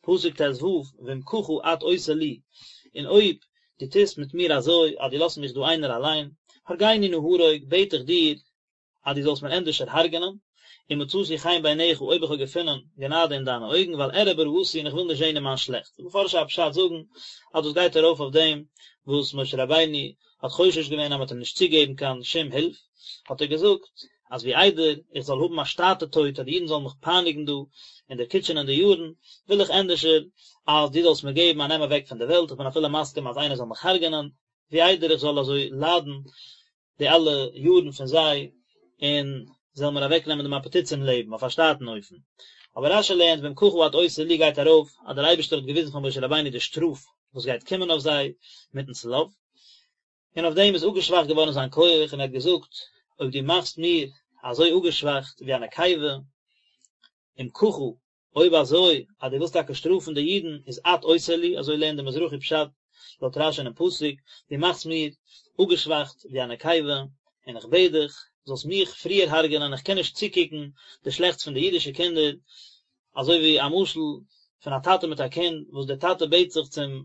פסוק ט"ו, ואם ככה את עושה לי, און אויב דו טוסט מיט מיר אזוי אז דו לאזט מיך דא איינער אליין, הרגני נא הרוג, בעט איך דיר, אז דו זאלסט מיר ענדערשער הרג'נען, אם מצאתי חן בעיניך אויב איך האב געפונען גענאדע אין דיינע אויגן, ואל אראה ברעתי און איך וויל נישט זען אין מיין שלעכטס. די מפרשי הפשט זאגן אז דאס גייט ארויף אויף דעם וואס משה רבינו האט חושש געווען אז מען וועט אים נישט צוגעבן קיין שום הילף, האט ער געזאגט אז ווי איידער איך זאל האבן א שטאטע טויט אז די אידן זאלן מיך פייניגן דא און דערקוטשענען די יארן, וויל איך ענדערשער אז דו זאלסט מיר געבן א נעם אוועק פון די וועלט, איך בין אפילו מסכים אז איינער זאל מיך הרג'נען, ווי איידער איך זאל אזוי ליידן די אלע יארן פון זיי, און זאלן מיר אוועקנעמען דעם אפעטיט צום לעבן אויף א שטאטן אופן. אבער רש"י לערנט ואם ככה את עושה לי גייט ארויף אז דער אייבערשטער האט געוויזן פאר משה רבינו די שטראף וואס גייט קומען אויף זיי מיטן שליו, און אויף דעם איז אפגעשוואכט געווארן זיין כח, און ער האט געזאגט, אויב דו מאכסט מיר אזוי אפגעשוואכט ווי א נקבה, אם ככה, אויב אזוי אז דו ווילסט טאקע שטראפן די אידן, איז את עושה לי, אזוי לערנט די מזרחי פשט לויט רש"י אינעם פסוק, דו מאכסט מיר אפגעשוואכט ווי א נקבה, און איך בעט דיך, זאלסט מיך פריער הרג'ענען, איך קען נישט צוקוקן די שלעכטס פון די אידישע קינדער, אזוי ווי א משל פון א טאטע מיט א קינד, וואס דער טאטע בעט זיך צום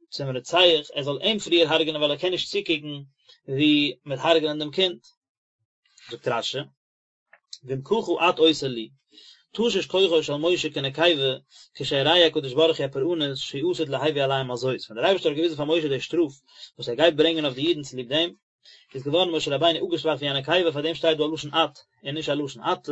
צום רוצח ער זאל אים פריער הרג'ענען ווייל ער קען נישט צוקוקן ווי מ'וועט הרג'ענען דעם קינד. זאגט רש"י. ואם ככה את עושה לי, תשש כוחו של משה כנקבה, כשהראהו הקדוש ברוך הוא הפורענות שעתיד להביא עליהם על זאת, ווען דער אייבערשטער האט געוויזן פאר משה די שטראף וואס ער גייט ברענגען אויף די אידן צוליב דעם, איז געווארן משה רבינו אפגעשוואכט ווי א נקבה, פאר דעם שטייט דא א לשון את און נישט א לשון אתה,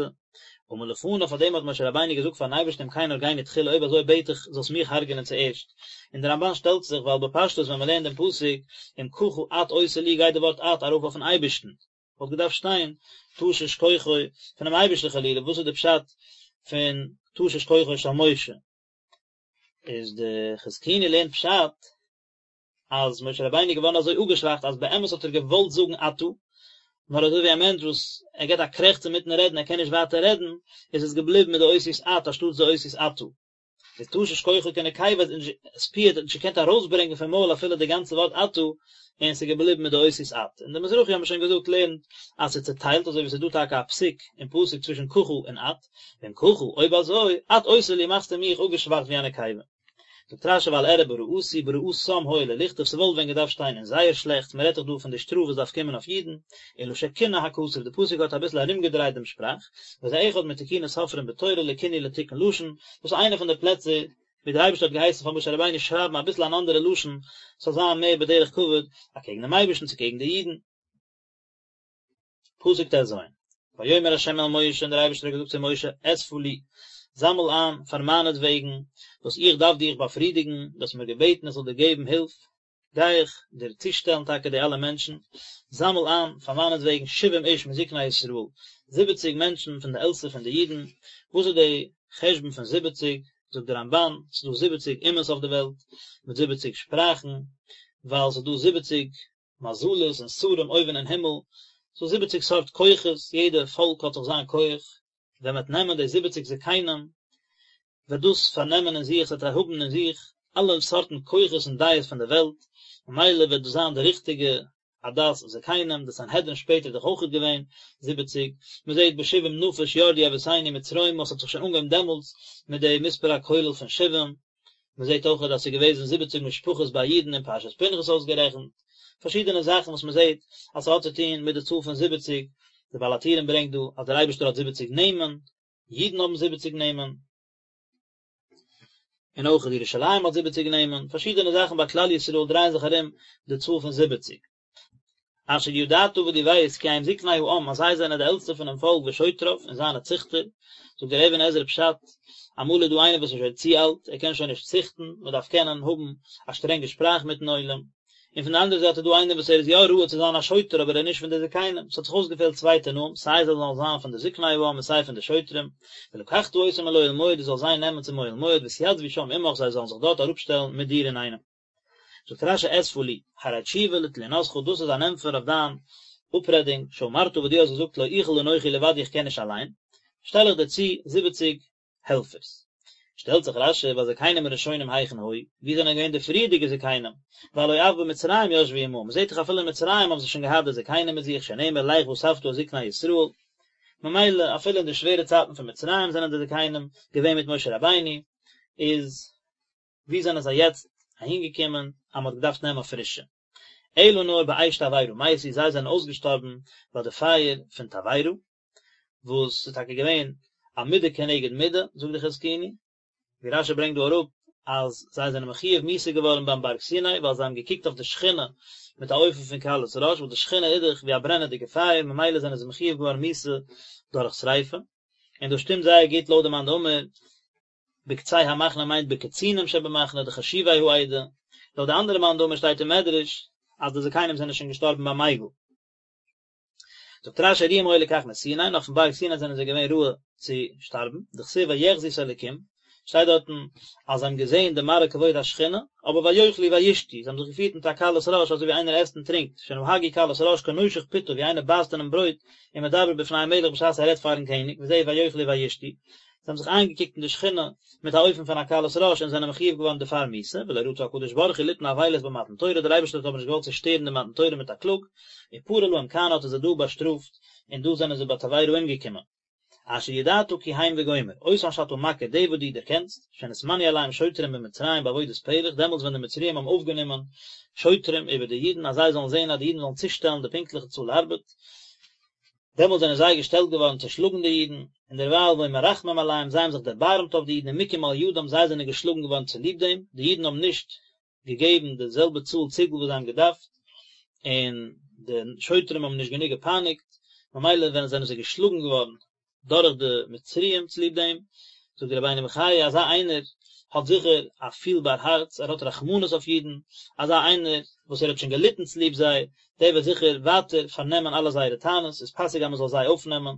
אמר לפניו פאר דעם האט משה רבינו געזאגט פארן אייבערשטן אם כן הרגני תחילה אויב אזוי בעט איך זאלסט מיך הרג'נען צוערשט, און דער רמב"ן שטעלט זיך ווייל בפשטות ווען מען לערנט דעם פסוק אם ככה את עושה לי גייט די ווארט את ארויף אויפן אייבערשטן, וואלט געדארפט שטיין תשש כוחו פונעם אייבערשטן חלילה, וואס איז די פשט פון תשש כוחו של משה? איז די חזקוני לערנט פשט אז משה רבינו איז געווארן אזוי אפגעשוואכט אז באמת האט ער געוואלט זאגן אתה, נאר אזוי ווי א מענטש וואס ער געבט א קרעכץ אינמיטן רעדן ער קען נישט ווייטער רעדן, איז עס געבליבן מיט די אותיות את אנשטאטס די אותיות אתה. איז תשש כוחו כנקבה עספיעט האט נישט געקענט ארויסברענגען פון מויל אפילו די גאנצע ווארט אתה, און ס'איז געבליבן מיט די אותיות את. און די מזרחי האבן שוין געזאגט לערנט אז ס'איז צוטיילט אזוי ווי ס'איז דא טאקע א פסיק אין פסוק צווישן ככה און את, ואם ככה, אויב אזוי, את עושה לי מאכסטו מיך אפגעשוואכט ווי א נקבה. זאגט רשי ואל אראה ברעתי ברעתם הואיל ולכתוב ס'וואלט ווען געדארפט שטיין אין זייער שלעכטס מ'רעדט דאך דא פון די שטראף וואס דארף קומען אויף אידן, אלא שכינה הכתוב די פסוק האט אביסל ארומגעדרייט דעם שפראך, וזה אחד מתיקוני סופרים בתורה לכינוי לתיקון לשון, דאס איז איינע פון די פלעצער ווי דער אייבערשטער האט געהייסן פאר משה רבינו שרייבן אביסל אן אנדערע לשון ס'זאל זיין מער בדרך כבוד אקעגן דעם אייבערשטן צו קעגן די אידן. פסוק טז, ויאמר ה' אל משה און דער אייבערשטער האט געזאגט צו משה, אספה לי, זאמל איין פאר מיינעטוועגן, וואס איך דארף דיך באפרידיגן, דו האסט מיר געבעטן איך זאל דיר געבן הילף, גיי איך דיר צושטעלן טאקע די אלע מענטשן, זאמל איין פאר מיינעטוועגן שבעים איש מזקני ישראל, זיבעציג מענטשן פון די עלטסטע פון די אידן, וואס איז די חשבון פון זיבעציג, זאגט דער רמבן, ס'איז דא זיבעציג אומות אויף די וועלט, מיט זיבעציג שפראכן, ווייל ס'איז דא זיבעציג מזלות און שרים אויבן אין הימל, ס'דא זיבעציג סארט כוחות, יעדע פאלק האט זיך זיין כח, ווען מ'וועט נעמען די זיבעציג זקנים, וועט דאס פארנעמען אין זיך, ס'וועט האבן אין זיך אלע סארטן כוחות און דעות פון די וועלט, ממילא וועט דאס זיין די ריכטיגע עדת זקנים, די סנהדרין שפעטער איז דאך אויכעט געווען זיבעציג, מ'זעט בשבעים נפש ירדו אבותינו מצרימה, ס'האט זיך שוין אנגעהויבן דעמאלטס מיט די מספר הכולל פון שבעים. מען זעט אויך אז עס איז געוועזן זיבעציג משפחות ביי אידן אין פרשת פנחס אויסגערעכנט, פארשידענע זאכן וואס מען זעט אז ס'האט צו טון מיט די צאל פון זיבעציג, דער בעל הטורים ברענגט דא אז דער אייבערשטער האט זיבעציג נעמען, אידן האבן זיבעציג נעמען, און אויך ירושלים האט זיבעציג נעמען, פארשידענע זאכן ביי כלל ישראל דרייען זיך ארום די צאל פון זיבעציג. אשר ידעת וואס דו ווייסט כי הם זקני העם אז זיי זענען די עלטסטע פונעם פאלק ושוטריו און זיינע ציכטער, זאגט דער אבן עזרא פשט, אמאל איז דא איינער וואס איז שוין צו אלט, ער קען שוין נישט ציכטן, מען דארף קענען האבן א שטרענגע שפראך מיטן עולם, און פון די אנדערע זייט איז דא איינער וואס ער איז יא ראוי צו זיין א שוטר אבער ער איז נישט פון די זקנים, ס'האט זיך אויסגעפעלט צוויי תנאים, סיי זיי זאלן זיין פון די זקני העם און סיי פון די שוטרים, ולקחת אותם אל אוהל מועד דו זאלסט זיי נעמען צום אוהל מועד והתיצבו שם עמך זיי זאלן זיך דארט אראפשטעלן מיט דיר אינאיינעם. זאגט רשי אספה לי, הרי תשובה לתלונתך דאס איז אן ענטפער אויף דיין אפרעדונג, שאמרת וואס דו האסט געזאגט לא אוכל אנכי לבדי איך קען נישט אליין, שטעל איך דיר צו זיבעציג העלפערס. שטעלט זיך רשי והזקנים הראשונים היכן היו, וואו זענען געווען די פריערדיגע זקנים, והלא אף במצרים ישבו עמהם, מען זעט דאך אפילו אין מצרים האבן זיי שוין געהאט די זקנים מיט זיך שנאמר לך ואספת את זקני ישראל, ממילא אפילו אין די שווערע צייטן פון מצרים זענען די זקנים געווען מיט משה רבינו, איז ווי זענען זיי יעצט אהינגעקומען אז מען האט געדארפט נעמען פרישע? אלא נאר באש תבערה מתו, זיי זענען אויסגעשטארבן ביי די פייער פון תבערה, וואס איז טאקע געווען א מידה כנגד מידה, זאגט די חזקוני, ווי רשי ברענגט דא אראפ אז זיי זענען מחויב מיתה געווארן ביים בארג סיני ווייל זיי האבן געקוקט אויף די שכינה מיט א אופן פון קלות ראש, וואס די שכינה איז דאך ווי א ברענעדיגע פייער, ממילא זענען זיי מחויב געווארן מיתה דורך שריפה, און דאס שטימט זייער גוט לויט די מאן דאמר בקצה המחנה מיינט בקצינים שבמחנה די חשובי העדה, לויט די אנדערע מאן דאמר שטייט אין מדרש אז די זקנים זענען שוין געשטארבן ביים עגל. זאגט רשי ראוים היו לכך מסיני, נאך פון בארג סיני זענען זיי געווען ראוי צו שטארבן, דכתיב ויחזו את האלקים, שטייט דארטן אז זיי האבן געזען די מראה כבוד השכינה, אבער ויאכלו וישתו, זיי האבן זיך געפירט מיט א קלות ראש אזוי ווי איינער עסט און טרינקט, שנהגו קלות ראש כנושך פתו ווי איינער בייסט אינעם ברויט ומדבר בפני המלך בשעת ער רעדט פארן קעניג, וזהו ויאכלו וישתו, זיי האבן זיך איינגעקוקט אין די שכינה מיט א אופן פון א קלות ראש און זענען מחויב געווארן דערפאר מיתה, ולא רצה הקדוש ברוך הוא ליתן אבילות במתן תורה, דער אייבערשטער האט אבער נישט געוואלט צושטערן די מתן תורה מיט א קלאג, ופרע להם כאן האט ער זיי דא באשטראפט, און דא זענען זיי ביי תבערה אומגעקומען. אשר ידעת כי הם וגומר, אותן שאתה מכיר די וואס דו דערקענסט, שנתמנו עליהם שוטרים במצרים בעבודת פרך, דעמאלטס ווען די מצריים האבן אויפגענומען שוטרים איבער די אידן אז זיי זאלן זען אז די אידן זאלן צושטעלן די פונקטליכע צאל ארבעט, דעמאלט זענען זיי געשטעלט געווארן צו שלאגן די אידן, און דערווייל והיו מרחמים עליהם, זיי האבן זיך דערבארעמט אויף די אידן ומוכים על ידם, זיי זענען געשלאגן געווארן צוליב דעם, די אידן האבן נישט געגעבן די זעלבע צאל ציגל וואס זיי האבן געדארפט, און די שוטרים האבן נישט גענוג געפייניגט, ממילא ווען זענען זיי געשלאגן געווארן דורך די מצריים צוליב דעם, זאגט דער רבינו בחיי, אזא איינער האט זיכער א פילבאר הארץ, ער האט רחמנות אויף אידן, אזא איינער וואס ער האט שוין געליטן צוליב זיי, דער וועט זיכער ווייטער פארנעמען אלע זייערע טענות, איז פאסיג אז מען זאל זיי אויפנעמען,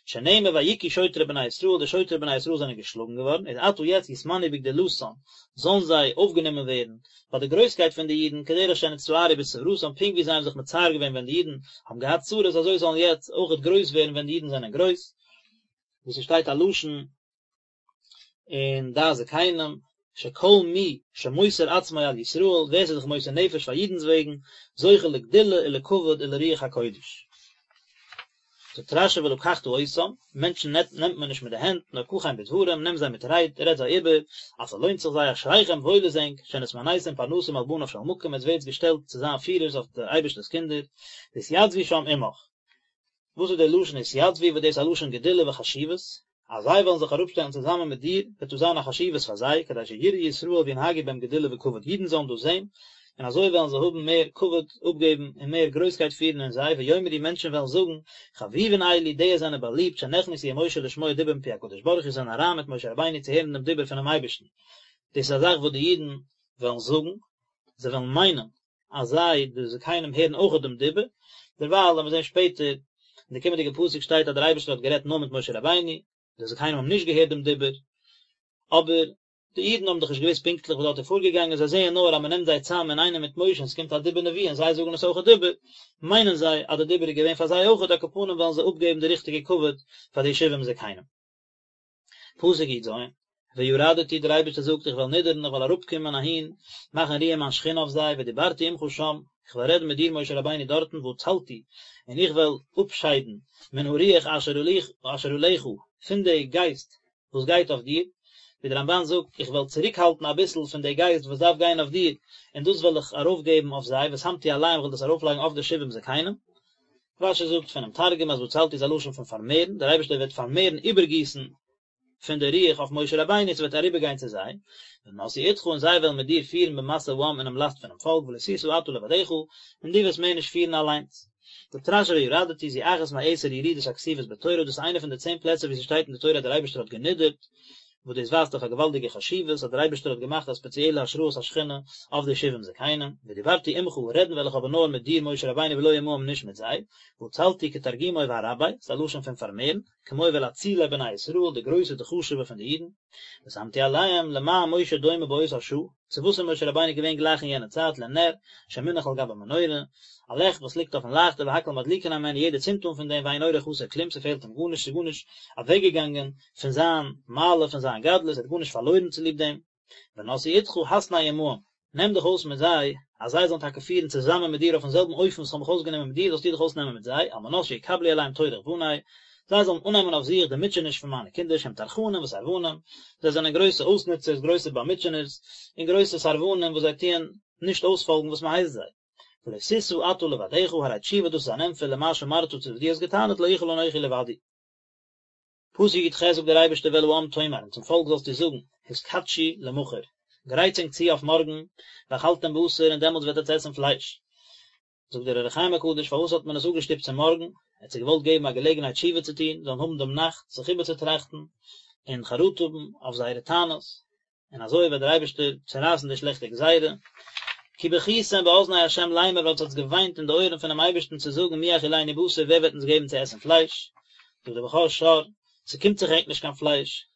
שנאמר ויכו שוטרי בני ישראל, די שוטרי בני ישראל זענען געשלאגן געווארן, איז עתה יעצט יתמנו בגדולתן, זאלן זיי אויפגענומען ווערן ביי די גרויסקייט פון די אידן, כדרך שנצטערו בצרתם, פונקט ווי זיי האבן זיך מצער געווען ווען די אידן האבן געהאט צרות, אזוי זאלן יעצט אויכעט גרויס ווערן ווען די אידן זענען גרויס, ווי ס'שטייט א לשון אין דעת זקנים, שכל מי שמוסר עצמו על ישראל, ווער ס'איז זיך מוסר נפש פאר אידנ'ס וועגן, זוכה לגדולה ולכבוד ולרוח הקודש. זאגט רשי ולקחת אותם, מענטשן נעמט מען נישט מיט די הענט, נאר קחם בדברים, נעם זיי מיט רייד, רעד זיי איבער, אז ס'לוינט זיך זיי, אשריכם וואויל איז ענק, שנתמניתם פרנסים על בניו של מקום, עטס ווערטס געשטעלט צו זיין פירערס אויף די אייבערשטער'ס קינדער, והתייצבו שם עמך. וואס איז דער לשון התייצבו וואס דאס איז א לשון גדולה וחשיבות, אז זיי וועלן זיך אראפשטעלן צוזאמען מיט דיר, וועט דאס זיין א חשיבות פאר זיי, כדי שיראו ישראל וינהגו בהם גדולה וכבוד, אידן זאלן דאס זען, און אזוי וועלן זיי האבן מער כבוד אפגעבן און מער גרויסקייט פירן אין זיי, ויאמרו מענטשן וועלן זאגן, חביבין אלו, די זענען באליבט, שנכנסו עם משה לשמוע דיבור מפי הקדוש ברוך הוא, זענען אריין מיט משה רבינו צו הערן דעם דיבור פונעם אייבערשטן. דאס איז א זאך וואס די אידן וועלן זאגן, זיי וועלן מיינען אז זיי, די זקנים, הערן אויכעט דעם דיבור, דערווייל וועלן מיר זען שפעטער, אין די קומענדיגע פסוק שטייט אז דער אייבערשטער האט גערעדט נאר מיט משה רבינו, די זקנים האבן נישט געהערט דעם דיבור, אבער די אידן האבן דאך נישט געוואוסט פונקטליך וואס דארט איז פארגעגאנגען, זיי זעען נאר אז מען נעמט זיי צאם אינאיינעם מיט משה און עס קומט א דיבור נבואה און זיי זאגן עס אויכעט איבער, מיינען זיי אז די דיבור איז געווען פאר זיי אויכעט, על כל פנים וועלן זיי אפגעבן די ריכטיגע כבוד פאר די שבעים זקנים. פסוק י ז, וירדתי, דער אייבערשטער זאגט, איך וועל נידערן, איך וועל אראפקומען אהין, מאכן רוען מיין שכינה אויף זיי, ודיברתי עמך שם, איך וועל רעדן מיט דיר משה רבינו דארטן, והצלתי, און איך וועל אפשיידן, מן הרוח אשר עליך, פון די גייסט וואס גייט אויף דיר, ווי דער רמבן זאגט, איך וועל צוריקהאלטן אביסל פון די גייסט וואס דארף גיין אויף דיר, און דאס וועל איך ארויפגעבן אויף זיי, ושמתי עליהם, איך וועל דאס ארויפלייגן אויף די שבעים זקנים. רשי זאגט פונעם תרגום אז והצלתי איז א לשון פון פארמערן, דער אייבערשטער וועט פארמערן איבערגיסן פון די רוח אויף משה רבינו, ס'וועט אריבערגיין צו זיי, ונשאו אתך און זיי וועלן מיט דיר פירן במשא העם אינעם לאסט פונעם פאלק ולא תשא אתה לבדך, און דו וועסט מער נישט פירן אליינס. זאגט רשי וירדתי זו אחת מעשר ירידות הכתובות בתורה, דאס איז איינע פון די צען פלעצער וואו ס'שטייט אין די תורה אז דער אייבערשטער האט גענידערט, וואס דאס ווייזט אויף א געוואלדיגע חשיבות אז דער אייבערשטער האט געמאכט א ספעציעלע השראת השכינה אויף די שבעים זקנים, ודיברתי עמך, רעדן וועל איך אבער נאר מיט דיר משה רבינו ולא עמהם נישט מיט זיי, והצלתי כתרגומו וארבי, ס'איז א לשון פון פארמערן, כמו ואל אצילי בני ישראל, די גרויסע די חשובע פון די אידן, ושמתי עליהם, למה משה דומה באותה שעה, צו וואס איז משה רבינו געווען גלייך אין יענע צייט לנר שמונח על גבי מנורה, א לעכט וואס ליגט אויפן לייכטער והכל מדליקין הימנו יעדער צינדט אן פון דעם ואין אורו חסר כלום ס'פעלט אים גארנישט ס'איז גארנישט אוועקגעגאנגען פון זיין מעלה פון זיין גדלות ער האט גארנישט פארלוירן צוליב דעם ונשאו אתך התנה עמהם נעם דיך אויס מיט זיי אז זיי זאלן טאקע פירן צוזאמען מיט דיר אויפן זעלבן אופן וואס כ'האב מיך אויסגענומען מיט דיר זאלסטו דיך אויסנעמען מיט זיי על מנת שיקבלו עליהם טורח בני זיי זאלן אננעמען אויף זיך די מוטשעניש פון מיינע קינדער שהם טרחנים וסרבנים, זיי זענען גרויסע אויסנוצערס, גרויסע באמוטשענערס, און גרויסע סרבנים וואס זיי טוען נישט אויספאלגן וואס מען הייסט זיי. ולא תשא אתה לבדך, הרי תשובה דאס איז אן ענטפער למה שאמרת צו וואס דו האסט געטענה'ט לא אוכל אנכי לבדי. פסוק י ח זאגט דער אייבערשטער ואל העם תאמר, און צום פאלק זאלסטו זאגן, התקדשו למחר, גרייטס ענק צו אויף מארגן, ואכלתם בשר, און דעמאלטס וועט עטס עסן פלייש. זאגט דער אור החיים הקדוש פארוואס האט מען עס אפגעשטופט צו מארגן, ער האט זיי געוואלט געבן א געלעגנהייט תשובה צו טון, זאלן האבן דעם נאכט זיך איבערצוטראכטן און חרטה האבן אויף זייערע טענות, און אזוי וועט דער אייבערשטער צערייסן די שלעכטע גזירה. כי בכיתם באזני ה' לאמר ווייל עטס האטס געוויינט אין די אויערן פונעם אייבערשטן צו זאגן מי יאכילנו בשר ווער וועט אונז געבן צו עסן פלייש, זאגט דער בכור שור, ס'קומט זיך ענק נישט קיין פלייש,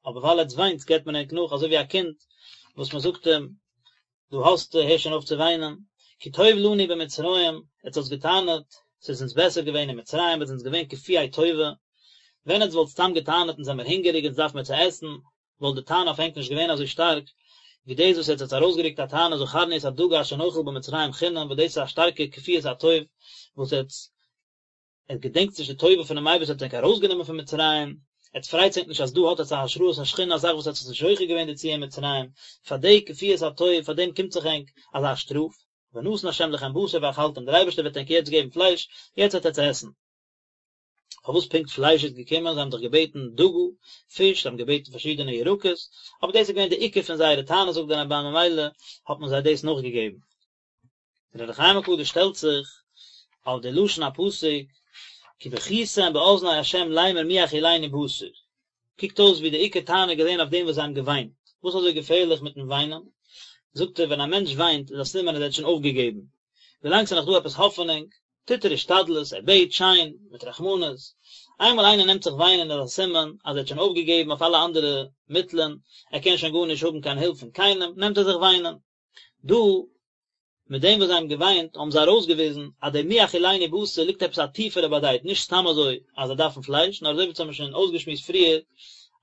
אבער ווייל עטס וויינטס געבט מען ענק נאך אזוי ווי א קינד וואס מען זאגט אים דא האסטו הער שוין אויף צו וויינען, כי טוב לנו במצרים, עטס האטס געטענה'ט ס'איז אונז בעסער געווען אין מצרים, עטס זענטס געווען כפויי טובה, ווען עטס וואלט סתם געטענה'ט אונז זעמער הונגעריג אונז דארף מען צו עסן, וואלט די טענה אויף ענק נישט געווען אזוי שטארק, ווי דאס וואס עטס האטס ארויסגערוקט א טענה זכרנו את הדגה אשר נאכל במצרים חינם וואס דאס איז א שטארקע כפיית הטוב וואס עטס עטס געדענקטס נישט די טובה פונעם אייבערשטער האט ענק ארויסגענומען פון מצרים, עטס פרייטס ענק נישט אז דא האט עטס א השראת השכינה א זאך וואס עטס האט נישט זוכה געווען דערצו אין מצרים, פאר די כפיית הטוב פאר דעם קומט זיך ענק אזא שטראף, ונתן ה' לכם בשר ואכלתם, דער אייבערשטער וועט ענק יעצט געבן פלייש, יעצט וועט עטס עסן. פארוואס פונקט פלייש איז געקומען, זיי האבן דאך געבעטן דגה, פיש, זיי האבן געבעטן פארשידענע ירקות, אבער דאס איז געווען די עיקר פון זייערע טענות זאגט דער רמב"ן ממילא האט מען זיי דאס נאכגעגעבן. דער אור החיים הקדוש שטעלט זיך אויף די לשון הפסוק כי בכיתם באזני ה' לאמר מי יאכילנו בשר, קוקט אויס ווי די עיקר טענה איז געווען אויף דעם וואס זיי האבן געוויינט, וואס איז אזוי געפערליך מיטן וויינען? זאגט ער ווען א מענטש וויינט איז א סימן אז ער האט שוין אויפגעגעבן, ווילאנג ס'איז נאך דא עפעס האפענונג טוט ער השתדלות, ער בעט שיין, מיט רחמנות, איינמאל איינער נעמט זיך וויינען איז א סימן אז ער האט שוין אויפגעגעבן אויף אלע אנדערע מיטלען, ער קען שוין גארנישט האבן קיין הילף פון קיינעם, נעמט ער זיך וויינען. דא, מיט דעם וואס זיי האבן געוויינט, האבן זיי ארויסגעוויזן אז דער מי יאכילנו בשר ליגט עפעס א טיפערע באדייט, נישט סתם אזוי אז זיי דארפן פלייש, נאר אזוי ווי אונז האבן שוין אויסגעשמועסט פריער,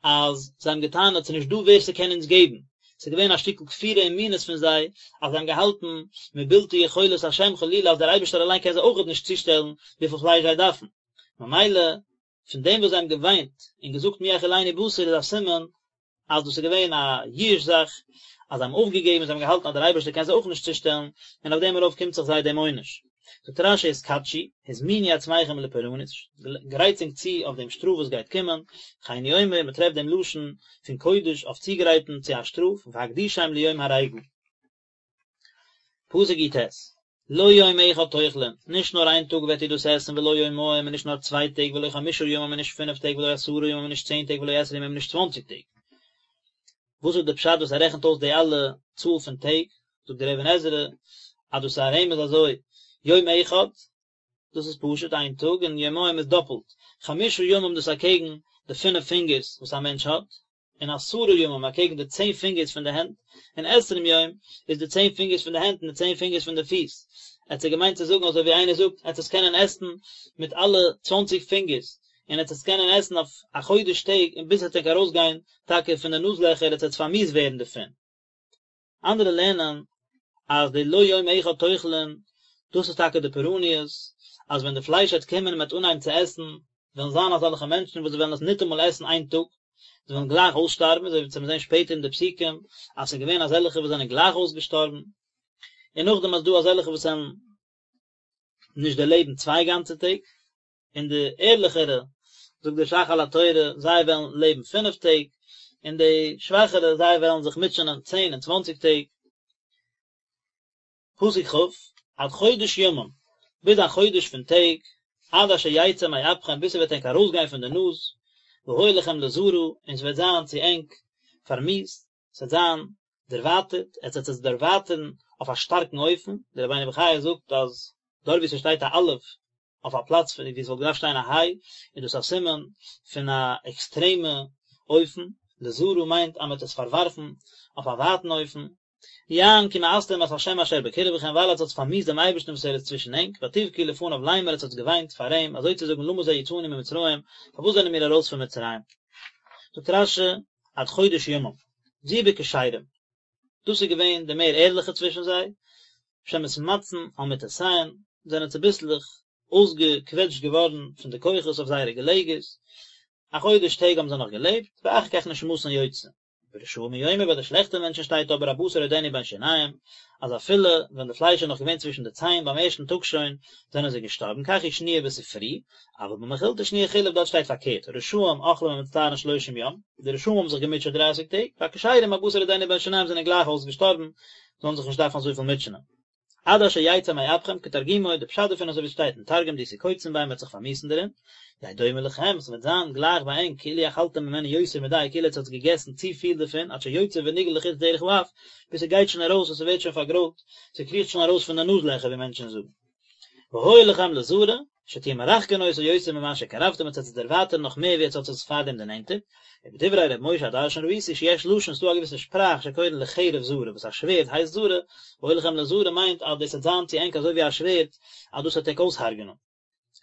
אז זיי האבן געטענה'ט ס'איז נישט דא ווער ס'קען אונז געבן, ס'איז געווען א שטיקל כפירה און מינות פון זיי, אז זיי האבן געהאלטן מבלתי יכולת השם חלילה אז דער אייבערשטער אליין קען זיי אויכעט נישט צושטעלן וויפיל פלייש זיי דארפן. ממילא פון דעם וואס זיי האבן געוויינט און געזאגט מי יאכילנו בשר איז א סימן אז דאס איז געווען א ייאוש זאך, אז זיי האבן אויפגעגעבן, זיי האבן געהאלטן אז דער אייבערשטער קען זיי אויך נישט צושטעלן, און אויף דעם ארויף קומט זיך זיי דעם עונש. זאגט רש"י התקדשו, הזמינו עצמכם לפורענות, גרייטס ענק צו אויף דעם שטראף וואס גייט קומען, כן הוא אומר, מען טרעפט דעם לשון פון קודש אויף צוגרייטן צו א שטראף, והקדישם ליום הריגה. פסוק י"ט, לא יום אחד תאכלון, נישט נאר איין טאג וועט איר דאס עסן, ולא יומיים, און נישט נאר צוויי טעג, ולא חמשה ימים, און נישט פינף טעג, ולא עשרה ימים, און נישט צען טעג, ולא עשרים יום, און נישט צוואנציג טעג. וואס איז די פשט וואס ער רעכנט אויס די אלע צאל פון טעג? זאגט דער אבן עזרא אז דאס איז א רמז אזוי, יום אחד, דאס איז פשוט איין טאג, און יומיים איז דאפלט, חמשה ימים דאס אקעגן די פינף פינגערס וואס א מענטש האט, און עשרה ימים אקעגן די צען פינגערס פון די הענט, און עשרים יום איז די צען פינגערס פון די הענט און די צען פינגערס פון די פיס. ער האט זיי געמיינט צו זאגן אזוי ווי איינער זאגט, עטס עס קענען עסן מיט אלע צוואנציג פינגערס, און עטס עס קענען עסן אויף א חודש טעג און ביז עס וועט ענק ארויסגיין טאקע פון די נאז לעכער עטס וועטס פארמיאוסט ווערן דערפון. אנדערע לערנען אז די לא יום אחד תאכלון דאס איז טאקע די פורעניות, אז ווען די פלייש וועט קומען און מען וועט אנהייבן צו עסן, וועלן זיין אזעלכע מענטשן וואס זיי וועלן עס ניטאמאל עסן איין טאג, זיי וועלן גלייך אויסשטארבן, אזוי ווי מיר זעען שפעטער אין די פסוקים אז ס'איז געווען אזעלכע וואס זענען גלייך אויסגעשטארבן, און נאכדעם איז דא אזעלכע וואס וועלן נישט דערלעבן צוויי גאנצע טעג. און די ערליכערע, זאגט דער ש"ך על התורה, זיי וועלן לעבן פינף טעג, און די שוואכערע, זיי וועלן זיך מוטשענען צען און צוואנציג טעג. פסוק כ', עד חודש ימים, ביז א חודש פון טעג, עד אשר יצא מאפכם, ביז ס'וועט ענק ארויסגיין פון די נאז, והיה לכם לזרא, און ס'וועט זיין צו ענק פארמיאוסט, ס'וועט זיין דערווייטערט, עטס וועט עס דערווייטערן אויף א שטארקן אופן, דער רבינו בחיי זאגט אז דארט וואו ס'שטייט א אלף אויף א פלאץ פון וואו עס וואלט געדארפט שטיין א היי, איז דאס א סימן פון א עקסטרעמע אופן, לזרא מיינט אז מען וועט עס פארווארפן אויף א ווייטן אופן. יען כי מאסתם את ה' אשר בקרבכם ווייל עטס האטס פארמיאוסט דעם אייבערשטן וואס ער איז צווישן ענק, ותבכו לפניו לאמר עטס האטס געוויינט פאר אים, אזוי צו זאגן למה זה יצאנו ממצרים, פארוואס זענען מיר ארויס פון מצרים? זאגט רש"י, עד חודש ימים, זו בכשרים, דאס איז געווען די מער ערליכע צווישן זיי, שמתמצין על מטותיהן, זענען צוביסלעך אויסגעקוועטשט געווארן פון די כוחות אויף זייערע געלעגערס, א חודש טעג האבן זיי נאך געלעבט, ואחר כך נשמתן יוצאה. ברשעים הוא אומר ביי די שלעכטע מענטשן שטייט אבער הבשר עודנו בין שיניהם, אז אפילו ווען די פלייש איז נאך געווען צווישן די ציין ביים ערשטן טאג שוין, זענען זיי געשטארבן, כך היא שנויה בספרי, אבל במכילתא שנויה חילוף דארט שטייט פארקערט, רשעים אוכלים ומצטערין שלושים יום, די רשעים האבן זיך געמוטשעט דרייסיג טעג, והכשרים הבשר עודנו בין שיניהם זענען גלייך אויסגעשטארבן, זאלן זיך נישט דארפן אזויפיל מוטשענען. עד אשר יצא מאפכם כתרגומו, די פשט דערפון אזוי ווי עס שטייט אין תרגום דאתקוצון ביה מ'וועט זיך פארמיאוסן דערין, יהא דומה לכם, ס'וועט זיין גלייך ביי ענק כאילו אכלתם ממנו יותר מדי כאילו עטס האטס געגעסן צו פיל דערפון עד שיוצא ונגעל לחוץ דרך האף, ביז ס'גייט שוין ארויס און ס'ווערט שוין פארגרוילט, ס'קריכט שוין ארויס פון די נאז לעכער ווי מענטשן זאגן. והיה לכם לזרא, שתהיו מרחקין אותו יותר ממה שקרבתם עטס וועט עס דערווייטערן נאך מער ווי עטס האט עס פארדעם דערנענטערט, ובדברי ר' משה הדרשן ראיתי שיש לשון ס'דא א געוויסע שפראך שקורין לחרב זרא וואס א שווערד הייסט זרא, והיה לכם לזרא מיינט אז דאס וועט זיין צו ענק אזוי ווי א שווערד אז דאס וועט ענק אויסהרג'נען.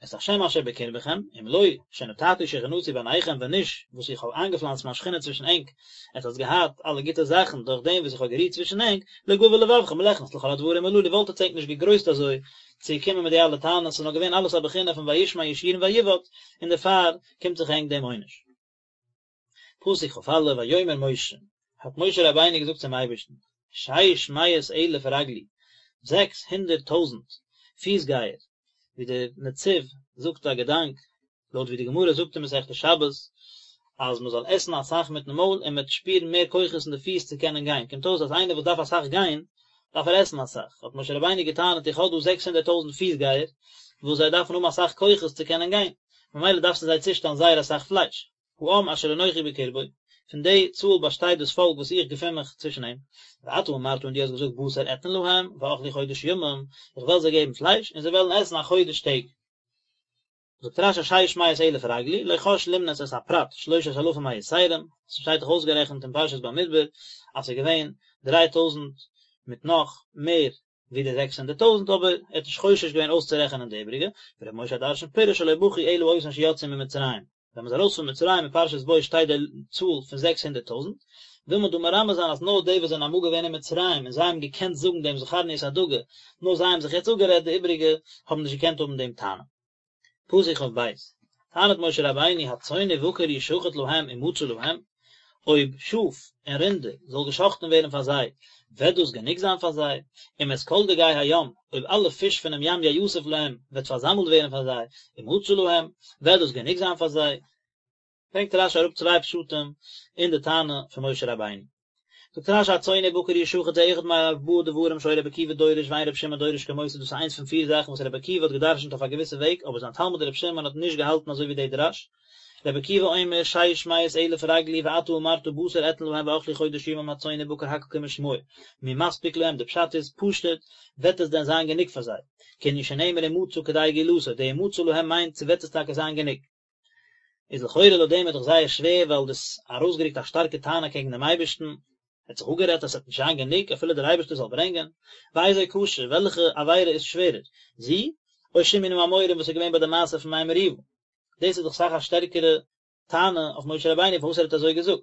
את השם אשר בקרבכם, אם לא שנטעתי שכינתי ביניכם ווען נישט וואס איך האב איינגעפלאנצט מיין שכינה צווישן ענק, עטס האטס געהאט אלע גוטע זאכן דורך דעם וואס איך האב גערוהט צווישן ענק, לא גבה לבבכם מלכנס לכל הדברים הללו וואלט עטס ענק נישט געגרויסט אזוי צו קומען מיט די אלע טענות, ס'איז נאר געווען אלעס א בחינה פון וישמן ישורון ויבעט, און דערפאר קומט זיך ענק דעם עונש. פסוק כ"א, ויאמר משה, האט משה רבינו געזאגט צום אייבערשטן, שש מאות אלף רגלי, 600,000 פיסגייער, ווי דער נציב זאגט א געדאנק, לויט ווי די גמרא זאגט אין מסכת שבת, אז מען זאל עסן אסאך מיטן מויל און מען וועט שפירן מער כוחות אין די פיס צו קענען גיין, קומט אויס אז איינער וואס דארף אסאך גיין, דארף ער עסן אסאך, האט משה רבינו געטענה'ט איך האב דא 600,000 פיסגייער, וואס זיי דארפן האבן אסאך כוחות צו קענען גיין, ממילא דארפסטו זיי צושטעלן זייער אסאך פלייש. העם אשר אנכי בקרבו, פון די צאל באשטייט דאס פאלק וואס איך געפין מיך צווישן אים. ואתה אמרת און דו האסט געזאגט בשר אתן להם, ואכלו חודש ימים, איך וועל זיי געבן פלייש, און זיי וועלן עסן א חודש טעג. זאגט רש"י שש מאות אלף רגלי, לא חש למנות את הפרט שלושת אלפים היתרים, ס'שטייט דאך אויסגערעכנט אין פרשת במדבר אז ס'איז געווען דריי טויזנט מיט נאך מער ווי די 600,000 אבער ער האט נישט חושש געווען אויסצורעכענען די איבריגע, ור' משה הדרשן פירש שלא בכו אלא אותן שיצאו ממצרים, ווען מ'איז ארויס פון מצרים אין פרשת בא שטייט די צאל פון 600,000, וויל מען דא מרמז זיין אז נאר די וואס זענען אמאל געווען אין מצרים און זיי האבן געקענט זאגן דעם זכרנו את הדגה, נאר זיי האבן זיך יעצט אפגערעדט די איבריגע האבן נישט געקענט האבן דעם טענה. פסוק כ"ב. טענה'ט משה רבינו הצאן ובקר ישחט להם ומצא להם, אויב שאף און רינדער זאל געשחט'ן ווערן פאר זיי, וועט דאס גענוג זיין פאר זיי? אם את כל דגי הים, אויב אלע פיש פונעם ים יאסף להם, וועט פארזאמלט ווערן פאר זיי, ומצא להם, וועט דאס גענוג זיין פאר זיי? ברענגט רשי אראפ צוויי פשטים אין די טענה פון משה רבינו. זאגט רשי הצאן ובקר ישחט זה אחד מארבעה דברים שהיה רבי עקיבא דורש ואין רבי שמעון דורש כמותו דאס איז איינס פון פיר זאכן וואס רבי עקיבא האט געדרשנט אויף א געוויסע וועג אבער זיין תלמיד רבי שמעון האט נישט געהאלטן אזוי ווי די דרש. רבי עקיבא אומר שש מאות אלף רגלי ואתה אמרת בשר אתן להם ואכלו חודש ימים הצאן ובקר הכל כמשמעו מי מספיק להם די פשט איז פשוט וועט עס דען זיין גענוג פאר זיי כענין שנאמר ומצא כדי גאולתו די ומצא להם מיינט צו וועט עס טאקע זיין גענוג. איז לכאורה לויט דעם איז דאך זייער שווער ווייל דאס ארויסגערוקט א שטארקע טענה קעגן דעם אייבערשטן, ער האט זיך אפגערעדט אז עס וועט נישט זיין גענוג אפילו דער אייבערשטער זאל ברענגען, ואיזו קשה, וועלכע עבירה איז שווערער, זו, או שמעו נא המורים וואס איז געווען ביי די מעשה פון מי מריבה? דאס איז דאך אסאך א שטערקערע טענה אויף משה רבינו פארוואס ער האט אזוי געזאגט.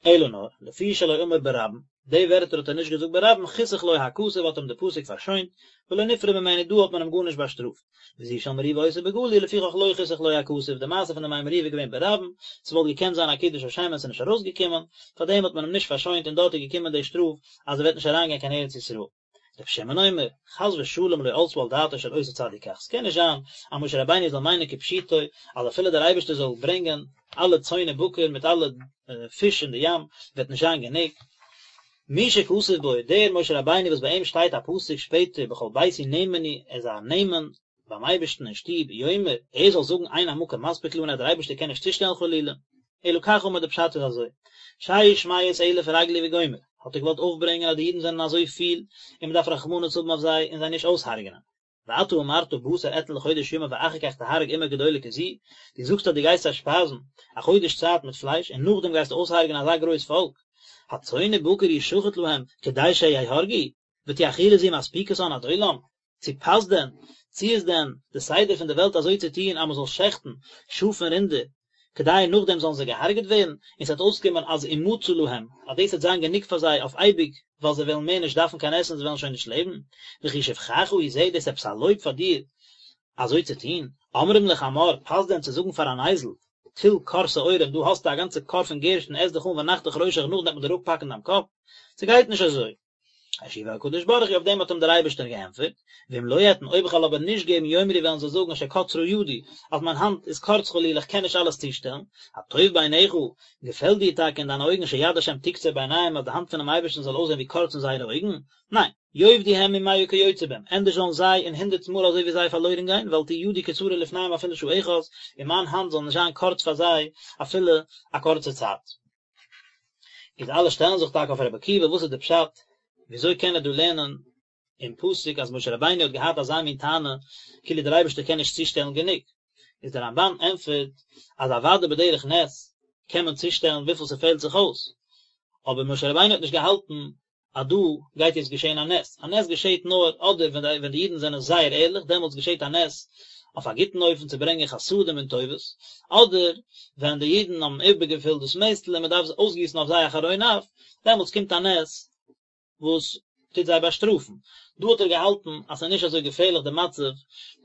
אלא נאר, לפי שלא אמר ברבים, די ווערטער האט ער נישט געזאגט ברבים, חיסך לו הכתוב האט אים די פסוק פארשוינט, ולא נפרע ממנו דא האט מען אים גארנישט באשטראפט. וזו של מריבה היתה בגלוי, לפיכך לא חיסך לו הכתוב, די מעשה פון די מי מריבה איז געווען ברבים, ס'וואלט געקענט זיין א קידוש השם און ס'איז נישט ארויסגעקומען, פארדעם האט מען אים נישט פארשוינט און דארט איז געקומען די שטראף אז ער וועט נישט אריינגיין קיין ארץ ישראל. רבי שמעון אומר, חס ושלום לא עלתה על דעתו של אותו צדיק כך, ס'קען נישט זיין אז משה רבינו זאל מיינען כפשוטו אז אפילו דער אייבערשטער זאל ברענגען אלע צאן ובקר מיט אלע פיש אין די ים וועט נישט זיין גענוג. מי שכתוב בו, דער משה רבינו וואס ביי אים שטייט א פסוק שפעטער בכל ביתי נאמן הוא, ער איז א נאמן ביים אייבערשטן אין שטוב, יאמר, ער זאל זאגן אין המקום מספיק לנו אז דער אייבערשטער קען נישט צושטעלן חלילה, אלא כך אמר די פשט איז אזוי, שש מאות אלף רגלי וגומר, האט ער געוואלט אויפברענגען אז די אידן זענען אזוי פיל און מען דארף רחמנות האבן אויף זיי און זיי נישט אויסהרג'נען. ואתה אמרת בשר אתן לחודש ימים ואחר כך תהרג אומה גדולה כזו, דו זאגסט אז דו גייסט זיי שפייזן א חודש צייט מיט פלייש און נאכדעם גייסטו אויסהרג'נען אזא גרויס פאלק, הצאן ובקר ישחט להם כדי שיהרגו, ותהא אכילה זו מספיקתן עד עולם, צו פאסט דען, צו איז דען די סדר פון די וועלט אזוי צו טון אז מען זאל שעכטן שאף און רינדער, כדי נאכדעם זאלן זיי געהארגעט ווערן, און ס'וועט אויסקומען אז ומצא להם, אז דאס וועט זיין גענוג פאר זיי אויף אייביג, ווייל זיי וועלן מער נישט דארפן קיין עסן זיי וועלן שוין נישט לעבן, וכי שבחך הוא זה, דאס איז עפעס א לויב פאר דיר אזוי צו טון? אומרים לחמור, פאסט דען צו זאגן פאר אן אייזל, טול כור שעורים, דא האסטו א גאנצע כור פון גערשטן, עס דיך אן ונחתוך ראשך נאכדעם וועט מען דיר אפהאקן דיין קאפ? ס'גייט נישט אזוי. השיבו הקדוש ברוך הוא אויף דעם האט אים דער אייבערשטער געענטפערט, ואם לא אתן אויב איך וועל אבער נישט געבן יאמרו וועלן זיי זאגן שקצרה ידי, אז מיין האנט איז קורץ חלילה איך קען נישט אלעס צושטעלן, הטוב בעיניך, געפעלט דיר טאקע אין דיינע אויגן שיד השם תקצר בעיניהם אז די האנט פונעם אייבערשטן זאל אויסזען ווי קורץ אין זייערע אויגן? ניין, יאבדו הם ומאה כיוצא בהם, ענדערש זאלן זיי און הונדערט מאל אזוי ווי זיי פארלוירן גיין, ואל תהא ידי קצרה לפניהם אפילו שעה אחת, און מיין האנט זאל נישט זיין קורץ פאר זיי אפילו א קורצע צייט. איז אלע שטעלן זיך טאקע אויף רבי עקיבא וואס איז די פשט וויאזוי קען ער דא לערנען אין פסוק אז משה רבינו האט געהאט אזא מין טענה כאילו דער אייבערשטער קען נישט צושטעלן גענוג איז דער רמב"ן ענטפערט אז אוודאי בדרך נס קען מען צושטעלן וויפיל ס'פעלט זיך אויס אבער משה רבינו האט נישט געהאלטן אז דא גייט יעצט געשען א נס, א נס געשעט נאר אדער ווען די ווען די אידן זענען זייער ערליך דעמאלטס געשעט א נס אויף א גוטן אופן צו ברענגען חסדים און טובות, אדער ווען די אידן האבן איבערגעפילט דאס מעסטל און מען דארף אויסגיסן אויף זיי א חרון אף, דעמאלטס קומט א נס וואס טוט זיי באשטראפן. דא האט ער געהאלטן אז ס'איז נישט אזוי געפערליך די מצב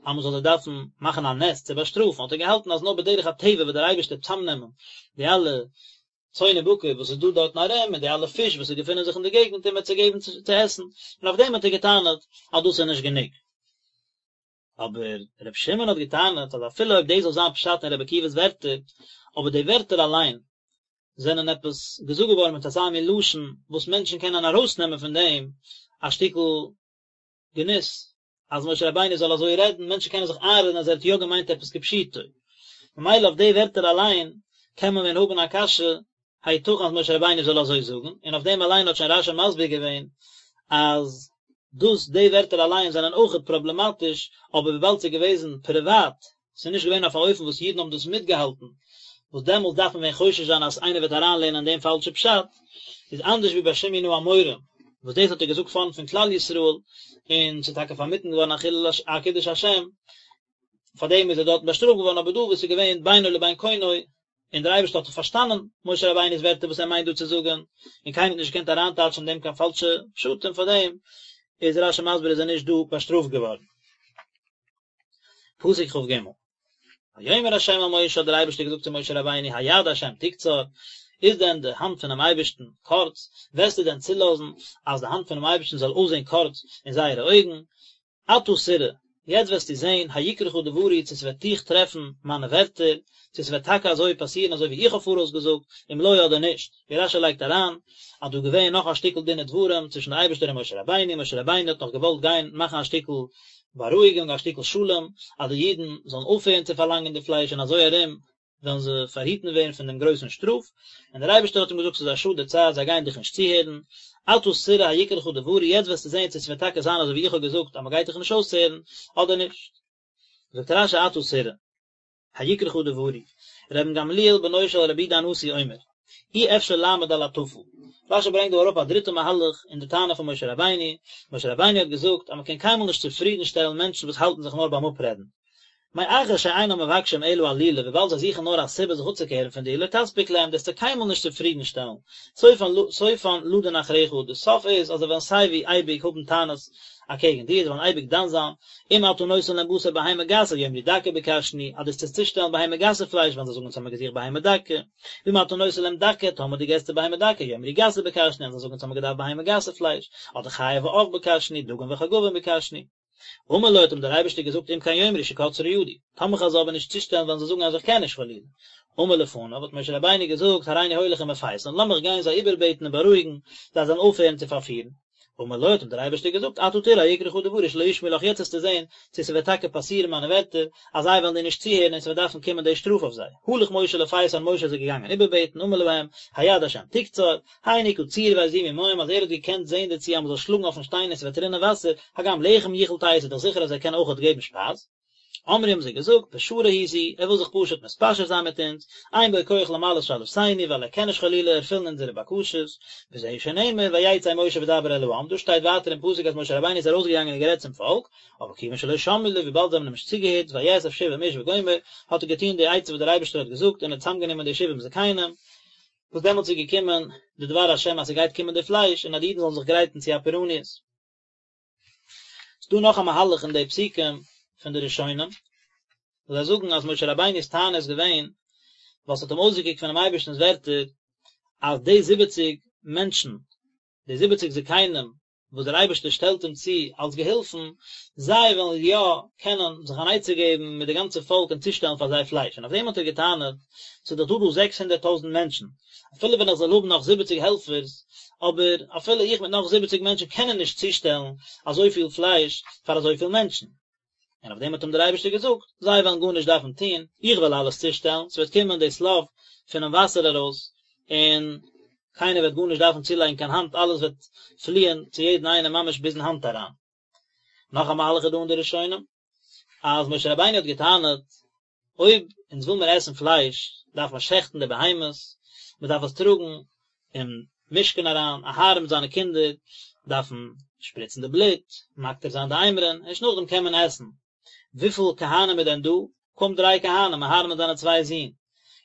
אז מען זאל זיי דארפן מאכן א נס צו באשטראפן, האט ער געהאלטן אז נאר בדרך הטבע וועט דער אייבערשטער צאמנעמען די אלע צאן ובקר וואס איז דא דארטן ארום און די אלע פיש וואס געפינען זיך אין די געגנט און מ'וועט זיי געבן צו עסן, און אויף דעם האט ער געטענה'ט אז דאס איז נישט גענוג. אבער ר' שמעון האט געטענה'ט אז אפילו אויב דאס זאל זיין פשט אין ר' עקיבא'ס ווערטער, אבער די ווערטער אליין זענען עפעס געזאגט געווארן מיט אזא מין לשון וואס מענטשן קענען ארויסנעמען פון דעם א שטיקל גנות אז משה רבינו זאל אזוי רעדן, מענטשן קענען זיך איינרעדן אז ער האט יא געמיינט עפעס כפשוטו, ממילא אויף די ווערטער אליין קען מען ווען האבן א קשיא, היתכן אז משה רבינו זאל אזוי זאגן, און אויף דעם אליין האט שוין רש"י מסביר געווען אז דאס די ווערטער אליין זענען אויכעט פראבלעמאטיש, אבער וויבאלד ס'איז געוועזן פריוואט, ס'איז נישט געווען אויף א אופן וואס אידן האבן דאס מיטגעהאלטן, וואס דעמאלטס דארף מען ווען חושש זיין אז איינער וועט אריינלערנען אין דעם פאלשע פשט, איז אנדערש ווי ביי שמעו נא המורים, וואס דאס האט ער געזאגט פארנט פון כלל ישראל, און ס'איז טאקע פארמיטן געווארן א חילול א קידוש השם, פארדעם איז ער דארטן באשטראפט געווארן, אבער דא וואס איז געווען בינו לבין קונו, און דער אייבערשטער האט דאך פארשטאנען משה רבינו'ס ווערטער וואס ער מיינט דא צו זאגן, און קיינער האט נישט געקענט אריינטייטשן אין דעם קיין פאלשע פשטים, פארדעם איז רש"י מסביר איז ער נישט דא באשטראפט געווארן. פסוק כ"ג. ויאמר ה' אל משה האט דער אייבערשטער געזאגט צו משה רבינו היד ה' תקצר, איז דען די האנט פונעם אייבערשטן קורץ, וועסטו דען צולאזן אז די האנט פונעם אייבערשטן זאל אויסזען קורץ אין זייערע אויגן? עתה תראה, יעצט וועסטו זען, היקרך דברי, צו ס'וועט דיך טרעפן מיינע ווערטער, צו ס'וועט טאקע אזוי פאסירן אזוי ווי איך האב פאראויס געזאגט, אם לא אדער נישט. ווי רשי לייגט אריין, אז דא געווען נאך א שטיקל דין ודברים צווישן די אייבערשטער און משה רבינו, משה רבינו האט נאך געוואלט גיין מאכן א שטיקל בארואיגונג, א שטיקל שלום, אז די אידן זאלן אויפהערן צו פארלאנגען די פלייש און אזוי ארום וועלן זיי פארהיטן ווערן פון דעם גרויסן שטראף, און דער אייבערשטער האט אים געזאגט ס'איז א שאד די צייט, זיי גייען דיך נישט צוהערן, עתה תראה היקרך דברי, יעצט וועסטו זען צו ס'וועט טאקע זיין אזוי ווי איך האב געזאגט אז מ'גייט דיך נישט אויסהערן, אדער נישט. זאגט רשי עתה תראה היקרך דברי, רבן גמליאל בנו של רבי יהודה הנשיא אומר, אי אפשר לעמוד על הטפל. רשי ברענגט דא אראפ א דריטע מהלך אין די טענה פון משה רבינו, משה רבינו האט געזאגט אז מ'קען קיינמאל נישט צופרידן שטעלן מענטשן וואס האלטן זיך נאר ביים אפרעדן, מאחר שאינם מבקשים אלא עלילה וויבאלד זיי זוכן נאר א סיבה זיך אפצוקערן פון דיר לא תספיק להם דו וועסט זיי קיינמאל נישט צופרידן שטעלן, סופן לדון אחריך, די סוף איז אז זיי וועלן סייווי אייביג האבן טענות אקעגן דיר, זיי וועלן אייביג דן זיין, אם אתה נותן להם בשר בהמה גסה יאמרו דקה ביקשנו, אז דו וועסט צושטעלן בהמה גסה פלייש וועלן זיי זאגן אונז האמיר געזוכט בהמה דקה, ואם אתה נותן להם דקה טאמער דו געסט זיי בהמה דקה יאמרו גסה ביקשנו וועלן זיי זאגן אונז האמיר געדארפט בהמה גסה פלייש, אדער חיה ועוף ביקשנו, דגים וחגבים ביקשנו. אמר לו האט אים דער אייבערשטער געזאגט אם כן יאמרו שקצרה ידי, טאמער כ'וועל זיי אבער נישט צושטעלן וועלן זיי זאגן אז איך קען נישט חלילה. אמר לפניו האט משה רבינו געזאגט הריני הולך ומפייסן, לאמיך גיין זיי איבערבעטן און בארואיגן, זיי זאלן אויפהערן צו פארפירן. אמר לו האט אים דער אייבערשטער געזאגט עתה תראה היקרך דברי שלא ישמעו לך יעצט וועסטו זען צו ס'וועט טאקע פאסירן מיינע ווערטער אז זיי וועלן דיר נישט צוהערן און ס'וועט דארפן קומען די שטראף אויף זיי. הלך משה לפייסן משה איז געגאנגען איבערבעטן אמר להם היד השם תקצר, הן הכה צור ויזובו מים אז ער האט געקענט זען דערצו אז מ'זאל שלאגן אויפן שטיין און ס'וועט רינען וואסער, הגם לחם יכול תת איז דאך זיכער אז ער קען אויכעט געבן שפייז. אמרו האבן זיי געזאגט, פשרה היא זו, ער וויל זיך פשוט מתפשר זיין מיט אונז, אין בו כח למלאות שאלתנו, ווייל ער קען נישט חלילה ערפילן אונזערע בקשות, וזהו שנאמר ויצא משה וידבר אל העם, דא שטייט ווייטער אין פסוק אז משה רבינו איז ארויסגעגאנגען און גערעדט צום פאלק, אבער כיוון שלא שמעו לו, וויבאלד זיי האבן אים נישט צוגעהערט, ויאסף שבעים איש וגומר, האט ער געטון די עצה וואס דער אייבערשטער האט געזאגט און ער האט צוזאמגענומען די שבעים זקנים, וואס דעמאלטס איז געקומען די דבר השם אז ס'גייט קומען די פלייש און אז די אידן זאלן זיך גרייטן צו א פורעניות. ס'דא נאך א מהלך אין די פסוקים פון די ראשונים, וואס זיי זאגן אז משה רבינו'ס טענה איז געווען ווייל ס'האט אים אויסגעקוקט פונעם אייבערשטנ'ס ווערטער אז די זיבעציג מענטשן, די זיבעציג זקנים וואס דער אייבערשטער שטעלט אים צו אלס געהילפן, זיי וועלן יא קענען זיך אן עצה געבן מיט די גאנצע פאלק און צושטעלן פאר זיי פלייש, און אויף דעם האט ער געטענה'ט, ס'איז דאך דא דא זעקס הונדערט טויזנט מענטשן, אפילו ווען איך זאל האבן נאך זיבעציג העלפערס, אבער אפילו איך מיט נאך זיבעציג מענטשן קענען נישט צושטעלן אזויפיל פלייש פאר אזויפיל מענטשן. און אויף דעם האט אים דער אייבערשטער געזאגט, זיי וועלן גארנישט דארפן טון, איך וועל אלעס צושטעלן, ס'וועט קומען די שליו פונעם וואסער ארויס, און קיינער וועט גארנישט דארפן צולייגן קיין האנט, אלעס וועט פליען צו יעדן איינעם ממש ביזן האנט אריין. נאך א מהלך איז דא אין די ראשונים, אז משה רבינו האט געטענה'ט, אויב אונז וויל מיר עסן פלייש, דארף מען שעכטן די בהמות, מען דארף עס טראגן אין משכן אריין, אהרן מיט זיינע קינדער דארפן שפריצן די בלוט, מקטיר זיין די אימורין, ערשט נאכדעם קען מען עסן. וויפיל כהנים איז דען דא? קוים דריי כהנים, אהרן מיט זיינע צוויי זין.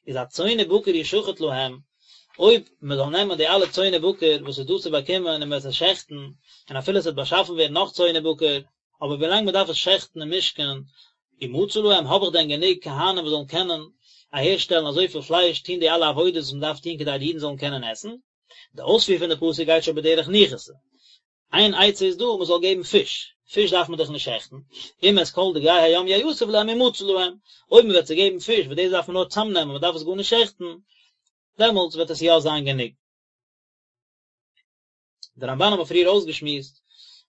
איז הצאן ובקר ישחט להם, אויב מען זאל נעמען די אלע צאן ובקר וואס איז דא צו באקומען און מען וועט עס שעכטן, און אפילו עס וועט באשאפן ווערן נאך צאן ובקר, אבער ווילאנג מען דארף עס שעכטן אין משכן, ומצא להם, האב איך דען גענוג כהנים וואס זאלן קענען אהערשטעלן אזויפיל פלייש, טון די אלע עבודות וואס מען דארף טון כדי די אידן זאלן קענען עסן? די אויספיר פון די פסוק גייט שוין בדרך ניחותא. איין עצה איז דא, מען זאל געבן פיש, פיש דארף מען דאך נישט שעכטן, אם את כל דגי הים יאסף להם ומצא להם, אויב מען וועט זיי געבן פיש, וואס דאס דארף מען נאר צאמנעמען, מען דארף עס גארנישט שעכטן, דעמאלטס וועט עס יא זיין גענוג. דער רמבן האט מען פריער אויסגעשמועסט,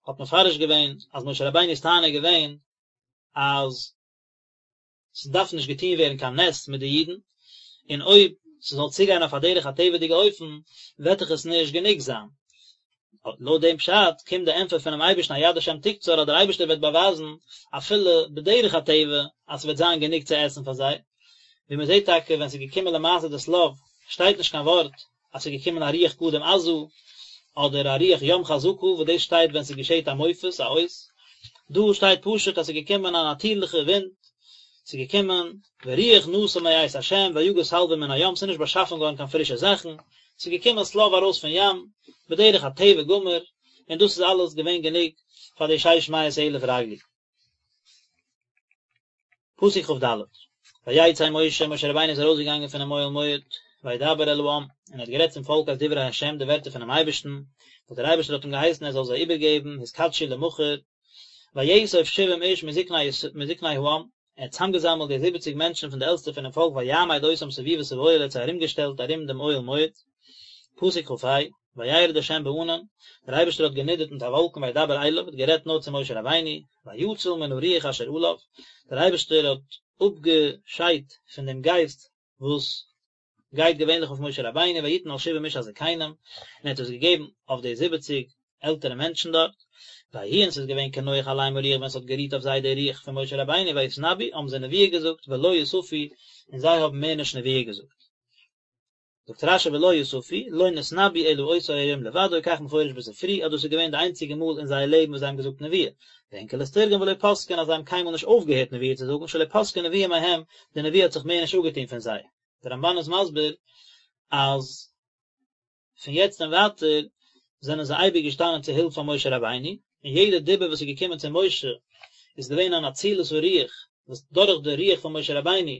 האט מפרש געווען אז משה רבינו'ס טענה איז געווען אז ס'דארף נישט געטון ווערן קיין נס מיט די אידן, און אויב ס'זאל צוגיין אויף א דרך הטבע'דיגע אופן וועט דאך עס נישט גענוג זיין. לויט דעם פשט קומט די ענטפער פונעם אייבערשטן היד השם תקצר אז דער אייבערשטער וועט באווייזן אפילו בדרך הטבע אז ס'וועט זיין גענוג צו עסן פאר זיי, ווי מ'זעט טאקע ווען ס'איז געקומען למעשה די שליו שטייט נישט קיין ווארט אז ס'איז געקומען א רוח קדים עזה, אדער א רוח ים חזקה, וואס דאס שטייט ווען ס'געשעט א מופת, א אות. דא שטייט פשוט אז ס'איז געקומען א נאטירליכע ווינט, ס'איז געקומען ורוח נסע מאת ה' ויגז שלוים מן הים, ס'איז נישט באשאפן געווארן קיין פרישע זאכן, ס'איז געקומען שליו ארויס פון ים, בדרך הטבע גמור, און דאס איז אלעס געווען גענוג פאר די שש מאות אלף רגלי. פסוק כד. ויצא משה, משה רבינו איז ארויסגעגאנגען פונעם אוהל מועד, וידבר אל העם, און ער האט גערעדט צום פאלק את דברי ה', די ווערטער פונעם אייבערשטן, וואס דער אייבערשטער האט אים געהייסן ער זאל זיי איבערגעבן, התקדשו למחר, ויאסוף שבעים איש מזקני העם, ער האט צוזאמגעזאמלט די זיבעציג מענטשן פון די עלטסטע פונעם פאלק ויעמד אותם סביבות האוהל, ער האט זיי ארומגעשטעלט ארום דעם אוהל מועד. פסוק כ"ה, וירד ה' בענן, דער אייבערשטער האט גענידערט מיט א וואלקן וידבר אליו, האט גערעדט נאר צו משה רבינו, ויאציל מן הרוח אשר עליו, דער אייבערשטער האט אפגעשיידט פון דעם גייסט וואס גייט געווענליך אויף משה רבינו, ויתן על שבעים איש הזקנים, און ער האט עס געגעבן אויף די זיבעציג עלטערע מענטשן דארט, ויהי און ס'איז געווען כנוח עליהם הרוח ווען ס'האט גערוהט אויף זיי דער רוח פון משה רבינו ויתנבאו האבן זיי נבואה געזאגט ולא יספו און זיי האבן מער נישט נבואה געזאגט. זאגט רשי ולא יספו, לא נתנבאו אלא אותו היום לבדו, כך מפורש בספרי, אז דאס איז געווען די איינציגע מאל אין זייער לעבן וואס זיי האבן געזאגט נבואה. ואונקלוס תרגם ולא פסקון אז זיי האבן קיינמאל נישט אויפגעהערט נבואה צו זאגן, שלא פסקה נבואה מהם, די נבואה האט זיך מער נישט אפגעטון פון זיי. דער רמבן איז מסביר אז פון יעצט און ווייטער זענען זיי אייביג געשטאנען צו הילף פאר משה רבינו, און יעדע דיבור וואס איז געקומען צו משה איז געווען אן אצילת הרוח, וואס דורך די רוח פון משה רבינו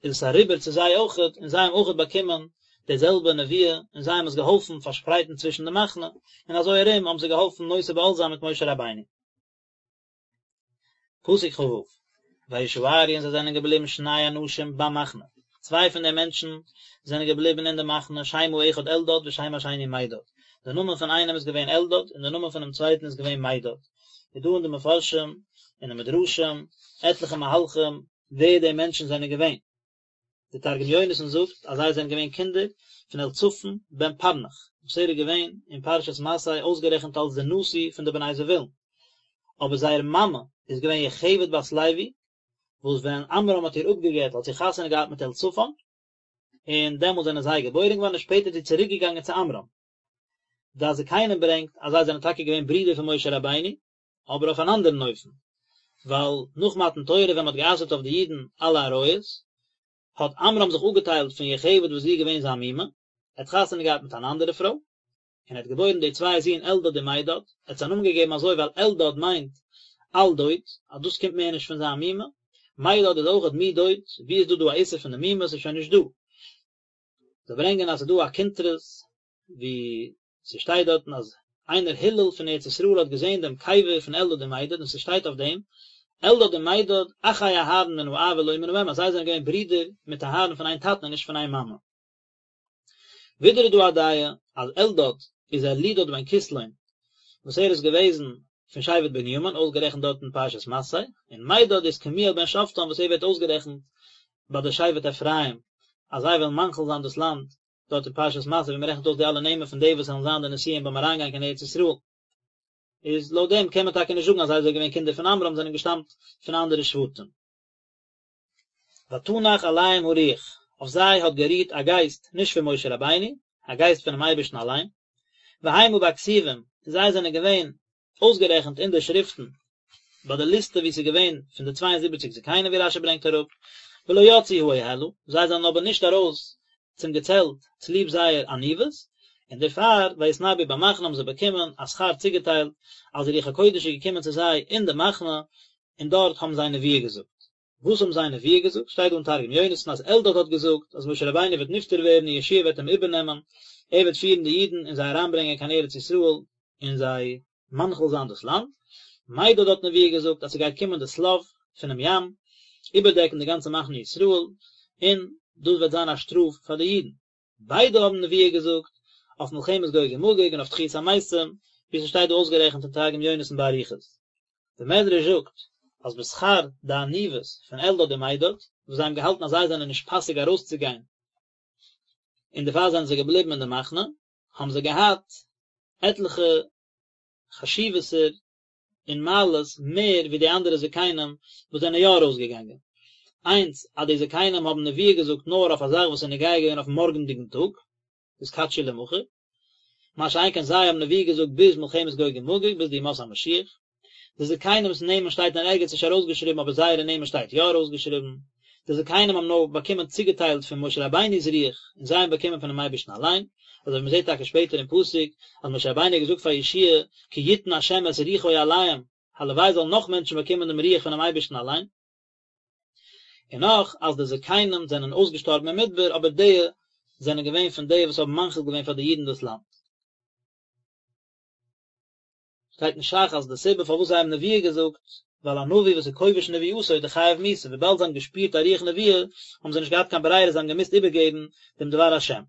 איז עס אריבער צו זיי אויכעט, און זיי האבן אויכעט באקומען די זעלבע נבואה, און זיי האבן עס געהאלפן פארשפרייטן צווישן די מחנה, און אזוי ארום האבן זיי געהאלפן נושא בעול זיין מיט משה רבינו. פסוק כ"ו, וישארו און זיי זענען געבליבן שני אנשים במחנה, צוויי פון די מענטשן זענען געבליבן אין די מחנה, שם האחד אלדד ושם השני מידד, די נאמען פון איינעם איז געווען אלדד און די נאמען פונעם צווייטן איז געווען מידד, איז דא אין די מפרשים און די מדרשים עטליכע מהלכים ווער די מענטשן זענען געווען. דער תרגום יונתן זאגט אז זיי זענען געווען קינדער פון אליצפן בן פרנך, וואס ער איז געווען אין פרשת מסעי אויסגערעכנט אלס דער נשיא פון די בני זבולון, אבער זייער מאמע איז געווען יוכבד בת לוי, וואס ווען עמרם האט איר אפגע'גט האט זי חתונה געהאט מיט אליצפן, און דעמאלט זענען זיי געבוירן געווארן און שפעטער איז זי צוריק געגאנגען צו עמרם. דעת זקנים ברענגט אז זיי זענען טאקע געווען ברידער פון משה רבינו, אבער אויף אן אנדערן אופן, ווייל נאך מתן תורה ווען מען האט גע'אסר'ט אויף די אידן אלע עריות, האט עמרם זיך אפגעטיילט פון יוכבד וואס זי איז געווען זיין מומע, ער האט חתונה געהאט מיט אן אנדערע פרוי, און ער האט געבוירן די צוויי זין אלדד און מידד, ער האט זיי א נאמען געגעבן אזוי ווייל אלדד מיינט אל דוד, אז דאס קומט מער נישט פון זיין מומע, מידד איז אויכעט מדוד, ווי איז דא דא א איסור פון די מומע, ס'איז שוין נישט דא. זיי ברענגען אז ס'איז דא א קונטרס ווי ס'שטייט דארטן אז איינער הלל פון ארץ ישראל האט געזען דעם קבר פון אלדד און מידד און ס'שטייט אויף דעם אלדד און מידד אחי אהרן מן האב ולא מן האם אז זיי זענען געווען ברידער מיט אהרן פון איין טאטן און נישט פון איין מאמע. ווידער איז דא א דעה אז אלדד איז אלידד בן כסלון וואס ער איז געוועזן פון שבט בנימין אויסגערעכנט דארט אין פרשת מסעי, און מידד איז קמואל בן שפטן וואס ער ווערט אויסגערעכנט ביי די שבט אפרים אז זיי וועלן מנחיל זיין דאס לאנד דארט אין פרשת מסעי ווי מען רעכנט אויס די אלע נעמען פון די וואס וועלן זיין די נשיאים ביים אריינגיין קיין ארץ ישראל, איז לויט דעם קען מען טאקע נישט זאגן אז זיי זענען געווען קינדער פון עמרם זענען געשטאמט פון אנדערע שבטים. ותנח עליהם הרוח, אויף זיי האט גערוהט א גייסט נישט פון משה רבינו, א גייסט פונעם אייבערשטן אליין, והמה בכתובים, און זיי זענען געווען אויסגערעכנט אין די שריפטן ביי די ליסטע ווי ס'איז געווען פון די צוויי און זיבעציק זקנים ווי רשי ברענגט אראפ, ולא יצאו האהלה, זיי זענען אבער נישט ארויס צום געצעלט צוליב זייער עניוות, און דערפאר ויתנבאו במחנה האבן זיי באקומען א שכר צוגעטיילט אז די רוח הקודש איז געקומען צו זיי אין די מחנה און דארט האבן זיי נבואה געזאגט. וואס האבן זיי נבואה געזאגט? שטייט דא אין תרגום יונתן אז אלדד האט געזאגט אז משה רבינו וועט נפטר ווערן און יהושע וועט אים איבערנעמען, ער וועט פירן די אידן און זיי אריינברענגען קיין ארץ ישראל און זיי מנחיל זיין דאס לאנד. מידד האט נבואה געזאגט אז ס'גייט קומען די שליו פונעם ים, איבערדעקן די גאנצע מחנה ישראל, און דאס וועט זיין א שטראף פאר די אידן. ביידע האבן נבואה געזאגט אויף מלחמת גוג ומגוג און אויף תחיית המתים, ווי ס'שטייט דא אויסגערעכנט אין תרגום יונתן באריכות. דער מדרש זאגט אז בשכר די עניוות פון אלדד און מידד, וואס זיי האבן געהאלטן אז זיי זענען נישט פאסיג ארויסצוגיין און דערפאר זענען זיי געבליבן אין די מחנה, האבן זיי געהאט עטליכע חשיבות'ער און מעלות מער ווי די אנדערע זקנים וואס זענען יא ארויסגעגאנגען. איינס, אז די זקנים האבן נבואה געזאגט נאר אויף א זאך וואס איז נוגע געווען אויפן מארגנדיגן טאג, התקדשו למחר, מה שאין כן זיי האבן נבואה געזאגט ביז מלחמת גוג ומגוג, ביז די ימות המשיח. די זקנים'ס נעמען שטייט אין ערגעץ נישט ארויסגעשריבן אבער זייערע נעמען שטייט יא ארויסגעשריבן. די זקנים האבן נאר באקומען צוגעטיילט פון משה רבינו'ס רוח און זיי האבן באקומען פונעם אייבערשטן אליין, אזוי ווי מ'זעט טאקע שפעטער אין פסוק אז משה רבינו האט געזאגט פאר יהושע כי יתן השם את רוחו עליהם, הלוואי זאלן נאך מענטשן באקומען דעם רוח פונעם אייבערשטן אליין. און נאך אז די זקנים זענען אויסגעשטארבן אין מדבר אבער די זענען געווען פון די וואס האבן מנחיל געווען פאר די אידן דאס לאנד. שטייט אין ש"ך אז די סיבה פארוואס זיי האבן נבואה געזאגט, ווייל א נביא וואס איז כובש נבואתו איז דאך חייב מיתה, וויבאלד זיי האבן געשפירט א רוח נבואה, האבן זיי נישט געהאט קיין ברירה זיי האבן געמוזט איבערגעבן דעם דבר השם.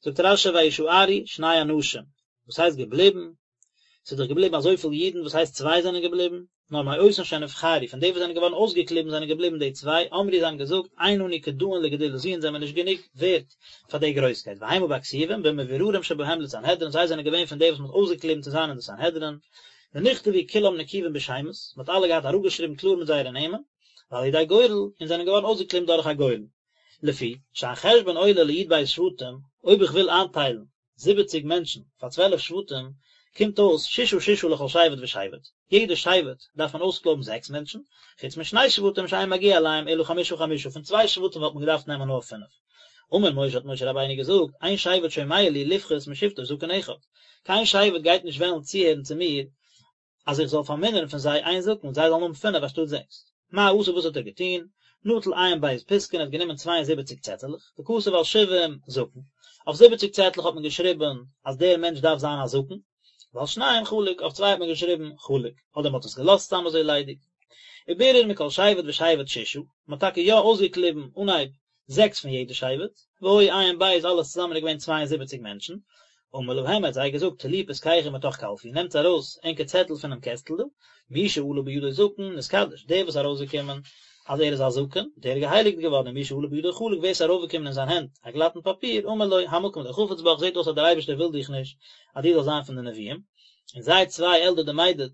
זאגט רש"י וישארו שני אנשים, וואס הייסט געבליבן? ס'איז דאך געבליבן אזויפיל אידן, וואס הייסט צוויי זענען געבליבן? נאר מאותן שנבחרו, פון די וואס זענען געווארן אויסגעקליבן זענען געבליבן די צוויי, אמרו זיי האבן געזאגט, אין אנו כדאין לגדולה זו אונז זעמיר נישט גענוג ווערט פאר די גרויסקייט, והמה בכתובים, במבוררים שבהם לסנהדרין, זיי זענען געווען פון די וואס מען האט אויסגעקליבן צו זיין אין די סנהדרין, ונכתבו כולם נקובים בשמות, מען האט אלע געהאט אראפגעשריבן קלאר מיט זייערע נעמען, ועל ידי גורל, און זענען געווארן אויסגעקליבן דורך א גורל. לפי שהחשבון עולה לי"ב שבטים, אויב איך וויל איינטיילן זיבעציג מענטשן פאר צוועלף שבטים, קומט אויס ששה ששה לכל שבט ושבט, יעדע שבט דארף מען אויסקלויבן זעקס מענטשן, חוץ משני שבטים שאין מגיע אליהם אלא חמשה חמשה, פון צוויי שבטים וואלט מען געדארפט נעמען נאר פינף. אמר משה האט משה רבינו געזאגט, אין שבט שומע לי לפחות משבטו זקן אחד, קיין שבט גייט נישט וועלן צוהערן צו מיר אז איך זאל פארמינערן פון זיי איין זקן, זיי זאלן האבן פינף אנשטאט זעקס. מה עשה וואס האט ער געטון? נטל ע"ב פתקין ער האט גענומען צוויי און זיבעציק צעטעלעך, וכתב על שבעים זקן, אויף זיבעציק צעטלעך האט מען געשריבן אז דער מענטש דארף זיין א זקן, ועל שניים חלק, אויף צוויי האט מען געשריבן חלק, אדער מען האט עס געלאזט סתם אזוי ליידיג. ובירר מכל שבט ושבט ששה, מען האט טאקע יא אויסגעקליבן אנהייב זעקס פון יעדע שבט, והיו ע"ב אלעס צוזאמען איז געווען 72 מענטשן, אמר להם ער האט זיי געזאגט טלו פתקיכם מתוך קלפי, נעמטס ארויס ענקער צעטל פונעם קעסטל דא, מי שעלה בידו זקן נתקדש, דער וואס איז ארויסגעקומען אז ער איז א זקן, דער איז געהייליגט געווארן, און מי שעלה בידו חלק, ווער עס איז ארויפגעקומען אין זיין הענט א גלאטן פאפיר, אמר לו, המקום לא חפץ בך, זעט אויס אז דער אייבערשטער וויל דיך נישט אז דו זאלסט זיין פון די נביאים, און זיי צוויי אלדד ומידד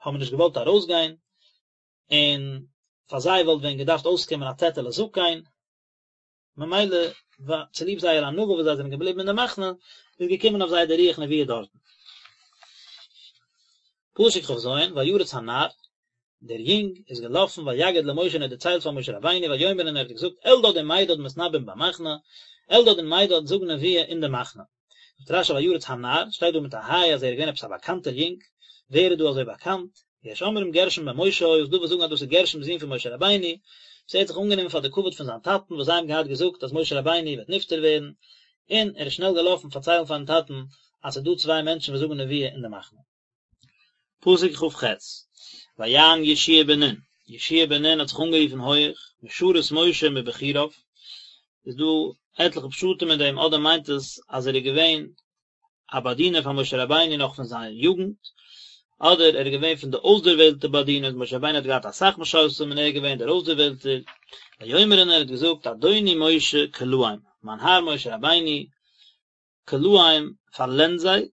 האבן נישט געוואלט ארויסגיין, און פאר זיי וואלט ווען געדארפט אויסקומען א צעטעלע זקן, ממילא צוליב זייער ענווה וואס זיי זענען געבליבן אין די מחנה, איז געקומען אויף זיי די רוח נבואה דארטן. פסוק כ"ז, וירץ הנער, דער יונג איז געלאפן ויגד למשה און ער האט דערציילט פאר משה רבינו ויאמר און ער האט געזאגט אלדד ומידד מתנבאים במחנה, אלדד און מידד זאגן נבואה אין די מחנה. זאגט רש"י וירץ הנער, שטייט דא מיט א היי אז ער איז געווען עפעס א באקאנטער יונג, ווער איז דא אזוי באקאנט? יש אומרים גרשום בן משה היה, ס'דא וואס זאגן אז דאס איז גרשום זון פון משה רבינו, וואס ער האט זיך אנגענומען פאר די כבוד פון זיין טאטן וואס זיי האבן געהאט געזאגט אז משה רבינו וועט נפטר ווערן, און ער איז שנעל געלאפן פארציילן פארן טאטן אז ס'איז דא צוויי מענטשן וואס זאגן נבואה אין די מחנה. פסוק כ"ח, ויען יהושע בן נון, יהושע בן נון האט זיך אנגערופן הויעך, משרת משה מבחוריו, איז דא עטליכע פשטים אין דעם, אדער מיינט עס אז ער איז געווען א באדינער פאר משה רבינו נאך פון זיין יוגנט, אדער ער איז געווען פון די אויסדערוועלטע באדינערס, משה רבינו האט געהאט אסאך משרתים און ער איז געווען דער אויסדערוועלטער, ויאמר און ער האט געזאגט אדוני משה כלאם, מיין האר משה רבינו, כלאם פארלענד זיי,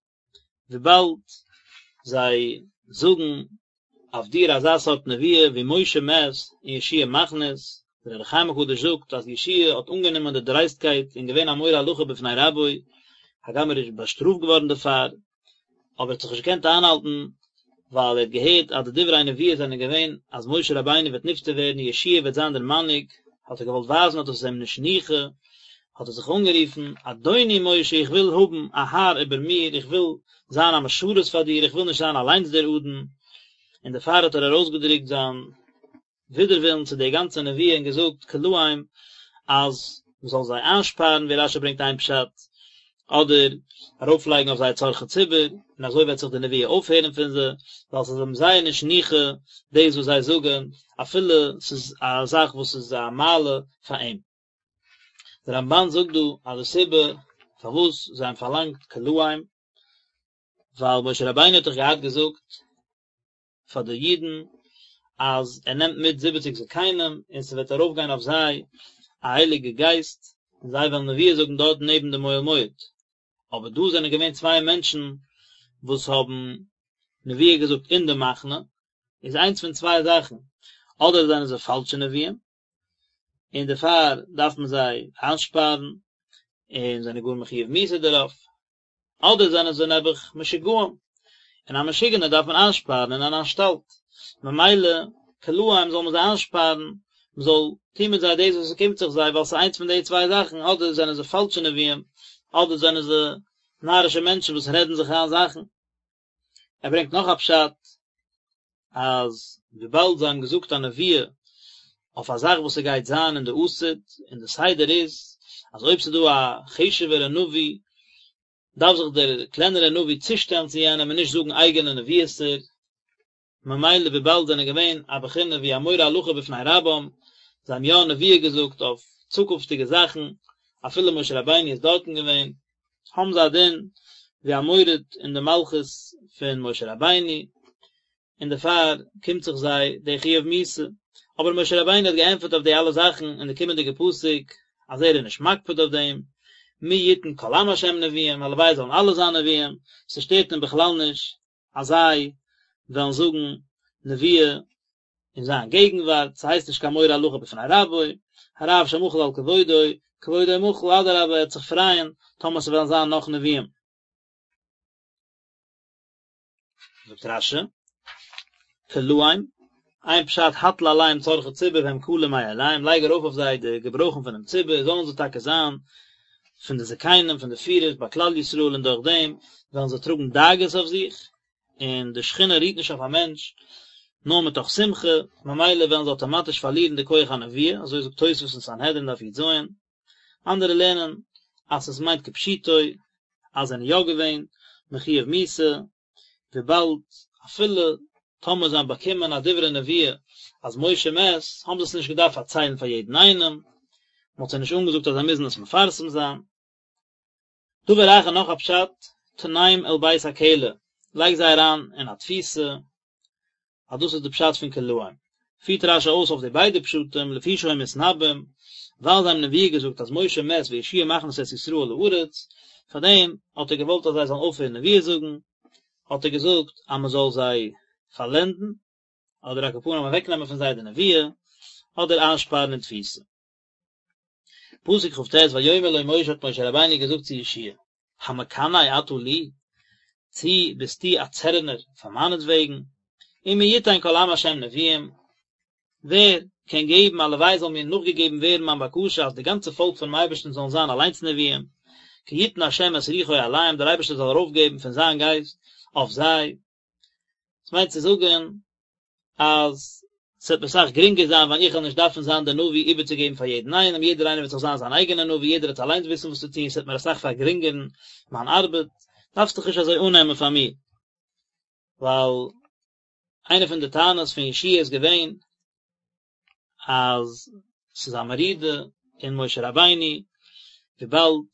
וויבאלד זיי זאגן אויף דיר אזא סארט נבואה ווי משה מת און יהושע מכניס, דער אור החיים הקדוש זאגט אז יהושע האט אנגענומען די דרייסטקייט און געווען א מורה הלכה בפני רבו, הגם ער איז באשטראפט געווארן דערפאר, אבער ער האט זיך נישט געקענט איינהאלטן ווייל ער האט געהערט אז די דברי נבואה זענען געווען אז משה רבינו וועט נפטר ווערן און יהושע וועט זיין דער מנהיג, האט ער געוואלט ווייזן אז דאס איז אים נישט ניחא, האט ער זיך אנגערופן, אדוני משה איך וויל האבן א האר איבער מיר, איך וויל זיין א משרת פאר דיר, איך וויל נישט זיין אליינס דער אדון, און דערפאר האט ער ארויסגעדרוקט זיין ווידערווילן צו די גאנצע נבואה און געזאגט כלאם אז מען זאל זיי איינשפארן ווי רש"י ברענגט איין פשט, אדער ארויפלייגן אויף זיי צרכי ציבור, און אזוי וועט זיך די נבואה אויפהערן פון זיי, ווייל ס'איז אים זייער נישט ניחא דאס וואס זיי זאגן, אפילו ס'איז א זאך וואס איז א מעלה פאר אים. דער רמב"ן זאגט דא אז די סיבה פארוואס זיי האבן פארלאנגט כלאם, ווייל משה רבינו האט דאך געהאט געזאגט פאר די אידן אז ער נעמט מיט זיבעציג זקנים און ס'וועט ארויפגיין אויף זיי א הייליגע גייסט און זיי וועלן נבואה זאגן דארט נעבן דעם אוהל מועד, אבער דא זענען געווען צוויי מענטשן וואס האבן נבואה געזאגט אין די מחנה, איז איינס פון צוויי זאכן, אדער זענען זיי פאלשע נביאים, און דערפאר דארף מען זיי איינשפארן, און זענען גאר מחיוב מיתה דערויף, אדער זענען זיי נעבעך משוגעים, און א משוגענער דארף מען איינשפארן אין אן אנשטאלט, ממילא כלאם זאל מען זיי איינשפארן, מען זאל טון מיט זיי דאס וואס עס קומט זיך זיי, ווייל ס'איז איינס פון די צוויי זאכן, אדער זענען זיי פאלשע נביאים, אדער זענען זיי נארישע מענטשן וואס רעדן זיך איין זאכן. ער ברענגט נאך א פשט, אז וויבאלד זיי האבן געזאגט א נבואה. אויף א זאך וואס ס'גייט זיין אין די עתיד, און די סדר איז אז אויב ס'איז דא א חשוב'ערע נביא דארף זיך דער קלענערע נביא צושטעלן צו יענעם און נישט זאגן אייגענע נביאות'ער, ממילא וויבאלד זענען געווען א בחינה ווי א מורה הלכה בפני רבם, זיי האבן יא נביאה געזאגט אויף צוקונפטיגע זאכן, אפילו משה רבינו איז דארטן געווען, האבן זיי א דין ווי א מורד אין די מלכות פון משה רבינו, און דערפאר קומט זיך זיי די חיוב מיתה. אבער משה רבינו האט געענטפערט אויף די אלע זאכן אין די קומענדיגע פסוק אז ער איז נישט מקפיד אויף דעם, מי יתן כל עם השם נביאים, הלוואי זאלן אלע זיין נביאים, ס'שטערט אים בכלל נישט אז זיי וועלן זאגן נביאה אין זיין געגנווארט, ס'הייסט נישט קיין מורה הלכה בפני רבו, הרב שמחל על כבודו, כבודו מחול, אדרבה ער וועט זיך פרייען טאמער ס'וועלן זיין נאך נביאים. זאגט רש"י, כלאם, איין פשט הטיל עליהם צרכי ציבור והם כלים מאליהם, לייג ארויף אויף זיי די געברויכן פונעם ציבור, זאלן זיי טאקע זיין פון די זקנים, פון די פירערס ביי כלל ישראל, און דורך דעם וועלן זיי טראגן דאגות אויף זיך, און די שכינה רוהט נישט אויף א מענטש נאר מתוך שמחה, ממילא וועלן זיי אטאמאטיש פארלירן די כח הנביאה, אזוי זאגט תוספות אין סנהדרין דף י"ז, אנדערע לערנען אז עס מיינט כפשוטו אז זיי זענען יא געווען מחויב מיתה, וויבאלד אפילו טאמער זיי האבן באקומען א דברי נביאה אז משה מת, האבן זיי עס נישט געדארפט פארציילן פאר יעדן איינעם, מען האט זיי נישט אנגעזאגט אז זיי מוזן עס מפרסם זיין. דבר אחר נאך א פשט, תנם אל בית הכלא, לייג זיי אריין אין א תפיסה, אז דאס איז די פשט פון כלאם. פירט רש"י אויס אויף די ביידע פשטים, לפי שהיו מתנבאים, ווייל זיי האבן נביאה געזאגט אז משה מת ויהושע מכניס את ישראל לארץ, פאר דעם האט ער געוואלט אז זיי זאלן אויפהערן נביאה זאגן, האט ער געזאגט אז מען זאל זיי פארלענדן, אדער על כל פנים אוועקנעמען פון זיי די נביאה, אדער איינשפארן אין תפיסה. פסוק כ"ט ויאמר לו משה האט משה רבינו געזאגט צו יהושע המקנא אתה לי, צי ביסטו א צערענער פאר מיינעטוועגן, ומי יתן כל עם השם נביאים, ווער קען געבן הלוואי זאל מיר נאכגעגעבן ווערן מיין בקשה אז די גאנצע פאלק פונעם אייבערשטן זאלן זיין אליינס נביאים, כי יתן השם את רוחו עליהם, דער אייבערשטער זאל ארויפגעבן פון זיין גייסט אויף זיי, עס מיינט צו זאגן אז ס'וועט מיר אסאך גרינגער זיין ווען איך וועל נישט דארפן זיין דער נביא איבערצוגעבן פאר יעדן איינעם, יעדער איינער וועט זיך זיין זיין אייגענער נביא, יעדער וועט אליינס וויסן וואס צו טון, ס'וועט מיר אסאך פארגרינגערן מיין ארבעט, דארפסט דיך נישט אזוי אננעמען פאר מיר. ווייל איינע פון די טענות פון יהושע איז געווען אז ס'איז א מרידה אין משה רבינו, וויבאלד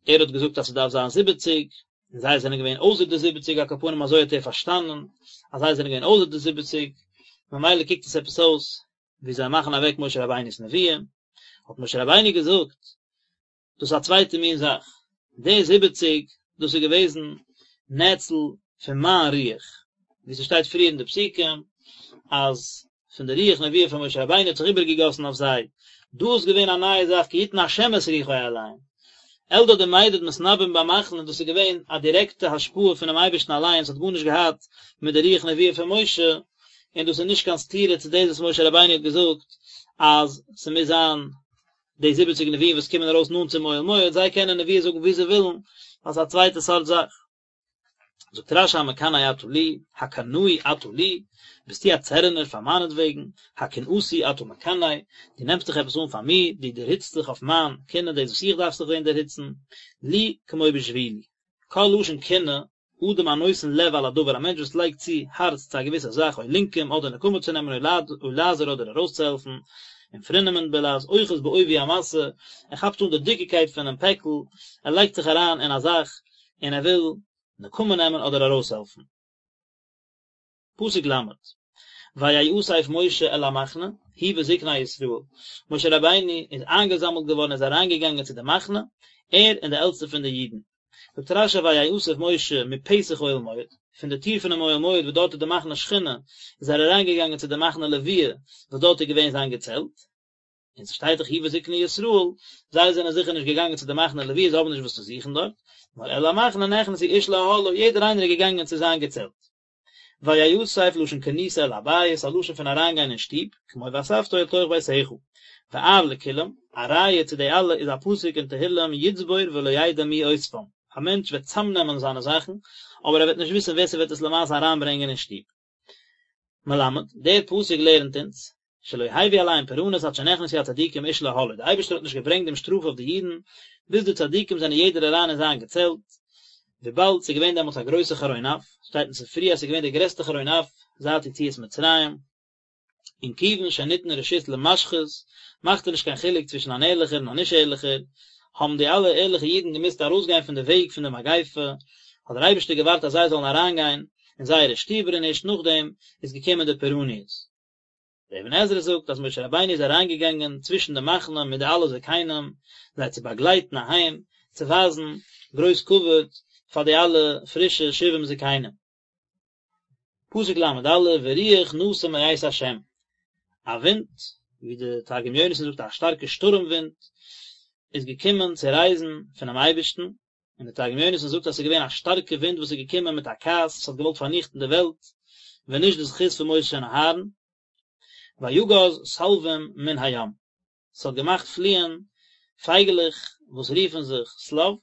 ער האט געזאגט אז ס'דארף זיין זיבעציג, און זיי זענען געווען אויסער די זיבעציג, על כל פנים אזוי האט ער פארשטאנען, אז זיי זענען געווען אויסער די זיבעציג, ממילא קוקט עס עפעס אויס ווי זיי מאכן אוועק משה רבינו'ס נביאה, האט משה רבינו געזאגט, דאס איז א צווייטע מין זאך, די זיבעציג, דאס איז געוועזן נאצל פון מיין רוח, ווי ס'שטייט פריער אין די פסוקים, אז פון די רוח נביאה פון משה רבינו האט זיך איבערגעגאסן אויף זיי, דא איז געווען א נייע זאך כי יתן השם את רוחו עליהם, אלדד ומידד מתנבאים במחנה, דאס איז געווען א דירעקטע השפעה פונעם אייבערשטן אליין, עס האט גארנישט געהאט מיט די רוח נביאה פון משה, און דאס איז נישט קיין סתירה צו דאס וואס משה רבינו האט געזאגט אז ס'מוז זיין די זיבעציג נביאים וואס קומען ארויס נאנט צום אוהל מועד, זיי קענען נביאה זאגן ווי זיי ווילן, ווייל ס'איז א צווייטע סארט זאך. זאגט רש"י המקנא אתה לי, הקנאי אתה לי, ביסטו א צערענער פאר מיינעטוועגן, הקנאתי אתה מקנא, דו נעמסט דיך עפעס אן פאר מיר, דו דערהיצט זיך אויף מיין קנאה דאס וואס איך דארף זיך ווען דערהיצן, לי כמו בשבילי. כל לשון קנאה, אדם הנותן לב על הדבר, א מענטש וואס לייגט צו הארץ צו א געוויסע זאך, או לנקום, אדער נקמה צו נעמען, או לעזור אדער ארויסצוהעלפן, און פרינמענט בלע"ז, אוחז בעובי המשא, ער כאפט אן די דיקיקייט פונעם פעקל, ער לייגט זיך אריין אין א זאך, און ער וויל נקמה נעמען אדער ארויסהעלפן. פסוק ל', ויאסף משה אל המחנה, הוא וזקני ישראל, משה רבינו איז איינגעזאמלט געווארן איז אריינגעגאנגען צו די מחנה, ער און די עלטסטע פון די אידן. זאגט רש"י ויאסף משה מפתח אוהל מועד, פון די טיר פונעם אוהל מועד וואס דארט איז די מחנה שכינה, איז ער אריינגעגאנגען צו די מחנה לוויה וואס דארט איז געווען זיין געצעלט, און ס'שטייט דאך הוא וזקני ישראל, זיי זענען זיכער נישט געגאנגען צו די מחנה לוויה, זיי האבן נישט וואס צו זוכן דארט, נאר אל המחנה נכנסו איש לאהלו, יעדער איינער איז געגאנגען צו זיין געצעלט. ויאסף לשון כניסה אל הבית, א לשון פון אריינגיין אין שטוב, כמו ואספתו אל תוך ביתך. ואב לכולם, א ראיה צו די אלע איז א פסוק אין תהילים יצבור ולא ידע מי אוספם, א מענטש וועט צאמנעמען זיינע זאכן, אבער ער וועט נישט וויסן ווער ס'וועט עס למעשה אריינברענגען אין שטוב. מלמד, דער פסוק לערנט אונז. שלא הביא עליהם פורענות עד שנכנסו הצדיקים איש לאהלו, דער אייבערשטער האט נישט געברענגט דעם שטראף אויף די אידן ביז די צדיקים זענען יעדער אריין אין זיין געצעלט, וויבאלד ס'איז געווען דעמאלטס א גרויסע חרון אף, שטייט אין ספרי אז ס'איז געווען דער גרעסטער חרון אף זייט יציאת מצרים, און כיוון שניתן רשות למשחית, מאכט ער נישט קיין חילוק צווישן אן ערליכער און א נישט ערליכער, האבן די אלע ערליכע אידן געמוזט ארויסגיין פון די וועג פון די מגיפה, האט דער אייבערשטער געווארט אז זיי זאלן אריינגיין אין זייערע שטיבער און ערשט נאכדעם איז געקומען די פורעניות. דער אבן עזרא זאגט אז משה רבינו איז אריינגעגאנגען צווישן די מחנה מיט די אלע זקנים זיי צו באגלייטן אהיים, צו ווייזן גרויס כבוד פאר די אלע פרישע שבעים זקנים. פסוק ל"א ורוח נסע מאת ה', א ווינט, ווי די תרגום יונתן זאגט א שטארקע שטורעם ווינט, איז געקומען צו רייזן פונעם אייבערשטן, און די תרגום יונתן זאגט אז עס איז געווען א שטארקע ווינט וואס איז געקומען מיט א כעס, עס האט געוואלט פארניכטן די וועלט, ווען נישט די זכות פון משה און אהרן. ויגז שלוים מן הים, עס האט געמאכט פליען פייגעלעך וואס רופן זיך שליו,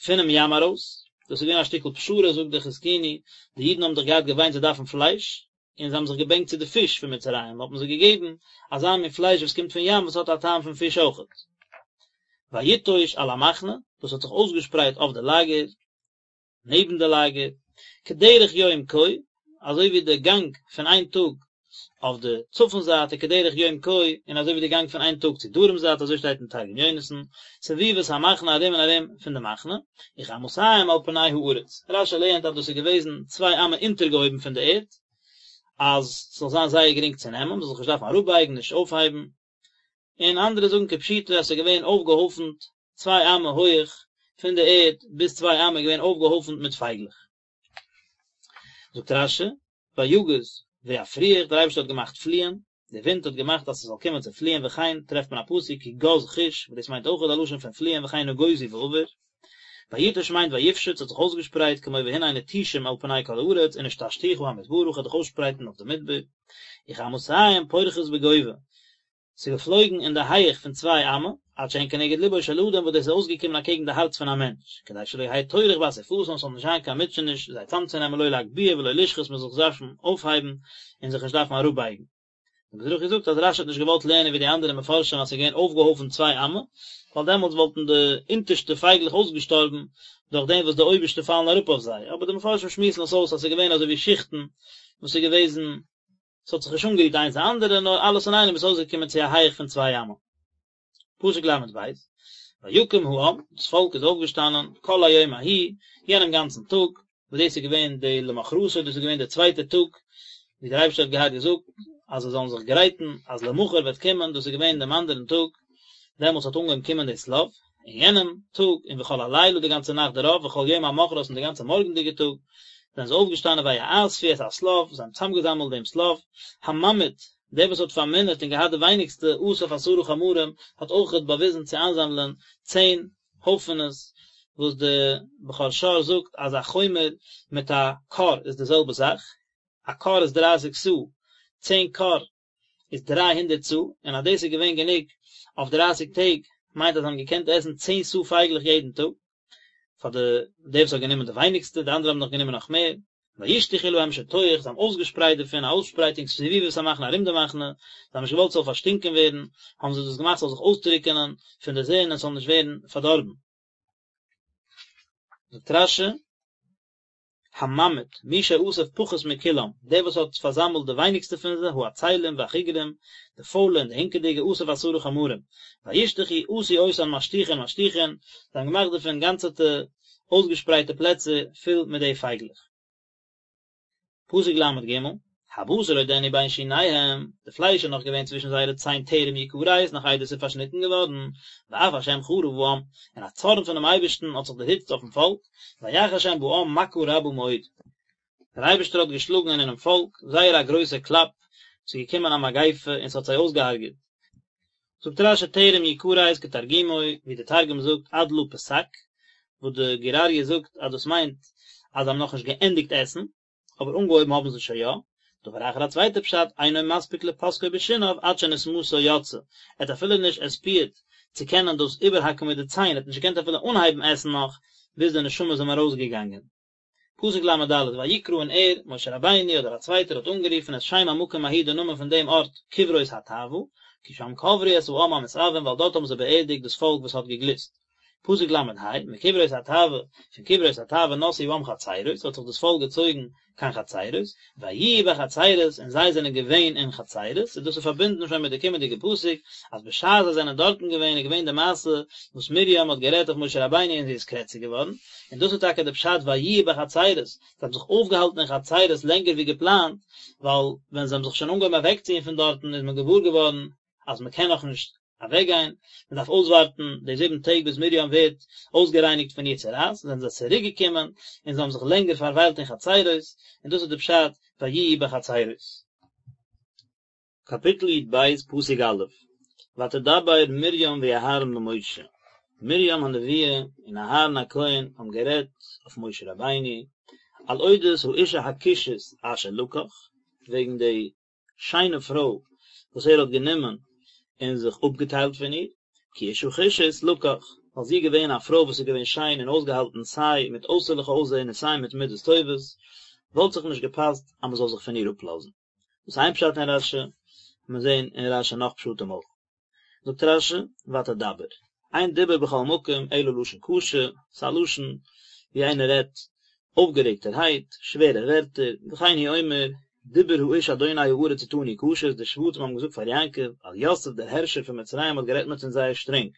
פונעם ים ארויס, דאס איז געווען א שטיקל פשרה זאגט דער חזקוני, די אידן האבן דאך געהאט געוויינט זיי דארפן פלייש, און זיי האבן זיך געבענקט צו די פיש פון מצרים, האט מען זיי געגעבן אזא מין פלייש וואס קומט פון ים וואס האט א טעם פון פיש אויכעט. ויטוש על המחנה, דאס האט זיך אויסגעשפרייט אויף די לאגער, נעבן די לאגער, כדרך יום כה, אזוי ווי די גאנג פון איין טאג אויף די צפון זייט וכדרך יום כה, און אזוי ווי די גאנג פון איין טאג צו דרום זייט, אזוי שטייט אין תרגום יונתן, סביבות המחנה ארום און ארום פון די מחנה, וכאמתים על פני הארץ. רש"י לערנט אז דאס איז געוועזן צוויי אמה אונטערגעהויבן פון די ערד, אז ס'זאל זיין זייער גרינג צו נעמען, מ'זאל זיך נישט דארפן אראפבייגן, נישט אויפהייבן. און אנדערע זאגן כפשוטו אז ס'איז געווען אויפגעהויפנט צוויי אמה הויעך פון די ערד ביז צוויי אמה איז געווען אויפגעהויפנט מיט פייגלעך. זאגט רש"י, ויגז ויפריח, דער אייבערשטער האט געמאכט פליען, דער ווינט האט געמאכט אז ס'זאל קומען צו פליען, וכן טרעפט מען א פסוק כי גז חוש, וואס דאס מיינט אויך א לשון פון פליען וכן נגוזו ועבר, ויטוש מיינט ויפשוט, ס'האט זיך אויסגעשפרייט, כמו והנה נטושים על פני כל הארץ, ונטשתיך המדברה, כ'וועל דיך אויסשפרייטן אויף די מדבר, וכאמתים פורחות בגובה, ס'איז געפלויגן אין די הייעך פון צוויי אמה, עד שהן כנגד לבו של אדם וואס דאס איז אויסגעקומען אקעגן די הארץ פון א מענטש, כדי שלא יהא טורח באסיפתן ס'זאל נישט זיין קיין מוטשעניש זיי צאמצונעמען לא להגביה ולא לשחות מ'זאל זיך דארפן אויפהייבן און זיך נישט דארפן אראפבייגן. דער מזרחי זאגט אז רש"י האט נישט געוואלט לערנען ווי די אנדערע מפרשים אז ס'איז געווען אויפגעהויפנט צוויי אמה, ווייל דעמאלטס וואלטן די אונטערשטע פייגלעך אויסגעשטארבן דורך דעם וואס די אויבערשטע פאלן אראפ אויף זיי, אבער די מפרשים שמועסן עס אויס אז ס'איז געווען אזוי ווי שיכטן וואס איז געוועזן ס'האט זיך נישט אנגערירט איינס די אנדערע, נאר אלעס אינאיינעם איז אויסגעקומען צו א הייך פון צוויי אמה. פסוק ל"ב, ויקם העם, דאס פאלק איז אויפגעשטאנען, כל היום ההוא, יענעם גאנצן טאג, וואס דאס איז געווען די למחרתו, דאס איז געווען דער צווייטער טאג, ווי דער אייבערשטער האט געהאט געזאגט אז זיי זאלן זיך גרייטן אז למחר וועט קומען, דאס איז געווען דעם אנדערן טאג, דעמאלטס האט אנגעהויבן קומען די שליו, אין יענעם טאג, און וכל הלילה די גאנצע נאכט דערויף, וכל יום המחרת און די גאנצע מארגנדיגע טאג, זענען זיי אויפגעשטאנען ויאספו את השליו, זיי האבן צוזאמגעזאמלט דעם שליו, הממעיט, דער וואס האט פארמינערט און געהאט די ווייניגסטע, אסף עשרה חמרים, האט אויכעט באוויזן צו איינזאמלען צען הויפענעס, וואס די בכור שור זאגט אז א חומר מיט א כור איז די זעלבע זאך, א כור איז דרייסיג סאה, צען כור איז דריי הונדערט סאה, און אז דאס איז געווען גענוג אויף דרייסיג טעג, מיינט אז זיי האבן געקענט עסן צען סאה פייגלעך יעדן טאג, פאר די דער וואס האט גענומען די ווייניגסטע, די אנדערע האבן נאך גענומען נאך מער, וישלחו להם שטוח, זיי האבן אויסגעשפרייט דערפון א אויסשפרייטונג סביבות המחנה ארום די מחנה, זיי האבן נישט געוואלט ס'זאל פארשטינקען ווערן, האבן זיי דאס געמאכט ס'זאל זיך אויסטרוקענען פון די זון און ס'זאל נישט ווערן פארדארבן. זאגט רש"י. הממעיט, מי שאסף פחות מכולם, דער וואס האט פארזאמלט די ווייניגסטע פון זיי, העצלים והחגרים, די פוילע און די הינקעדיגע, אסף עשרה חמרים, וישלחו עשו אותן משטוחין משטוחין, זיי האבן געמאכט דערפון גאנצעטע אויסגעשפרייטע פלעצער פול מיט די פייגלעך. פסוק ל"ג, הבשר עודנו בין שיניהם, די פלייש איז נאך געווען צווישן זייערע ציין טרם יכרת, נאך איידער עס איז פארשניטן געווארן, ואף השם חרה בעם, און א צארן פונעם אייבערשטן האט זיך דערהיצט אויפן פאלק, ויך השם בעם מכה רבה מאוד. דער אייבערשטער האט געשלאגן אינעם פאלק זייער א גרויסע קלאפ, ס'איז געקומען א מגיפה און ס'האט זיי אויסגעהארגעט. זאגט רש"י טרם יכרת כתרגומו, ווי דער תרגום זאגט עד לא פסק, וואס די גור אריה זאגט אז דאס מיינט אז זיי האבן נאכנישט געענדיגט עסן, אבער אנגעהויבן האבן זיי שוין יא. דבר אחר א צווייטע פשט, אינו מספיק לפסקו בשיניו עד שנשמתו יצאה, ער האט אפילו נישט עספיעט צו קענען דאס איבערהאקן מיט די ציין, ער האט נישט געקענט אפילו אנהייבן עסן נאך ביז די נשמה איז אים ארויסגעגאנגען. פסוק ל"ד, ויקרא און ער, משה רבינו אדער א צווייטער האט אנגערופן את שם המקום ההוא די נאמען פון דעם ארט קברות התאוה, כי שם קברו את העם המתאוים ווייל דארט האבן זיי באערדיגט דאס פאלק וואס האט געגליסט. פסוק ל"ה, מקברות התאוה, פון קברות התאוה נסעו העם חצרות, האט זיך דאס פאלק געצויגן קיין חצרות, ויהיו בחצרות, און זיי זענען געווען אין חצרות, און דאס איז פארבינדן שוין מיט די קומענדיגע פסוק, אז בשעת זיי זענען דארטן געווען איז געווען די מעשה וואס מרים האט גערעדט אויף משה רבינו און זי איז קרעציג געווארן, און דאס איז טאקע די פשט ויהיו בחצרות, זיי האבן זיך אויפגעהאלטן אין חצרות לענגער ווי געפלאנט, ווייל ווען זיי האבן זיך שוין אנגעהויבן אוועקציען פון דארטן איז מען געוואר געווארן אז מען קען נאכנישט אוועקגיין, מען דארף אויסווארטן די זיבן טעג ביז מרים ווערט אויסגערייניגט פון איר צרעת, זענען זיי צוריק געקומען און זיי האבן זיך לענגער פארוויילט אין חצרות, און דאס איז די פשט ויהיו בחצרות. קאפיטל י"ב פסוק א', ותדבר מרים ואהרן במשה, מרים הנביאה און אהרן הכהן האבן גערעדט אויף משה רבינו, על אודות האשה הכושית אשר לקח, וועגן די שיינע פרוי וואס ער האט גענומען און זיך אפגעטיילט פון איר, כי אשה כושית לקח, ווייל זי איז געווען א פרוי וואס איז געווען שיין און אויסגעהאלטן סיי מיט אויסערליכע אויסזען און סיי מיט מידות טובות, וואלט זיך נישט געפאסט אז מען זאל זיך פון איר אפלאזן. דאס איז איין פשט אין רש"י, מיר זעהן אין רש"י נאך פשטים אויך. זאגט רש"י, ותדבר, אין דיבור בכל מקום אלא לשון קשה, ס'איז א לשון ווי איינער רעדט אויפגערעגטערהייט, שווערע ווערטער, וכן הוא אומר, דיבר האיש אדוני הארץ אתנו קשות, די שבטים האבן געזאגט פאר יעקב, אז יוסף דער הערשער פון מצרים האט גערעדט מיט אונז זייער שטרענג.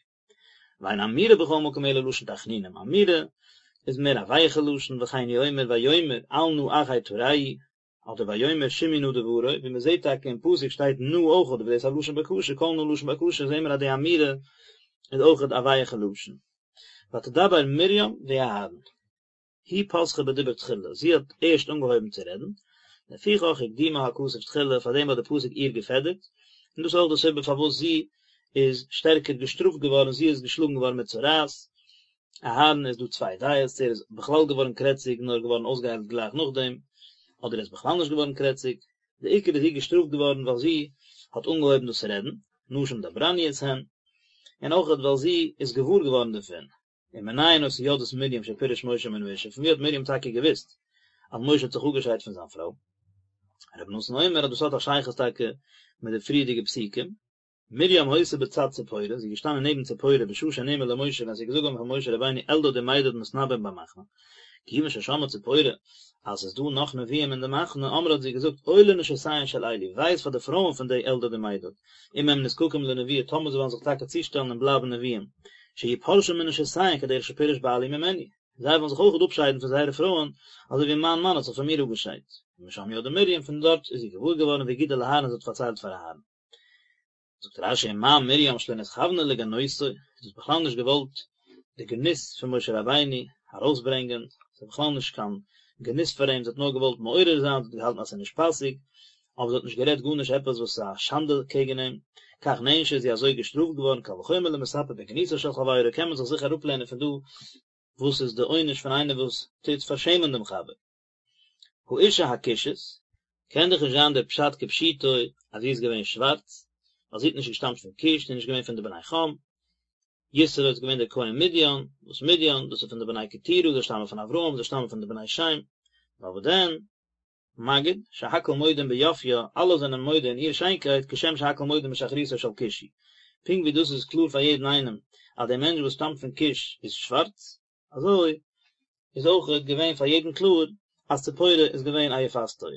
ואין אמירה בכל מקום אלא לשון תחנונים, אמירה איז מער א ווייכע לשון, וכן הוא אומר, ויאמר אל נא אחי תרעו, אדער ויאמר שמעו נא דברי, ווי מען זעט טאקע אין פסוק שטייט נא אויכעט, וואס דאס איז א לשון בקשה, כל נא לשון בקשה, זעהן מיר אז די אמירה איז אויכעט א ווייכע לשון. ותדבר מרים ואהרן. היא פתחה בדיבור תחילה, זי האט ערשט אנגעהויבן צו רעדן, לפיכך הקדימה הכתוב תחילה, פארדעם האט די פסוק איר געפעדערט, און דאס איז אויך די סיבה פארוואס זי איז שטערקער געשטראפט געווארן, זי איז געשלאגן געווארן מיט צרעת, אהרן איז דא צוויי דעות צו ער איז בכלל געווארן קרעציג נאר געווארן אויסגעהיילט גלייך נאכדעם, אדער ער איז בכלל נישט געווארן קרעציג, די עיקר איז זי געשטראפט געווארן ווייל זי האט אנגעהויבן דאס רעדן, נשים דברניות הן, און אויכעט ווייל זי איז געוואר געווארן דערפון, ומנין היתה יודעת מרים שפירש משה מן האשה, פון ווי האט מרים טאקע געוואוסט אז משה האט זיך אפגעשיידט פון זיין פרוי? רבי נתן אומר אז דאס האט א שייכות טאקע מיט די פריערדיגע פסוקים, מרים היתה בצד ציפורה, זי איז געשטאנען נעבן ציפורה בשעה שנאמר למשה ווען ס'איז געזאגט געווארן פאר משה רבינו אלדד ומידד מתנבאים במחנה, כיוון ששמעה ציפורה אז ס'איז דא נאך נביאים אין די מחנה, אמרה האט זי געזאגט אוי לנשותיהן של אלו, וויי איז פאר די פרויען פון די אלדד און מידד, אם הם נזקקים לנבואה טאמער זיי וועלן זיך טאקע צושטעלן און בלייבן נביאים, שיהיו פורשים מנשותיהן כדרך שפירש בעלי ממני, זיי וועלן זיך אויך אפשיידן פון זייערע פרויען, אזוי ווי מיין מאן האט זיך פון מיר אפגעשיידט. ומשם ידעה מרים, פון דארט איז זי געוואר געווארן והגידה לאהרן זי האט פארציילט פאר אהרן. זאגט רש"י ומה מרים שלא נתכוונה לגנותו, זי האט בכלל נישט געוואלט די גנות פון משה רבינו ארויסברענגען, ס'איז בכלל נישט קיין גנות פאר אים, זי האט נאר געוואלט מעורר זיין, זי האט געהאלטן אז ס'איז נישט פאסיג, אבער זי האט נישט גערעדט גארנישט עפעס וואס איז א שאנדע קעגן אים, כך נענשה איז זי אזוי געשטראפט געווארן, קל וחומר למספר בגנותו של חברו, קען מען זיך זיכער אראפלערנען פון דא וואס איז די עונש פון איינער וואס טוט פארשעמען דעם חבר. האשה הכושית, קען דאך נישט זיין דער פשט כפשוטו אז זי איז געווען שווארץ, ווייל זי האט נישט געשטאמט פון כוש, זי איז נישט געווען פון די בני חם, יתרו איז געווען דער כהן מדין, וואס מדין, דאס איז פון די בני קטורה, זיי שטאמען פון אברהם, זיי שטאמען פון די בני שם, נאר וואס דען, מגיד, שהכל מודים ביופיה, אלע זענען מודה אין איר שיינקייט, כשם שהכל מודים בשחרותו של כושי. פונקט ווי דאס איז קלאר פאר יעדן איינעם אז דער מענטש וואס שטאמט פון כוש איז שווארץ, אזוי איז אויך געווען פאר יעדן קלאר אז ציפורה איז געווען א יפת תואר.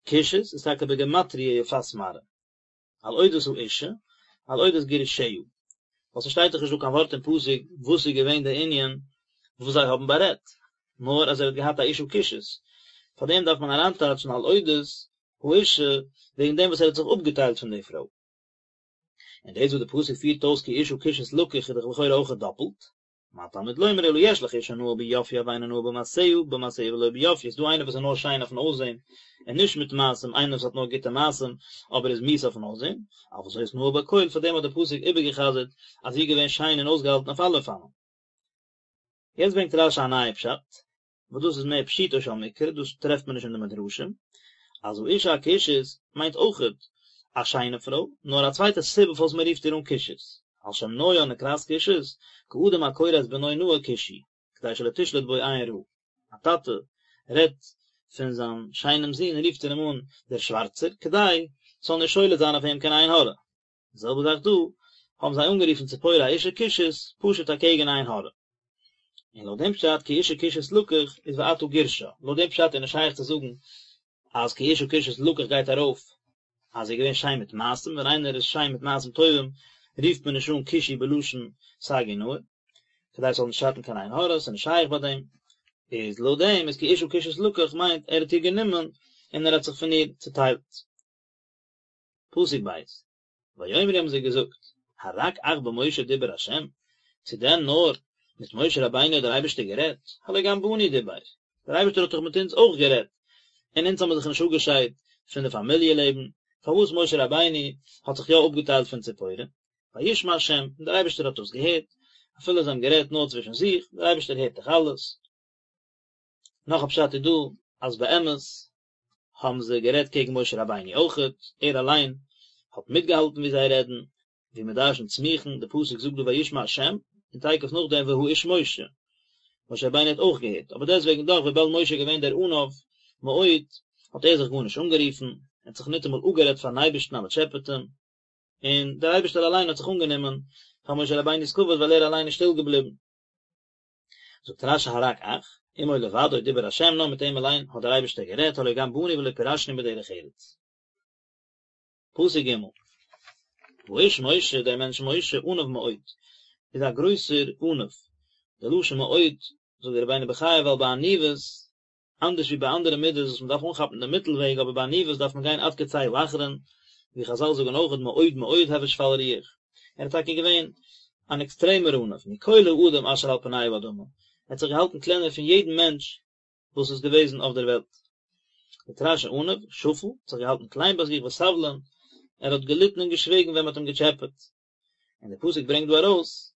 כושית איז טאקע בגימטריא יפת מראה. על אודות האשה, על אודות גירושיה. ווייל ס'שטייט דאך נישט דא קיין ווארט אין פסוק וואס איז געווען די ענין וואס זיי האבן בארעדט, נאר אז ער האט געהאט א אשה כושית. פאר דעם דארף מען אריינטייטשן על אודות האשה וועגן דעם וואס ער האט זיך אפגעטיילט פון די פרוי. און דאס וואס די פסוק פירט אויס כי אשה כושית לקח איז דאך לכאורה אויך דאפלט. מה תלמוד לומר אלא יש לך אשה נאה ביופיה ואינה נאה במעשיה, במעשיה ולא ביופיה, ס'דא איינער וואס איז נאר שיין אויפן אויסזען און נישט מיט מעשים, איינער וואס האט נאר גוטע מעשים אבער איז מיאוס אויפן אויסזען, אבל זאת נאה בכל, פאר דעם האט דער פסוק איבערגע'חזר'ט אז זי איז געווען שיין און אויסגעהאלטן אויף אלע אופנים. יעצט ברענגט רש"י א נייע פשט, וואס דאס איז מער פשוטו של מקרא, דאס טרעפט מען נישט אין די מדרשים, אז האשה הכושית מיינט אויכעט א שיינע פרוי, נאר א צווייטע סיבה פארוואס מען רופט איר אן כושית, על שם נויה נקראת כושית, כאדם הקורא את בנו נאה כושי, כדי שלא תשלוט בו עין רעה. א טאטע. רעדט פון זיין שיינעם זון רופט ער אים אן דער שווארצער, כדי ס'זאל נישט שולט זיין אויף אים קיין עין הרע. די זעלבע זאך דא, האבן זיי אנגערופן ציפורה אשה כושית, פשוט אקעגן עין הרע. און לויט דעם פשט כי אשה כושית לקח איז ועתה גירשה, לויט דעם פשט איז נישט שייך צו זאגן אז כי אשה כושית לקח גייט ארויף אז זי איז געווען שיין מיט מעשים, ווען איינער איז שיין מיט מעשים טובים רופט מען נישט אן כושי בלשון סגי נהור, כדי ס'זאל נישט שאטן קיין עין הרע, ס'איז נישט שייך ביי דעם, איז לויט דעם איז כי אשה כושית לקח מיינט ער האט איר גענומען און ער האט זיך פון איר צוטיילט. פסוק ב', ויאמרו האבן זיי געזאגט, הרק אך במשה דיבר ה', צו דען נאר מיט משה רבינו האט דער אייבערשטער גערעדט, הלא גם בנו דיבר, דער אייבערשטער האט דאך מיט אונז אויך גערעדט, און אונז האבן זיך נישט אפגעשיידט פון די פאמיליע לעבן, פארוואס משה רבינו האט זיך יא אפגעטיילט פון ציפורה? וישמע ה', און דער אייבערשטער האט דאס געהערט, אפילו זיי האבן גערעדט נאר צווישן זיך, דער אייבערשטער הערט דאך אלעס. נאך א פשט איז דא, אז באמת האבן זיי גערעדט קעגן משה רבינו אויכעט, ער אליין האט מיטגעהאלטן ווי זיי רעדן, ווי מען דרשנ'ט סמוכין, די פסוק זאגט דא וישמע השם, און תיכף נאכדעם והאיש משה, משה רבינו האט אויך געהערט, אבער דעסטוועגן דאך וויבאלד משה איז געווען דער עניו מאוד, האט ער זיך גארנישט אנגערופן, ער האט זיך ניטאמאל אפגערעדט פארן אייבערשטן אז מען טשעפעט אים, און דער אייבערשטער אליין האט זיך אנגענומען פאר משה רבינו'ס כבוד ווייל ער אליין איז שטיל געבליבן. זאגט רש"י הרק אך, עמו לבדו דיבר השם נאר מיט אים אליין האט דער אייבערשטער גערעדט הלא גם בנו ולא פירשנו בדרך ארץ. פסוק ג' והאיש משה דער מענטש משה עניו מאוד איז א גרויסער עניו, די לשון מאוד זאגט דער רבינו בחיי ווייל ביי עניוות אנדערש ווי ביי אנדערע מידות וואס מען דארף אנכאפן דעם מיטל וועג אבער ביי עניוות דארף מען גיין עד קצה האחרון, ווי חזל זאגן אויך מאוד מאוד הוי שפל רוח, ער איז טאקע געווען אן עקסטרעמער עניו, מכל האדם אשר על פני האדמה, ער האט זיך געהאלטן קלענער פון יעדן מענטש וואס איז געוועזן אויף דער וועלט. זאגט רש"י עניו, שפל, האט זיך געהאלטן קליין ביי זיך וסבלן, ער האט געליטן און געשוויגן ווען מען האט אים געטשעפעט. און דער פסוק ברענגט דא ארויס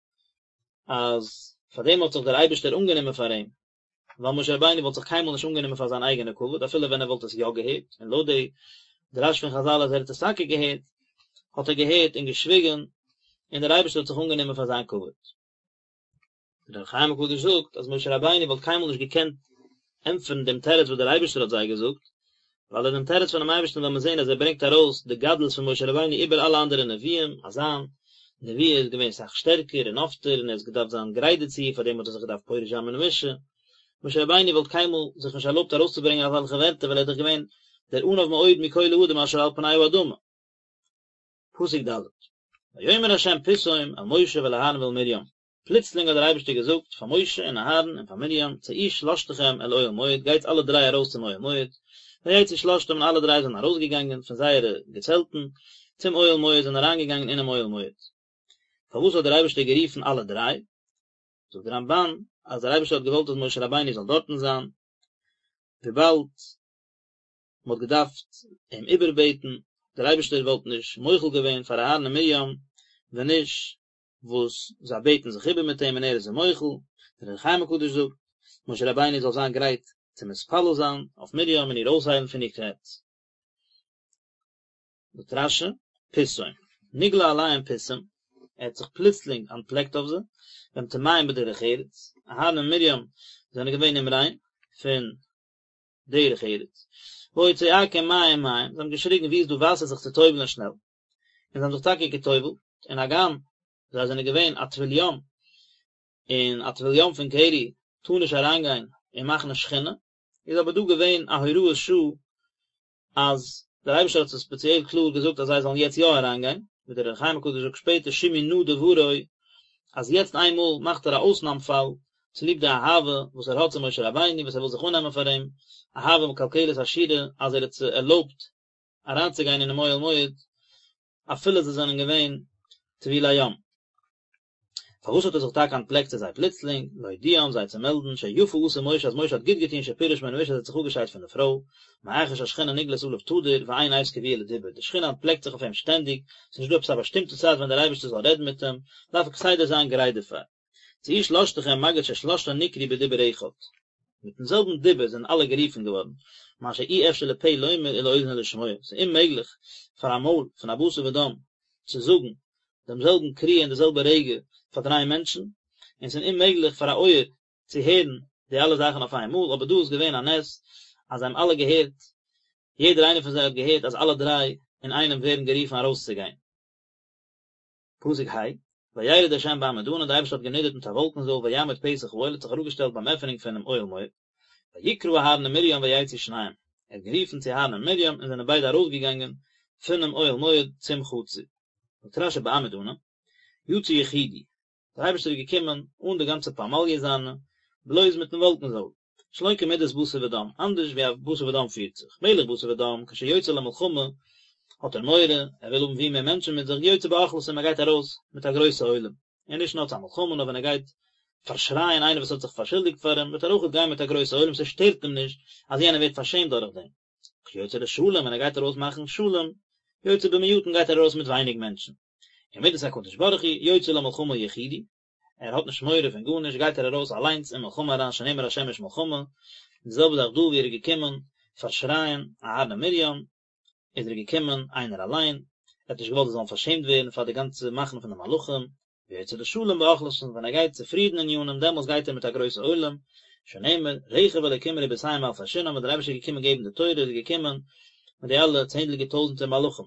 אז פאר דעם האט זיך דער אייבערשטער אנגענומען פאר אים, ווייל משה רבינו וואלט זיך קיינמאל נישט אנגענומען פאר זיין אייגענע כבוד אפילו ווען ער וואלט עס יא געהערט, און לויט די דרש פון חזל אז ער האט עס טאקע געהערט, האט ער געהערט און געשוויגן, און דער אייבערשטער האט זיך אנגענומען פאר זיין כבוד. דער אור החיים הקדוש זאגט אז משה רבינו וואלט קיינמאל נישט געקענט ענטפערן דעם תירוץ וואס דער אייבערשטער האט זיי געזאגט, ווייל אין דעם תירוץ פונעם אייבערשטן וועל מען זען אז ער ברענגט ארויס די גדלות פון משה רבינו איבער אלע אנדערע נביאים, אז זיין נבואה איז געווען סאך שטערקער און אפטער און ער האט געדארפט זיין גרייט דערצו, פאר דעם האט ער זיך געדארפט פורש זיין מן האשה. משה רבינו וואלט קיינמאל זיך נישט ערלויבט ארויסצוברענגען אזעלכע ווערטער ווייל ער איז דאך געווען דער עניו מאוד מכל האדם אשר על פני האדמה. פסוק ד' ויאמר ה' פתאום אל משה ואל אהרן ואל מרים, פלוצלינג האט דער אייבערשטער געזאגט פאר משה און אהרן און פאר מרים, צאו שלשתכם אל אוהל מועד, גייטס אלע דריי ארויס צום אוהל מועד, ויצאו שלשתם און אלע דריי זענען ארויסגעגאנגען פון זייערע געצעלטן צום אוהל מועד, זענען אריינגעגאנגען אינעם אוהל מועד. פארוואס האט דער אייבערשטער גערופן אלע דריי? זאגט דער רמב"ן אז דער אייבערשטער האט געוואלט אז משה רבינו זאל דארטן זיין, וויבאלד מען האט געדארפט אים איבערבעטן, דער אייבערשטער וואלט נישט מוחל געווען פאר אהרן און מרים ווען נישט וואס זיי בעטן זיך איבער מיט אים און ער איז זיי מוחל, דער אור החיים הקדוש זאגט, משה רבינו זאל זיין גרייט צו מתפלל זיין אויף מרים און איר אויסהיילן פון איר קרעץ. זאגט רש"י, פתאום, נגלה עליהם פתאום, ער האט זיך פלוצלינג אנטפלעקט אויף זיי, והם טמאים בדרך ארץ, אהרן און מרים זענען געווען אומריין פון דרך ארץ, והיו צועקים מים מים, זיי האבן געשריגן וואו איז דא וואסער זיך צו טובל'ען שנעל, און זיי האבן זיך טאקע געטובל'ט, און הגם זיי זענען געווען א טבול יום, און א טבול יום פון קרי טאר נישט אריינגיין אין מחנה שכינה, איז אבער דא געווען א הוראת שעה אז דער אייבערשטער האט זיי ספעציעל קלאר געזאגט אז זיי זאלן יעצט יא אריינגיין, ווי דער אור החיים הקדוש זאגט שפעטער שמעו נא דברי, אז יעצט איינמאל מאכט ער א אויסנאם פאל, צוליב די אהבה וואס ער האט צו משה רבינו וואס ער וויל זיך אננעמען פאר אים, אהבה מקלקלת השורה אז ער האט זיי ערלויבט אריינצוגיין אינעם אוהל מועד אפילו זיי זענען געווען טבולי יום. פארוואס האט ער זיך טאקע אנטפלעקט צו זיי פלוצלינג, להודיעם, זיי צו מעלדן, שיפה עשה משה אז משה האט גוט געטון שפירש מן האשה אז ער האט זיך אפגעשיידט פון די פרוי, מאחר שהשכינה נגלית עליו תדיר ואין עת קבועה לדיבור, די שכינה אנטפלעקט זיך אויף אים שטענדיג, ס'איז נישט דא עפעס א באשטימטע צייט ווען דער אייבערשטער זאל רעדן מיט אים, דארף ער כסדר זיין גרייט דערפאר. צאו שלשתכם מגיד ששלשתן נקראו בדיבור אחד. מיטן זעלבן דיבור זענען אלע גערופן געווארן, מה שאי אפשר לפה לומר ולאוזן לשמוע, ס'איז אוממעגליך פאר א מויל פון א בשר ודם צו זאגן דעם זעלבן קריאה אין די זעלבע רגע פאר דריי מענטשן, און ס'איז אוממעגליך פאר א אויער צו הערן. די אלע זאכן אויף איין מאל, אבער דא איז געווען א נס אז זיי האבן אלע געהערט, יעדער איינער פון זיי האט געהערט אז אלע דריי אינאיינעם ווערן גערופן ארויסצוגיין. פסוק ה', וירד ה' בעמוד ענן, דער אייבערשטער האט גענידערט מיט א וואלקן זויל ויעמוד פתח האוהל האט זיך אראפגעשטעלט ביים עפענונג פונעם אוהל מועד, ויקרא אהרן ומרים ויצאו שניהם, ער האט גערופן צו אהרן און מרים און זענען ביידע ארויסגעגאנגען פונעם אוהל מועד צום חצר. זאגט רשי בעמוד ענן, יצא יחידי, דער אייבערשטער איז געקומען אן די גאנצע פמליא זיינע, בלויז מיטן וואלקן זויל, שלא כמידת בשר ודם, אנדערש ווי א בשר ודם פירט זיך, מלך בשר ודם, כשיוצא למלחמה, האט ער מורא, ער וויל האבן ווי מער מענטשן מיט זיך, יוצא באוכלוסין, ער גייט ארויס מיט א גרויסע עולם, און נישט נאר צו א מלחמה, נאר ווען ער גייט פארשרייען איינער וואס האט זיך פארשולדיגט פאר אים, וועט ער אויכעט גיין מיט א גרויסע עולם, ס'שטערט אים נישט אז יענער ווערט פארשעמט דורך דעם. כשיוצא לשלום, ווען ער גייט ארויס מאכן שלום, יוצא במועטין גייט ער ארויס מיט ווייניג מענטשן. ומדת הקדוש ברוך הוא, יוצא למלחמה יחידי, ער האט נישט מורא פון גארנישט גייט ער ארויס אליינס אין מלחמה אריין שנאמר השם איש מלחמה, די זעלבע זאך דא ווי ער איז געקומען פארשרייען אהרן און מרים, איז ער געקומען איינער אליין, ער האט נישט געוואלט זיי זאלן פארשעמט ווערן פאר די גאנצע מחנה פון די מלאכים, ויוצא לשלום באוכלוסין ווען ער גייט צו פרידן ענינים דעמאלס גייט ער מיט א גרויסע עולם, שנאמר רכב אלקים רבותים אלפי שנם ווען דער אייבערשטער איז געקומען געבן די תורה איז ער געקומען מיט די אלע צענדליגער טויזנטער מלאכים.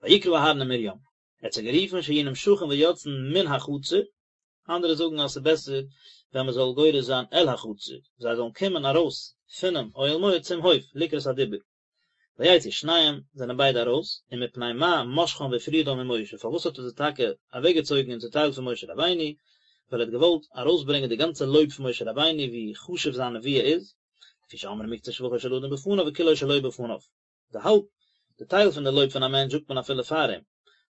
ויקרא אהרן ומרים, ער האט זיי גערופן שיהיו נמשכין ויוצאין מן החצר, אנדערע זאגן אז ס'איז בעסער ווען מ'זאל גורס זיין אל החצר, זיי זאלן קומען ארויס פונעם אוהל מועד צום הויף לקראת הדיבור. ויצאו שניהם, זענען ביידע ארויס, ומפני מה משכם והפרידם ממשה, פארוואס האט ער זיי טאקע אוועקגעצויגן און צוטיילט פון משה רבינו, ווייל ער האט געוואלט ארויסברענגען די גאנצע לויב פון משה רבינו ווי חשוב זיין נבואה איז, לפי שאומרים מקצת שבחו של אדם בפניו וכולו שלא בפניו. די האלב, די טייל פון די לויב פון א מענטש זאגט מען אפילו פאר אים,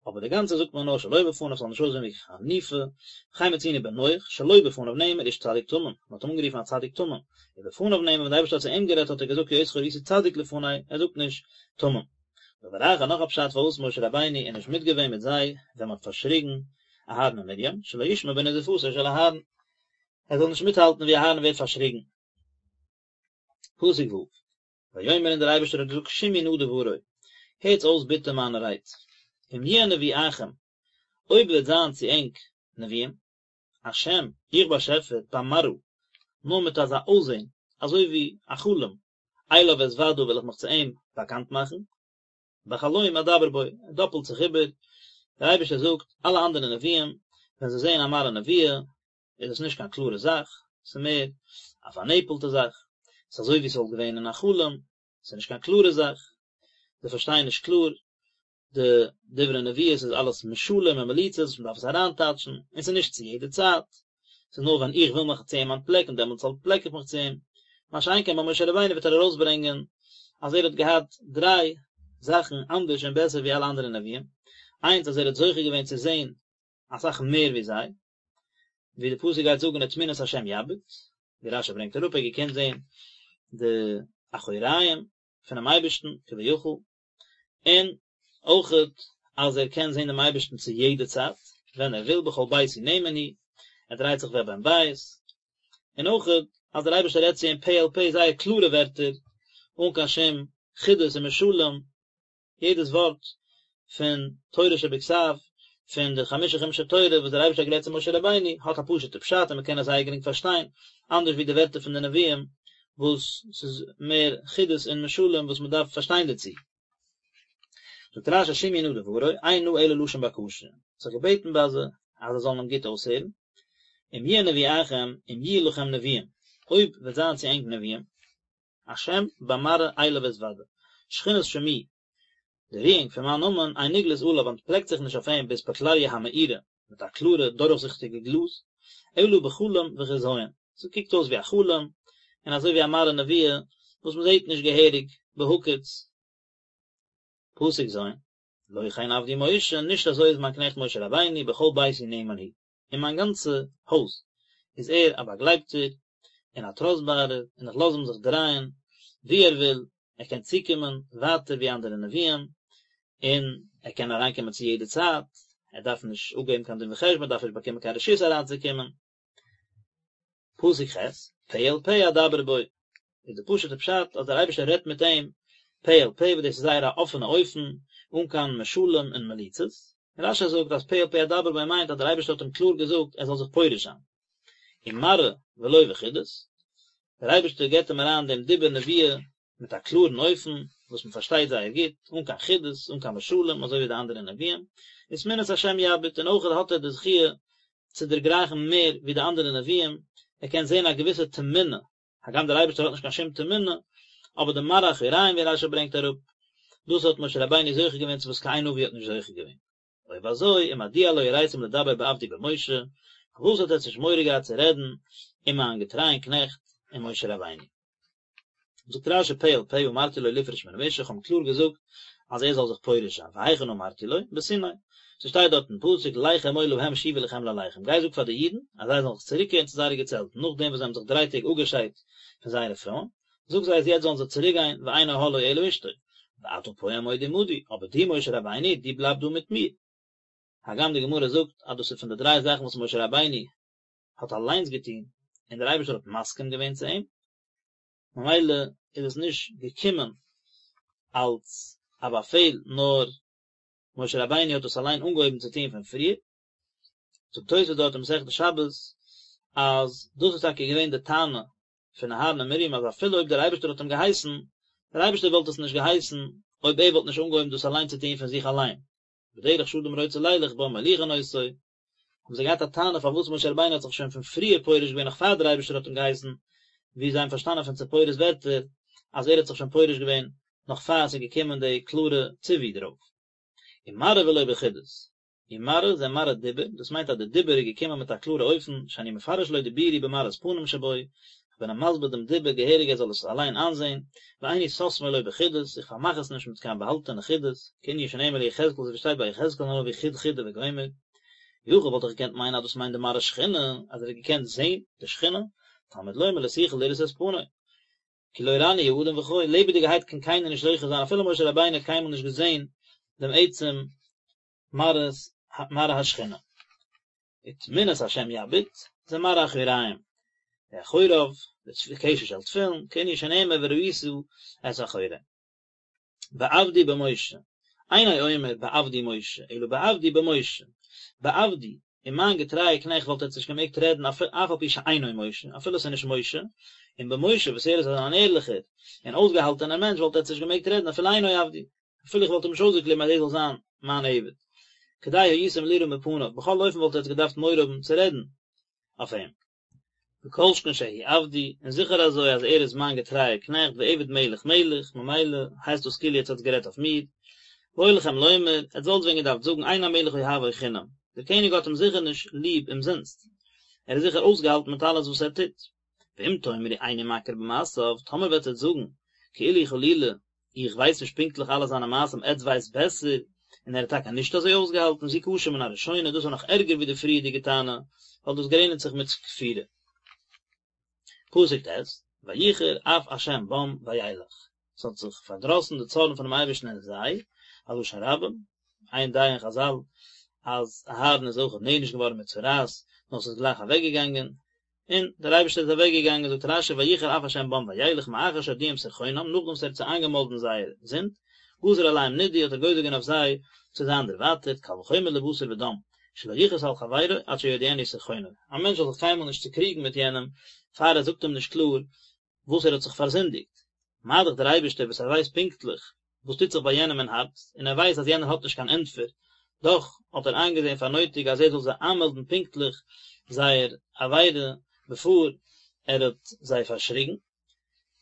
אבער די גאנצע זאגט מען נאר שלא בפניו ס'זאל נישט אויסזען ווי חניפה, וכן מצינו בנח, שלא בפניו נאמר איש צדיק תמים, מען האט אים אנגערופן א צדיק תמים, ובפניו נאמר ווען די אייבערשטער האט צו אים גערעדט האט ער געזאגט כי אותך ראיתי צדיק לפני, ער זאגט נישט תמים. דבר אחר נאך א פשט פארוואס משה רבינו איז נישט מיטגעווען מיט זיי ווען מען האט פארשריגן אהרן און מרים, שלא ישמע בנזיפתו של אהרן, ער זאל נישט מיטהאלטן ווי אהרן ווערט פארשריגן. פסוק ו'. ויאמר און דער אייבערשטער האט געזאגט שמעו נא דברי, הערטס אויס ביטע מיינע רייד, אם יהיה נביאכם, אויב וועט זיין צו ענק נביאים, השם, איך באשעפער, במראה, נאר מיט אזא אויסזען, אזוי ווי א חלום, אליו אתודע וועל איך מיך צו אים באקאנט מאכן, בחלום אדבר בו, ער דאפלט זיך איבער, דער אייבערשטער זאגט, אלע אנדערע נביאים, ווען זיי זעען א מראה נבואה, איז עס נישט קיין קלארע זאך, ס'איז מער א פארנעפלטע זאך, ס'איז אזוי ווי ס'וואלט געווען אין א חלום, ס'איז נישט קיין קלארע זאך, זיי פארשטייען נישט קלאר די דברי נביאות איז אלעס משלים און מליצות וואס מ'דארף עס אריינטייטשן, און ס'איז נישט צו יעדע צייט, ס'איז נאר ווען איך וויל מיך צו אים אנטפלעקן דעמאלטס אנטפלעק איך מיך צו אים, מה שאין כן ביי משה רבינו וועט ער ארויסברענגען אז ער האט געהאט דריי זאכן אנדערש און בעסער ווי אלע אנדערע נביאים, איינס אז ער האט זוכה געווען צו זען אסאך מער ווי זיי, ווי די פסוק גייט זאגן ותמונת השם יביט, ווי רשי ברענגט אראפ ער האט געקענט זען די אחוריים פונעם אייבערשטן כביכול, און אויכעט אז ער קען זען דעם אייבערשטן צו יעדע צייט ווען ער וויל בכל ביתי נאמן הוא, ער דרייט זיך ווי א בן בית, און אויכעט אז דער אייבערשטער רעדט צו אים פה אל פה זייער קלארע ווערטער אן קיין שום חידות און משלים, יעדעס ווארט פון תורה שבכתב, פון די חמשה חומשי תורה וואס דער אייבערשטער האט גערעדט צו משה רבינו, האט א פשוט'ע פשט און מען קען עס זייער גרינג פארשטיין, אנדערש ווי די ווערטער פון די נביאים וואס ס'איז מער חידות און משלים וואס מען דארף פארשטיין דערצו. זאגט רשי שמעו נא דברי, אין נא אלא לשון בקשה, האט זיך געבעטן ביי זיי אז זיי זאלן אים גוט אויסהערן, אם יהיה נביאכם, אם יהיו לכם נביאים, אויב וועט זיין צו ענק נביאים, השם במראה אליו אתודע, שכינת שמי, די רואונג פון מיין נאמען, אין נגלית עליו אנטפלעקט זיך נישט אויף אים באספקלריא המאירה, מיט א קלארע דורכזיכטיגע גלאז, אלא בחלום וחזיון, ס'קוקט אויס ווי א חלום, און אזוי ווי א מראה נבואה וואס מ'זעט נישט געהעריג בהקיץ. פסוק ז', לא כן עבדי משה, נישט אזוי איז מיין קנעכט משה רבינו, בכל ביתי נאמן הוא. אין מיין גאנצע הויז איז ער א באגלייבטער און א טראסטבארער, און איך לאז אים זיך דרייען וואו ער וויל, ער קען צוקומען ווייטער ווי אנדערע נביאים, און ער קען אריינקומען צו יעדע צייט, ער דארף נישט אפגעבן קיין דין וחשבון, ער דארף נישט באקומען קיין רשות אריינצוקומען. פסוק ח', פה אל פה אדבר בו, איז די פשוט'ע פשט אז דער אייבערשטער רעדט מיט אים פה אל פה וואס דאס איז זייער א אפענע אופן, אן קיין משלים און מליצות, און רשי זאגט אז פה אל פה אדבר בו מיינט אז דער אייבערשטער האט אים קלאר געזאגט ער זאל זיך פורש זיין. ומראה. ולא בחידות, דער אייבערשטער געבט אים אריין דעם דיבור נבואה מיט א קלארן אופן וואס מען פארשטייט זייער גוט, אן קיין חידות, אן קיין משלים אזוי ווי די אנדערע נביאים, ותמונת השם יביט, און אויך האט ער די זכיה צו דערגרייכן מער ווי די אנדערע נביאים, ער קען זען א געוויסע תמונה, הגם דער אייבערשטער האט נישט קיין שום תמונה, אבער די מראה אחוריים ווי רשי ברענגט אראפ, דאס האט משה רבינו זוכה געווען צו וואס קיין נביא האט נישט זוכה געווען. אויב אזוי, ומדוע לא יראתם לדבר בעבדי במשה, פארוואס האט עטץ נישט מורא געהאט צו רעדן אין מיין געטרייען קנעכט אין משה רבינו? זאגט רשי פה אל פה אמרתי לו לפרוש מן האשה, איך האב אים קלאר געזאגט אז ער זאל זיך פורש זיין, והיכן אמרתי לו? בסיני. ס'שטייט דארט אין פסוק לך אמור להם שובו לכם לאהליכם, גיי זאג פאר די אידן אז זיי זאלן זיך צוריקקערן צו זייערע געצעלטן נאכדעם וואס זיי האבן זיך דריי טעג אפגעשיידט פון זייערע פרויען, זאג זיי אז יעצט זאלן זיי צוריק גיין ואין אהלו אלא אשתו, ואתה פה עמוד עמדי, אבער דו משה רבינו, דו בלייב דא מיט מיר. הגם די גמרא זאגט אז דאס איז פון די דריי זאכן וואס משה רבינו האט אליינס געטון און דער אייבערשטער האט מסכים געווען צו אים, ממילא איז עס נישט געקומען אלס א באפעל נאר משה רבינו האט עס אליין אנגעהויבן צו טון פון פריער. זאגט תוספות דארט אין מסכת שבת אז דאס איז טאקע געווען די טענה פון אהרן און מרים אז אפילו אויב דער אייבערשטער האט אים געהייסן, דער אייבערשטער וואלט עס נישט געהייסן אויב ער וואלט נישט אנגעהויבן דאס אליין צו טון פון זיך אליין, בדרך שאדם רוצה לילך בה מוליכין אותו, האבן זיי געהאט א טענה פארוואס משה רבינו האט זיך שוין פון פריער פורש געווען נאך פאר דער אייבערשטער האט אים געהייסן, ווי זיי האבן פארשטאנען פון ציפורה'ס ווערטער אז ער האט זיך שוין פורש געווען נאך פאר עס איז געקומען די קלארע ציווי דערויף. ומראה ולא בחידות, ומראה זה מראה דיבור, דאס מיינט אז די דיבור איז געקומען מיט א קלארע אופן, שאני מפרש לו דיבורי במראית פנים שבו, איך בין אים מסביר דעם דיבור געהעריג ער זאל עס אליין איינזען, ואיני סותמו לו בחידות, איך פארמאך עס נישט מיט קיין באהאלטענע חידות, כענין שנאמר ליחזקאל אזוי ווי שטייט ביי יחזקאל הנביא חוד חידה וגומר. יכול וואלט איך געקענט מיינען אז דאס מיינט די מראה שכינה, אז ער האט געקענט זען די שכינה, תלמוד לומר לא תוכל לראות את פני. כי לא ראני האדם וחי, לעבעדיגערהייט קען קיינער נישט זוכה זיין אפילו משה רבינו האט קיינמאל נישט געזען דעם עצם מראות מראה השכינה. ותמונת השם יביט, זה מראה אחוריים. די אחוריו, די קשר של תפילין, כענין שנאמר וראית את אחורי. בעבדי במשה, אינו אומר בעבדי משה, אלא בעבדי במשה. בעבדי, אין מיין געטרייע קנעכט וואלט עטס נישט געמעגט רעדן אף על פי שאינו משה, אפילו עס איז נישט משה, און במשה וואס ער איז אן ערליכער און אויסגעהאלטענער מענטש וואלט עטס נישט געמעגט רעדן אפילו אינו עבדי. אפילו איך וואלט אים נישט אויסגעקליבן אז ער זאל זיין מיין עבד. כדאי הייתם לירא מפניו, בכל אופן וואלט עטס געדארפט מורא האבן צו רעדן אויף אים. וכל שכן שהוא עבדי, און זיכער אזוי אז ער איז מיין געטרייער קנעכט ועבד מלך מלך, ממילא הייסט דאס כאילו עטס האטס גערעדט אויף מיר. והיה לכם לומר, עטס וואלטס ווען געדארפט זאגן אין המלך אוהבו חינם, דער קעניג האט אים זיכער נישט ליב אומזינסט, ער איז זיכער אויסגעהאלטן מיט אלעס וואס ער טוט. ואם תאמרו איני מכיר במעשיו, טאמער וועט עטס זאגן, כאילו חלילה, איך ווייס נישט פונקטליך אלע זיינע מעשים, עטס ווייסט בעסער, און ער איז טאקע נישט אזוי אויסגעהאלטן, זו קשה מן הראשונה, דאס איז נאך ערגער ווי די פריערדיגע טענה, ווייל דאס גרעניצט זיך מיט כפירה. פסוק ט', ויחר אף השם בם וילך, עס האט זיך פארדראסן די צארן פונעם אייבערשטן אין זיי, א לשון רבים, איין דעה אין חזל אז אהרן איז אויך נענש געווארן מיט צרעת, נאר עס איז גלייך אוועקגעגאנגען, און דער אייבערשטער איז אוועק געגאנגען, זאגט רשי ויחר אף השם בם וילך מאחר שהודיעם סרחונם, נאכדעם וואס ער האט זיי איינגעמאלדן זייער זינד, גזר עליהם נידוי האט ער גוזר געווען אויף זיי צו זיין דערווייטערט, קל וחומר לבשר ודם, שלא יכעוס על חברו עד שיודיענו סרחונו, א מענטש זאל זיך קיינמאל נישט צוקריגן מיט יענעם פאר ער זאגט אים נישט קלאר וואס ער האט זיך פארזינדיגט, מה דאך דער אייבערשטער וואס ער ווייסט פונקטליך וואס טוט זיך ביי יענעם אין הארץ, און ער ווייסט אז יענער האט נישט קיין ענטפער, דאך האט ער איינגעזען פאר נויטיג אז ער זאל זיי איינמעלדן פונקטליך זייער עבירה בעפאר ער האט זיי פארשריגן.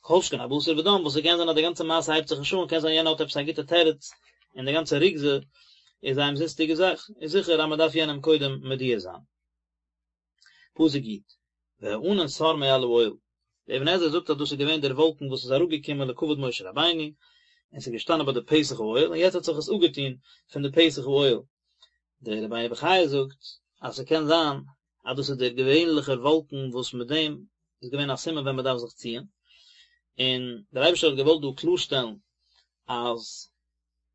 כל שכן א בשר ודם, וואס ס'קען זיין אז די גאנצע מעשה הייבט זיך נישט אן, קען זיין יענער האט עפעס א גוטע תירוץ, און די גאנצע רוגזה איז א אומזיסטיגע זאך, איז זיכער אז מ'דארף יענעם קודם מודיע זיין. פסוק י', והענן סר מעל האוהל, דער אבן עזרא זאגט אז דאס איז געווען דער וואלקן וואס איז אראפגעקומען לכבוד משה רבינו, און ס'איז געשטאנען ביי די פתח האוהל, און יעצט האט זיך עס אפגעטון פון די פתח האוהל. דער רבינו בחיי זאגט אז ס'קען זיין אז דאס איז דער געווענליכער וואלקן וואס מיט דעם איז געווען א סימן ווען מ'דארף זיך ציען, און דער אייבערשטער האט געוואלט דא קלארשטעלן אז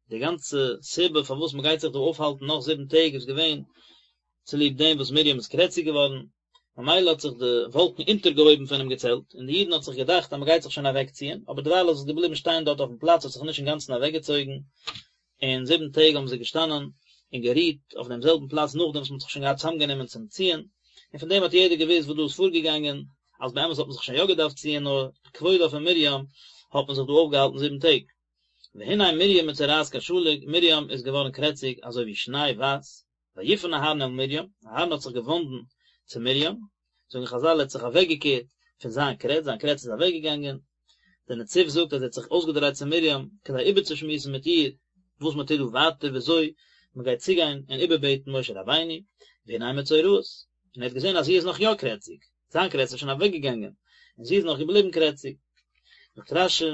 די גאנצע סיבה פארוואס מען גייט זיך דא אויפהאלטן נאך זיבן טעג איז געווען צוליב דעם וואס מרים איז קרעציג געווארן, ממילא האט זיך די וואלקן אונטערגעהויבן פונעם געצעלט, און די אידן האט זיך געדאכט אז מען גייט זיך שוין אוועקציען, אבער דערווייל איז עס געבליבן שטיין דארט אויפן פלאץ, האט זיך נישט אינגאנצן אוועקגעצויגן, און זיבן טעג האבן זיי געשטאנען און גערוהט אויף דעם זעלבן פלאץ נאכדעם וואס מען האט זיך שוין געהאט צוזאמגענומען צום ציען, און פון דעם האט יעדער געוואוסט וואס דא איז פארגעגאנגען. אז באמת האט מען זיך שוין יא געדארפט ציען נאר לכבודה פון מרים האט מען זיך דא אויפגעהאלטן זיבן טעג. והנה מרים מצורעת כשלג, מרים איז געווארן קרעציג אזוי ווי שניי ווייס, ויפן אהרן אל מרים, אהרן האט זיך געוואנדן צו מרים, זאגן חזל ער האט זיך אוועקגעקערט פון זיין קרעץ, זיין קרעץ איז אוועקגעגאנגען, דער נציב זאגט אז ער האט זיך אויסגעדרייט צו מרים כדי איבערצושמועסן מיט איר וואס מען טוט דא ווייטער וויאזוי מען גייט צוגיין און איבערבעטן משה רבינו, והנה מצורעת, און ער האט געזען אז זי איז נאך יא קרעציג, זיין קרעץ איז שוין אוועקגעגאנגען, און זי איז נאך געבליבן קרעציג. זאגט רשי,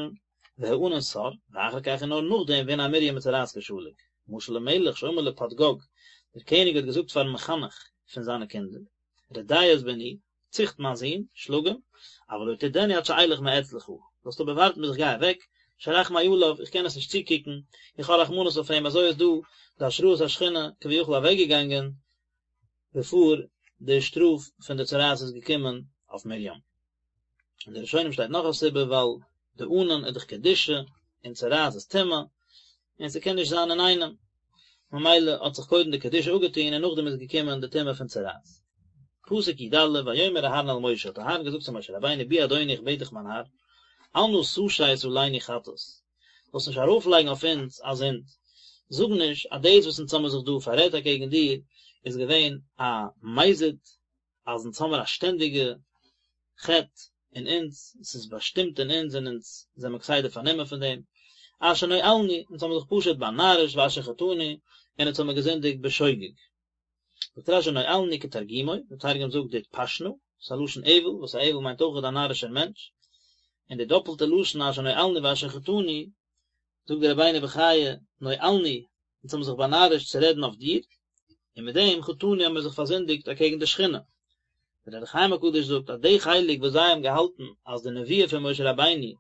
והענן סר, ואחר כך און נאר נאכדעם והנה מרים מצורעת כשלג. משל למלך שאמר לפדגוג, דער קעניג האט געזאגט פארן מחנך פון זיינע קינדער, רדה את בני, ציכט מיין זון, שלאג אים, אבל לא תרדנו עד שאלך מאצלך, זאלסט אבער ווארטן ביז איך גיי אוועק, שרחמי עליו, איך קען עס נישט צוקוקן, איך האב רחמנות אויף אים, אזוי איז דא די השראת השכינה כביכול אוועקגעגאנגען בעפאר די שטראף פון די צרעת איז געקומען אויף מרים. אין די ראשונים שטייט נאך א סיבה ווייל די ענן איז דאך קדושה און צרעת איז טומאה און ס'קען נישט זיין אינאיינעם ממילא האט זיך קודם די קדושה אפגעטון און נאכדעם איז געקומען די טומאה פון צרעת. פסוק י א ויאמר אהרן אל משה האט אהרן געזאגט צו משה רבינו בי אדוני איך בעט דיך מיין האר אל נא תשת עלינו חטאת זאלסט נישט ארויפלייגן אויף אונז א זינד זאג נישט אז דאס וואס אונז האמיר זיך דא פאררעדט אקעגן דיר איז געווען א מזיד אז אונז האמיר א שטענדיגע חטא אין אונז, עס איז באשטימט אין אונז און אונז זעמיר כסדר פארנומען פון דעם, אשר נואלנו, אונז האמיר זיך פשוט באנארישט ואשר חטאנו, און אונז האמיר געזינדיגט בשוגג. זאגט רשי נואלנו כתרגומו, דער תרגום זאגט דאטפשנא, ס'איז א לשון אויל, וואס א אויל מיינט אויך א נארישער מענטש, און די דאפלטע לשון אשר נואלנו ואשר חטאנו, זאגט דער רבינו בחיי, נואלנו, אונז האבן זיך באנארישט צו רעדן אויף דיר, און מיט דעם חטאנו האבן מיר זיך פארזינדיגט אקעגן די שכינה. דער אור החיים הקדוש זאגט אז די חלק וואס זיי האבן געהאלטן אז די נבואה פון משה רבינו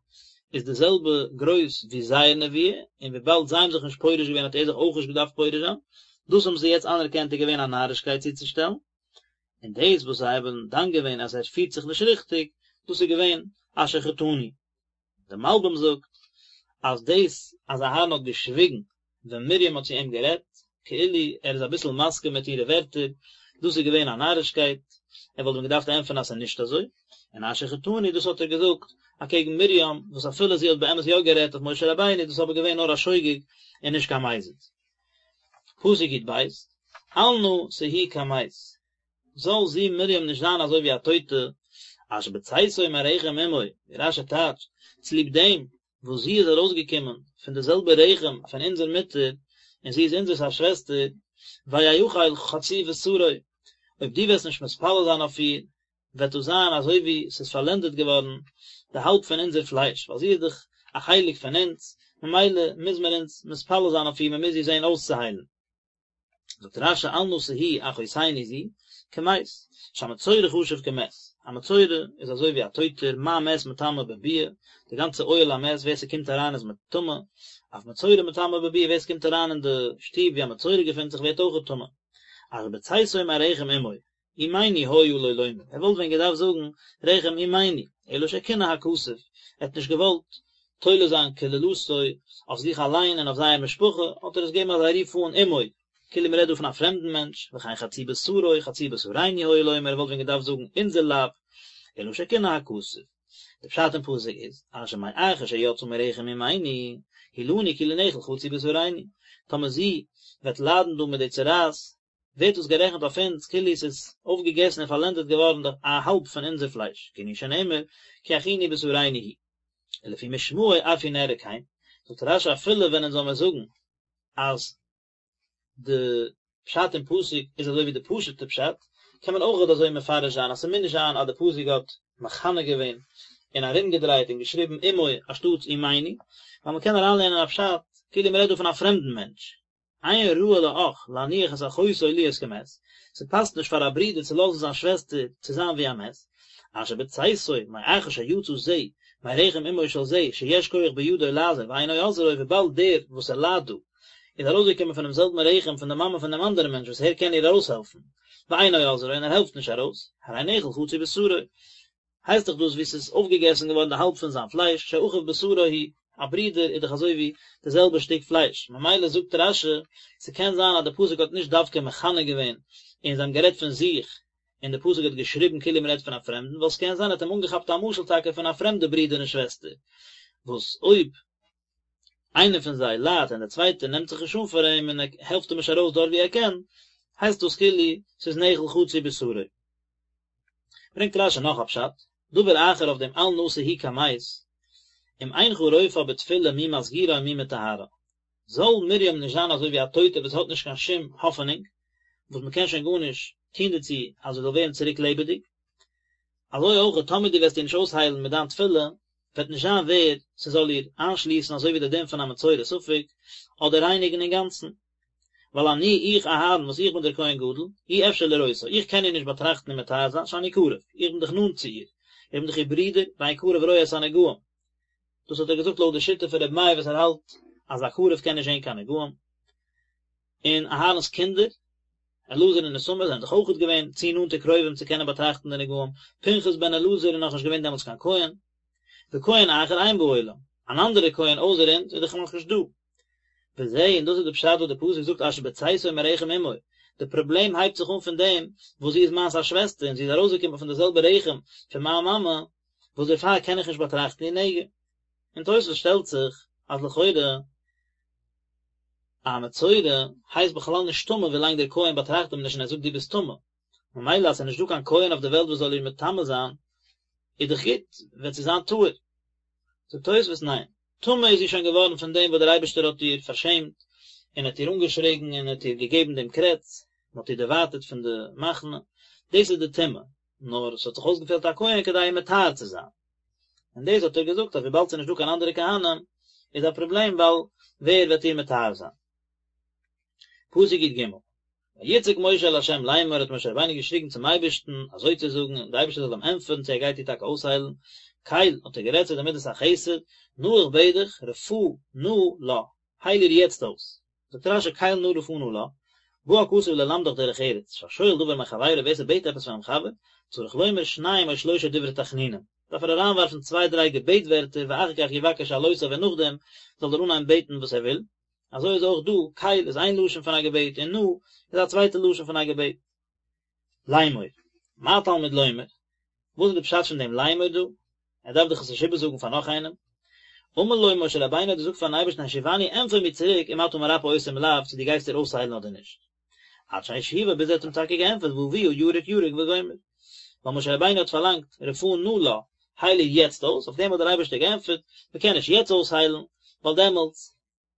איז די זעלבע גרויס ווי זייער נבואה, און וויבאלד זיי האבן זיך נישט פורש געווען האט ער זיך אויך נישט געדארפט פורש זיין, דאס האבן זיי יעצט אנערקענט איז געווען א נארישקייט צוצושטעלן, און דאס וואס זיי האבן דן געווען אז ער פירט זיך נישט ריכטיג, דאס איז געווען אשר חטאנו. דער מלבים זאגט אז דאס אז אהרן האט געשוויגן ווען מרים האט צו אים גערעדט, כאילו ער איז אביסל מסכים מיט אירע ווערטער, דאס איז געווען א נארישקייט, ער וואלט ווען געדארפט ענטפערן אז ס'איז נישט אזוי, און אשר חטאנו דאס האט ער געזאגט אקעגן מרים, וואס אפילו זי האט באמת יא גערעדט אויף משה רבינו, דאס איז אבער געווען נאר א שוגג און נישט קיין מזיד. פסוק יב, אל נא תהי כמת, זאל זי מרים נישט זיין אזוי ווי א טויטע, אשר בצאתו מרחם אמו, ווי רשי טייטשט, צוליב דעם וואס זי איז ארויסגעקומען פון די זעלבע רחם פון אונזער מוטער, און זי איז אונזערס א שוועסטער, ויאכל חצי בשרו, אויב דו וועסט נישט מתפלל זיין אויף איר, וועט דאס זיין אזוי ווי ס'איז פארלענדעט געווארן די האלב פון אונזער פלייש, ווייל זי איז דאך א חלק פון אונז, ממילא מוז מען אונז מתפלל זיין אויף איר, מען מוז איר זען אויסצוהיילן. זאגט רשי אל נא תהי אחותנו זו כמת, שהמצורע חשוב כמת, א מצורע איז אזוי ווי א טויטער, מה מת מטמא בביאה, די גאנצע אוהל המת ווער ס'קומט אריין איז מטמא, אף מצורע מטמא בביאה ווער ס'קומט אריין אין די שטוב ווי א מצורע געפינט זיך ווערט אויכעט טמא, אשר בצאתו מרחם אמו, אמנו היה לו לומר, ער וואלט ווען געדארפט זאגן רחם אמנו, אלא שקינא הכתוב, ער האט נישט געוואלט תולה זיין קללתו אויף זיך אליין און אויף זייער משפחה, האט ער עס געגעבן אזא רוף אן אמו, כאילו מען רעדט דא פון א פרעמדן מענטש, וכן חצי בשרו, חצי בשרנו היה לומר, ער וואלט ווען געדארפט זאגן אונזער לייב, אלא שקינא הכתוב. די פשט אין פסוק איז, אשר מאחר שיצאה מרחם אמנו, הוא לנו כאילו נאכל חצי בשרנו, טאמער זי וועט ליידן דא מיט די צרעת, ווערט דאס גערעכנט אויף אונז כאילו עס איז אויפגעגעסן און פארלענדעט געווארן די א האלב פון אונזער פלייש, כענין שנאמר כי אחינו בשרנו הוא. ולפי משמעו אף הוא נראה כן, זאגט רשי אפילו ווען אונז זאל מיר זאגן אז די פשט אין פסוק איז אזוי ווי די פשוט'ע פשט, קען מען אויך אזוי מפרש זיין אז ס'מוז נישט זיין אז די פסוק האט מכנה געווען און ארומגעדרייט און געשריבן אמו אנשטאטס אמנו, ווייל מ'קען אריינלערנען א פשט כאילו מ'רעדט דא פון א פרעמדן מענטש, אין ראוי לאח להניח את אחותו להיות כמת, ס'פאסט נישט פאר א ברודער צו לאזן זיין שוועסטער צו זיין ווי א מת, אשר בצאתו מאחר שיצא זה מרחם אמו של זה שיש כח בידו לעזור ואינו עוזרו וויבאלד דער וואס ער ליידט דא איז ארויסגעקומען פונעם זעלבן רחם פון די מאמע פון דעם אנדערן מענטש וואס ער קען איר ארויסהעלפן ואינו עוזרו און ער העלפט נישט ארויס, הרי נאכל חצי בשרו. הייסט דאך דאס ווי ס'איז אויפגעגעסן געווארן די האלב פון זיין פלייש, שאחיו בשרו הוא, א ברודער איז דאך אזוי ווי די זעלבע שטיק פלייש, ממילא זאגט רשי, ס'קען זיין אז די פסוק האט נישט דווקא מכנה געווען און זיי האבן גערעדט פון זיך, און די פסוק האט געשריבן כאילו מען רעדט פון א פרעמדן, ווייל ס'קען זיין ער האט אים אנגעכאפט א משל טאקע פון א פרעמדע ברודער און שוועסטער, וואס אויב איינער פון זיי ליידט און דער צווייטער נעמט זיך נישט אן פאר אים און ער העלפט אים נישט ארויס דארט ווי ער קען, הייסט דאס כאילו ס'איז נאכל חצי בשרו. ברענגט רשי נאך א פשט, דבר אחר אויף דעם אל נא תהי כמת, אם אינך רופאה בתפילה מי מסגירה ומי מטהרה. זאל מרים נישט זיין אזוי ווי א טויטע וואס האט נישט קיין שום האפענונג, וואס מען קען שוין גארנישט טון דערצו אז זי זאל ווערן צוריק לעבעדיג, אזוי אויך טאמער דו וועסט איר נישט אויסהיילן מיט דיין תפילה, וועט נישט זיין ווער ס'זאל איר איינשליסן אזוי ווי דער דין פון א מצורע ספק, אדער רייניגן אינגאנצן. ווייל אני, איך אהרן, וואס איך בין דער כהן גדול, אי אפשר לראותה, איך קען איר נישט באטראכטן און מטהר זיין, שאני קרוב, איך בין דאך נאנט צו איר, איך בין דאך איר ברודער, ואין קרוב רואה את הנגעים. דאס האט ער געזאגט לויט די שיטה פון רבי מאיר וואס ער האלט אז א קרוב קען נישט זען קיין נגעים. און אהרן'ס קינדער, אלעזר און איתמר זענען דאך אויכעט געווען צו נאנטע קרובים צו קענען באטראכטן די נגעים, פנחס בן אלעזר איז נאכנישט געווען דעמאלטס קיין כהן, וכהן אחר אין בעולם, אן אנדערע כהן אויסער אונז איז דאך נאכנישט דא. וזה, און דאס איז די פשט וואס די פסוק זאגט אשר בצאתו מרחם אמו, די פראבלעם הייבט זיך אן פון דעם וואס זי איז מיינס א שוועסטער און זי איז ארויסגעקומען פון די זעלבע רחם פון מיין מאמע, וואס דערפאר קען איך נישט באטראכטן איר נגע. און תוספות שטעלט זיך אז לכאורה א מצורע הייסט בכלל נישט טמא ווילאנג דער כהן באטראכט אים נישט און ער זאגט דו ביסט טמא, ממילא אז ס'איז נישט דא קיין כהן אויף די וועלט וואס זאל איר מטמא זיין, איז דאך גוט, וועט זי זיין טהור. זאגט תוספות ניין, טמא איז זי שוין געווארן פון דעם וואס דער אייבערשטער האט איר פארשעמט, און האט איר אנגעשריגן און האט איר געגעבן דעם קרעץ, און האט איר דערווייטערט פון די מחנה, דאס איז די טומאה, נאר עס האט זיך אויסגעפעלט א כהן כדי איר מטהר צו זיין. און דאס האט ער געזאגט אז וויבאלד ס'איז נישט דא קיין אנדערע כהנים איז א פראבלעם ווייל ווער וועט איר מטהר זיין. פסוק י ג, ויצעק משה אל ה' לאמר האט משה רבינו געשריגן צום אייבערשטן אזוי צו זאגן און דער אייבערשטער זאל אים ענטפערן צו ער גייט איר טאקע אויסהיילן, קל, האט ער גערעדט צו די מדת החסד, נא איך בעט דיך, רפא נא לה, הייל איר יעצט אויס. זאגט רשי קל נא רפא נא לה, בא הכתוב ללמדך דרך ארץ, שהשואל דבר מחבירו ווער ס'בעט עפעס פונעם חבר, צריך לומר שניים או שלושה דברי תחנונים, דארף ער אריינווארפן צוויי דריי געבעט ווערטער ואחר כך יבקש שאלותיו און נאכדעם זאל ער אנהייבן בעטן וואס ער וויל, אזוי איז אויך דא, קל איז איין לשון פון א געבעט און נא איז א צווייטע לשון פון א געבעט. לאמור, מה תלמוד לומר? וואס איז די פשט פון דעם לאמור דא? ער דארף דאך עס נישט איבערזאגן פאר נאך איינעם. אמר לו משה רבינו האט געזאגט פארן אייבערשטן השיבני ענטפער מיר צוריק אם אתה מרפא אותה אם לאו צו דו גייסט איר אויסהיילן אדער נישט. עד שהשיבו ביז ער האט אים טאקע געענטפערט ואביה ירק ירק וגומר. ווייל משה רבינו האט פארלאנגט רפא נא לה, הייל איר יעצט אויס, אויף דעם האט דער אייבערשטער געענטפערט, מען קען נישט יעצט אויסהיילן, ווייל דעמאלטס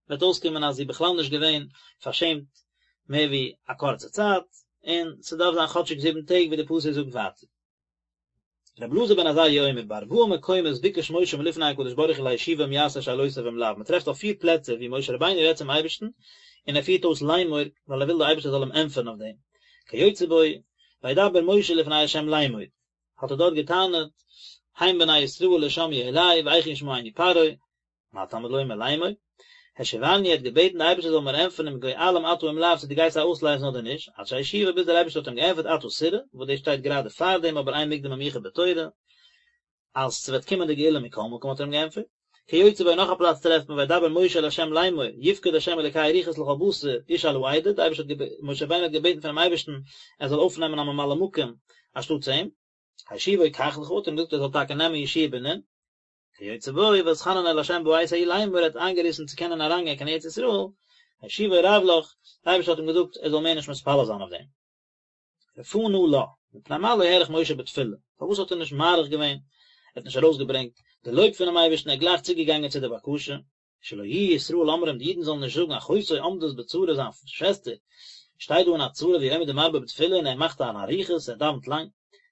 וועט אויסקומען אז זי איז בכלל נישט געווען פארשעמט מער ווי א קורצע צייט, און ס'דארף זיין כאטשיג זיבן טעג ווי די פסוק זאגט ווייטער. רבי אלעזר בן עזריה אומר, בארבעה מקומות ביקש משה מלפני הקדוש ברוך הוא להשיבו אם יעשה שאלותיו אם לאו, מ'טרעפט אויף פיר פלעצער ווי משה רבינו רעדט צום אייבערשטן און ער פירט אויס לאמור ווייל ער וויל די אייבערשטער זאל אים ענטפערן אויף דעם, כיוצא בו, וידבר משה לפני ה' לאמור, האט ער דארט געטענה'ט, הן בני ישראל לא שמעו אלי ואיך ישמעני פרעה, מה תלמוד לומר לאמור? השיבני האט געבעטן די אייבערשטער זאל מיר ענטפערן אם גואלם אתה אם לאו צו דו גייסט זיי אויסלייזן אדער נישט, עד שהשיבו ביז דער אייבערשטער האט אים געענטפערט עתה תראה, וואס דאס שטייט גראדע פאר דעם אבער אין מוקדם ומאוחר בתורה, אז ס'וועט קומען די גאולה מכל מקום האט ער אים געענטפערט. כיוצא בו נאך א פלאץ טרעפט מען וידבר משה אל ה' לאמור, יפקד ה' אלוקי הרוחות לכל בשר איש על העדה, די אייבערשטער האט משה רבינו האט געבעטן פונעם אייבערשטן ער זאל אויפנעמען א ממלא מקום אנשטאטס אים, השיבו קח לך האט ער אים געזאגט ער זאל טאקע נעמען יהושע בן נון, כיוצא בו ואתחנן אל ה' בעת ההיא לאמור ער האט איינגעריסן צו קענען אריינגיין קיין ארץ ישראל, השיבו רב לך, דער אייבערשטער האט אים געזאגט ער זאל מער נישט מתפלל זיין אויף דעם. רפא נא לה, מפני מה לא האריך משה בתפילה, פארוואס האט ער נישט מאריך געווען, ער האט נישט ארויסגעברענגט די לויב פונעם אייבערשטן ער איז גלייך צוגעגאנגען צו די בקשה, שלא יהיו ישראל אומרים די אידן זאלן נישט זאגן אחותו עומדת בצרה זיין שוועסטער שטייט דא אין א צרה והוא עומד ומרבה בתפילה און ער מאכט אן אריכות ער דאווענט לאנג.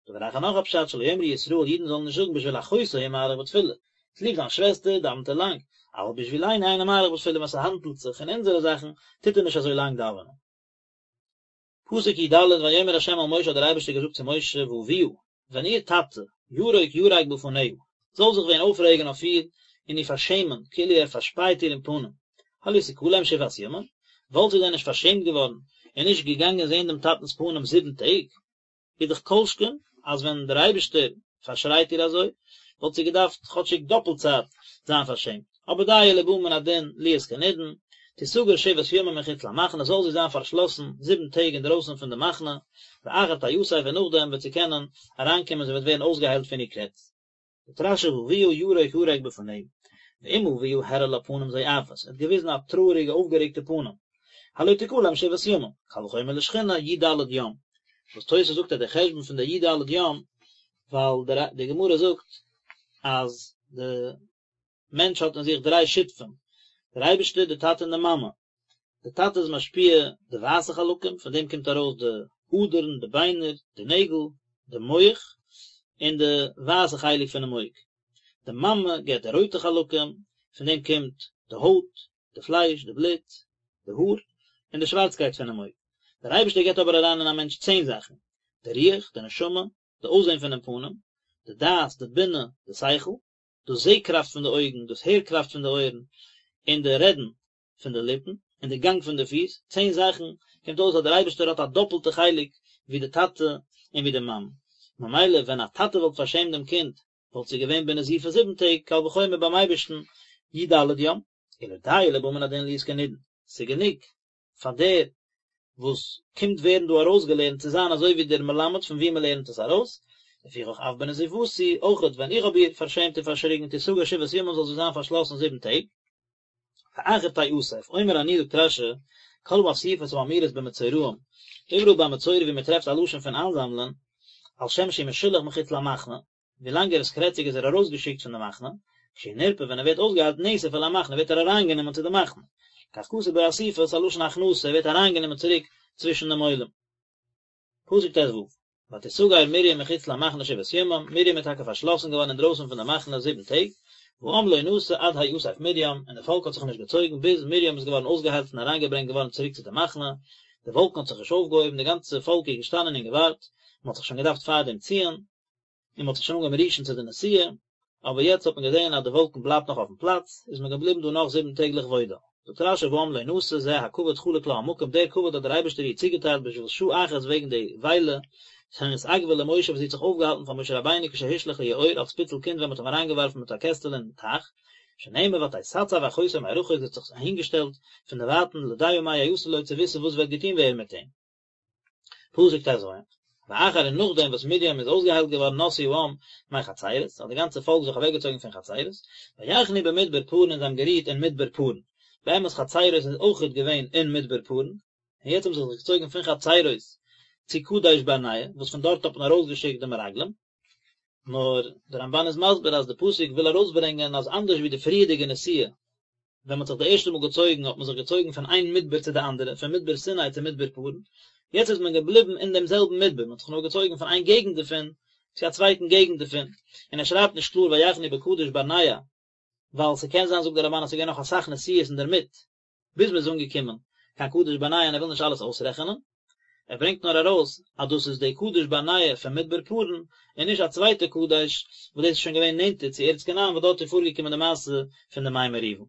דבר אחר נאך א פשט שלא יאמרו ישראל אידן זאלן נישט זאגן בשביל אחותו הוא מאריך בתפילה צוליב זיין שוועסטער דאווענט ער לאנג אבל בשבילנו אינו מאריך בתפילה ווען ס'האנדלט זיך אין אונזערע זאכן טוט ער נישט אזוי לאנג דאווענען. פסוק י ד, ויאמר ה' אל משה האט דער אייבערשטער געזאגט צו משה ואביה, ווען איר טאטע, ירוק ירק בפניה, זאל זיך ווען אויפרעגן אויף איר און איר פארשעמען, כאילו ער פארשפייט איר אין פנים, הלא תכלם שבעת ימים, וואלט זי דען נישט פארשעמט געווארן און נישט געגאנגען זען דעם טאטנ'ס פנים זיבן טעג? איז דאך כל שכן אז ווען דער אייבערשטער פארשרייט איר אזוי, וואלט זי געדארפט כאטשיג דאפלט צייט זיין פארשעמט, אבער דיו לבא מן הדין להיות כנידון, תסגר שבעת ימים מחוץ למחנה, זאל זי זיין פארשלאסן זיבן טעג אינדרויסן פון די מחנה, ואחר תאסף און נאכדעם וועט זי קענען אריינקומען זי וועט ווערן אויסגעהיילט פון איר קרעץ. זאגט רש"י ואביה ירק ירק בפניה, ואם אביה הראה לה פנים זועפות, ער האט געוויזן א טרויעריגע אויפגערעגטע פנים, הלא תכלם שבעת ימים, קל וחומר לשכינה י"ד יום, וואס תוס' זאגט אז דער חשבון פון די י"ד יום, ווייל די גמרא זאגט אז די מענטש האט אין זיך דריי שותפים, דער אייבערשטער, די טאטע און די מאמע. די טאטע איז משפיע די ווייסע חלקים, פון דעם קומט ארויס די אדערן, די ביינער, די נעגל, די מח, און די ווייסע חלק פונעם אויג. די מאמע געבט די רויטע חלקים, פון דעם קומט די הויט, די פלייש, די בלוט, די האר, און די שווארצקייט פונעם אויג. דער אייבערשטער געבט אבער אריין אין א מענטש צען זאכן, די רוח, די נשמה, די אויסזען פונעם פנים, די דעת, די בינה, די שכל, דאס זע-קראפט פון די אויגן, דאס הער-קראפט פון די אויערן, און די רעדן פון די ליפן, און די גאנג פון די פיס, צען זאכן, קומט אויס אז דער אייבערשטער האט א דאפלטע חלק ווי די טאטע און ווי די מאמע. ממילא ווען א טאטע וואלט פארשעמט דעם קינד, וואלט זי געווען בנזיפה זיבן טעג, קל וחומר ביים אייבערשטן י"ד יום. אלא דיו לבא מן הדין להיות כנידון, ס'איז גענוג פאר דער וואס קומט ווערן דא ארויסגעלערנט צו זיין אזוי ווי דער מלמד פון וואו מען לערנט עס ארויס, לפיכך אף בנזיפתי, אויכעט ווען איך האב איר פארשעמט און פארשריגן תסגר שבעת ימים זאל זי זיין פארשלאסן זיבן טעג. ואחר תאסף, אומר אני זאגט רש"י, כל האסיפות האמורות במצורעים, איבעראל ביי מצורע ווי מען טרעפט א לשון פון איינזאמלען, על שם שהוא משולח מחוץ למחנה, ווילאנג ער איז קרעציג איז ער ארויסגעשיקט פון די מחנה, כשהוא נרפא ווען ער ווערט אויסגעהיילט נאסף אל המחנה ווערט ער אריינגענומען צו די מחנה, כך כתוב בו אסיפה ס'א לשון הכנסה ער ווערט אריינגענומען צוריק צווישן דעם עולם. פסוק ט"ו, ותסגר מרים מחוץ למחנה שבעת ימים, מרים איז טאקע פארשלאסן געווארן אינדרויסן פון די מחנה זיבן טעג, והעם לא נסע עד האסף מרים, און די פאלק האט זיך נישט געצויגן ביז מרים איז געווארן אויסגעהיילט און אריינגעברענגט געווארן צוריק צו די מחנה, די וואלקן האט זיך נישט אויפגעהויבן, די גאנצע פאלק איז געשטאנען און געווארט, מען האט זיך שוין געדארפט פארדעם ציען, און מען האט זיך שוין אנגעהויבן רישן צו די נסיעה, אבער יעצט האט מען געזען אז די וואלקן בלייבט נאך אויפן פלאץ, איז מען געבליבן דא נאך זיבן טעג לכבודה. זאגט רש"י והעם לא נסע זה הכבוד חלק לה המקום, דער כבוד האט דער אייבערשטער איר צוגעטיילט בשביל שעה אחת וועגן די וויילע, שנתעכבה למשה וואס זי האט זיך אויפגעהאלטן פאר משה רבינו כשהושלך ליאור אלס פיצל קינד ווען מען האט אים אריינגעווארפן מיט א קעסטעלע אין טייך, שנאמר ותתצב אחותו מרחוק זי האט זיך אהינגעשטעלט פון דערווייטן לדעה מה יעשה לו צו וויסן וואס וועט געטון ווערן מיט אים. פסוק ט"ז, ואחר און נאכדעם וואס מרים איז אויסגעהיילט געווארן נסעו העם מחצרות, האט די גאנצע פאלק זיך אוועקגעצויגן פון חצרות, ויחנו במדבר פארן און זיי האבן גערוהט אין מדבר פארן, באמת חצרות איז אויכעט געווען אין מדבר פארן, און יעצט האבן זיי זיך געצויגן פון חצרות צו קדש ברנע, וואס פון דארט האט מען ארויסגעשיקט די מרגלים. נאר דער רמב"ן איז מסביר אז די פסוק וויל ארויסברענגען אז אנדערש ווי די פריערדיגע נסיעה, ווען מען האט זיך די ערשטע מאל געצויגן האט מען זיך געצויגן פון איין מדבר צו די אנדערע, פון מדבר סיני צו מדבר פארן, יעצט איז מען געבליבן אין דעם זעלבן מדבר, מען האט זיך נאר געצויגן פון איין געגנט דערפון צו א צווייטן געגנט דערפון, און ער שרייבט נישט קלאר ויחנו בקדש ברנע, ווייל ס'קען זיין זאגט דער רמב"ן אז ס'איז געווען נאך אסאך נסיעות אינדערמיט, ביז מען איז אנגעקומען קיין קדש ברנע און ער וויל נישט אלעס אויסרעכענען, ער ברענגט נאר ארויס אז דאס איז די קדש ברנע פון מדבר פארן, און נישט א צווייטע קדש וואס דאס איז שוין געווען נענטער צו ארץ כנען וואס דארט איז פארגעקומען די מעשה פון די מי מריבה.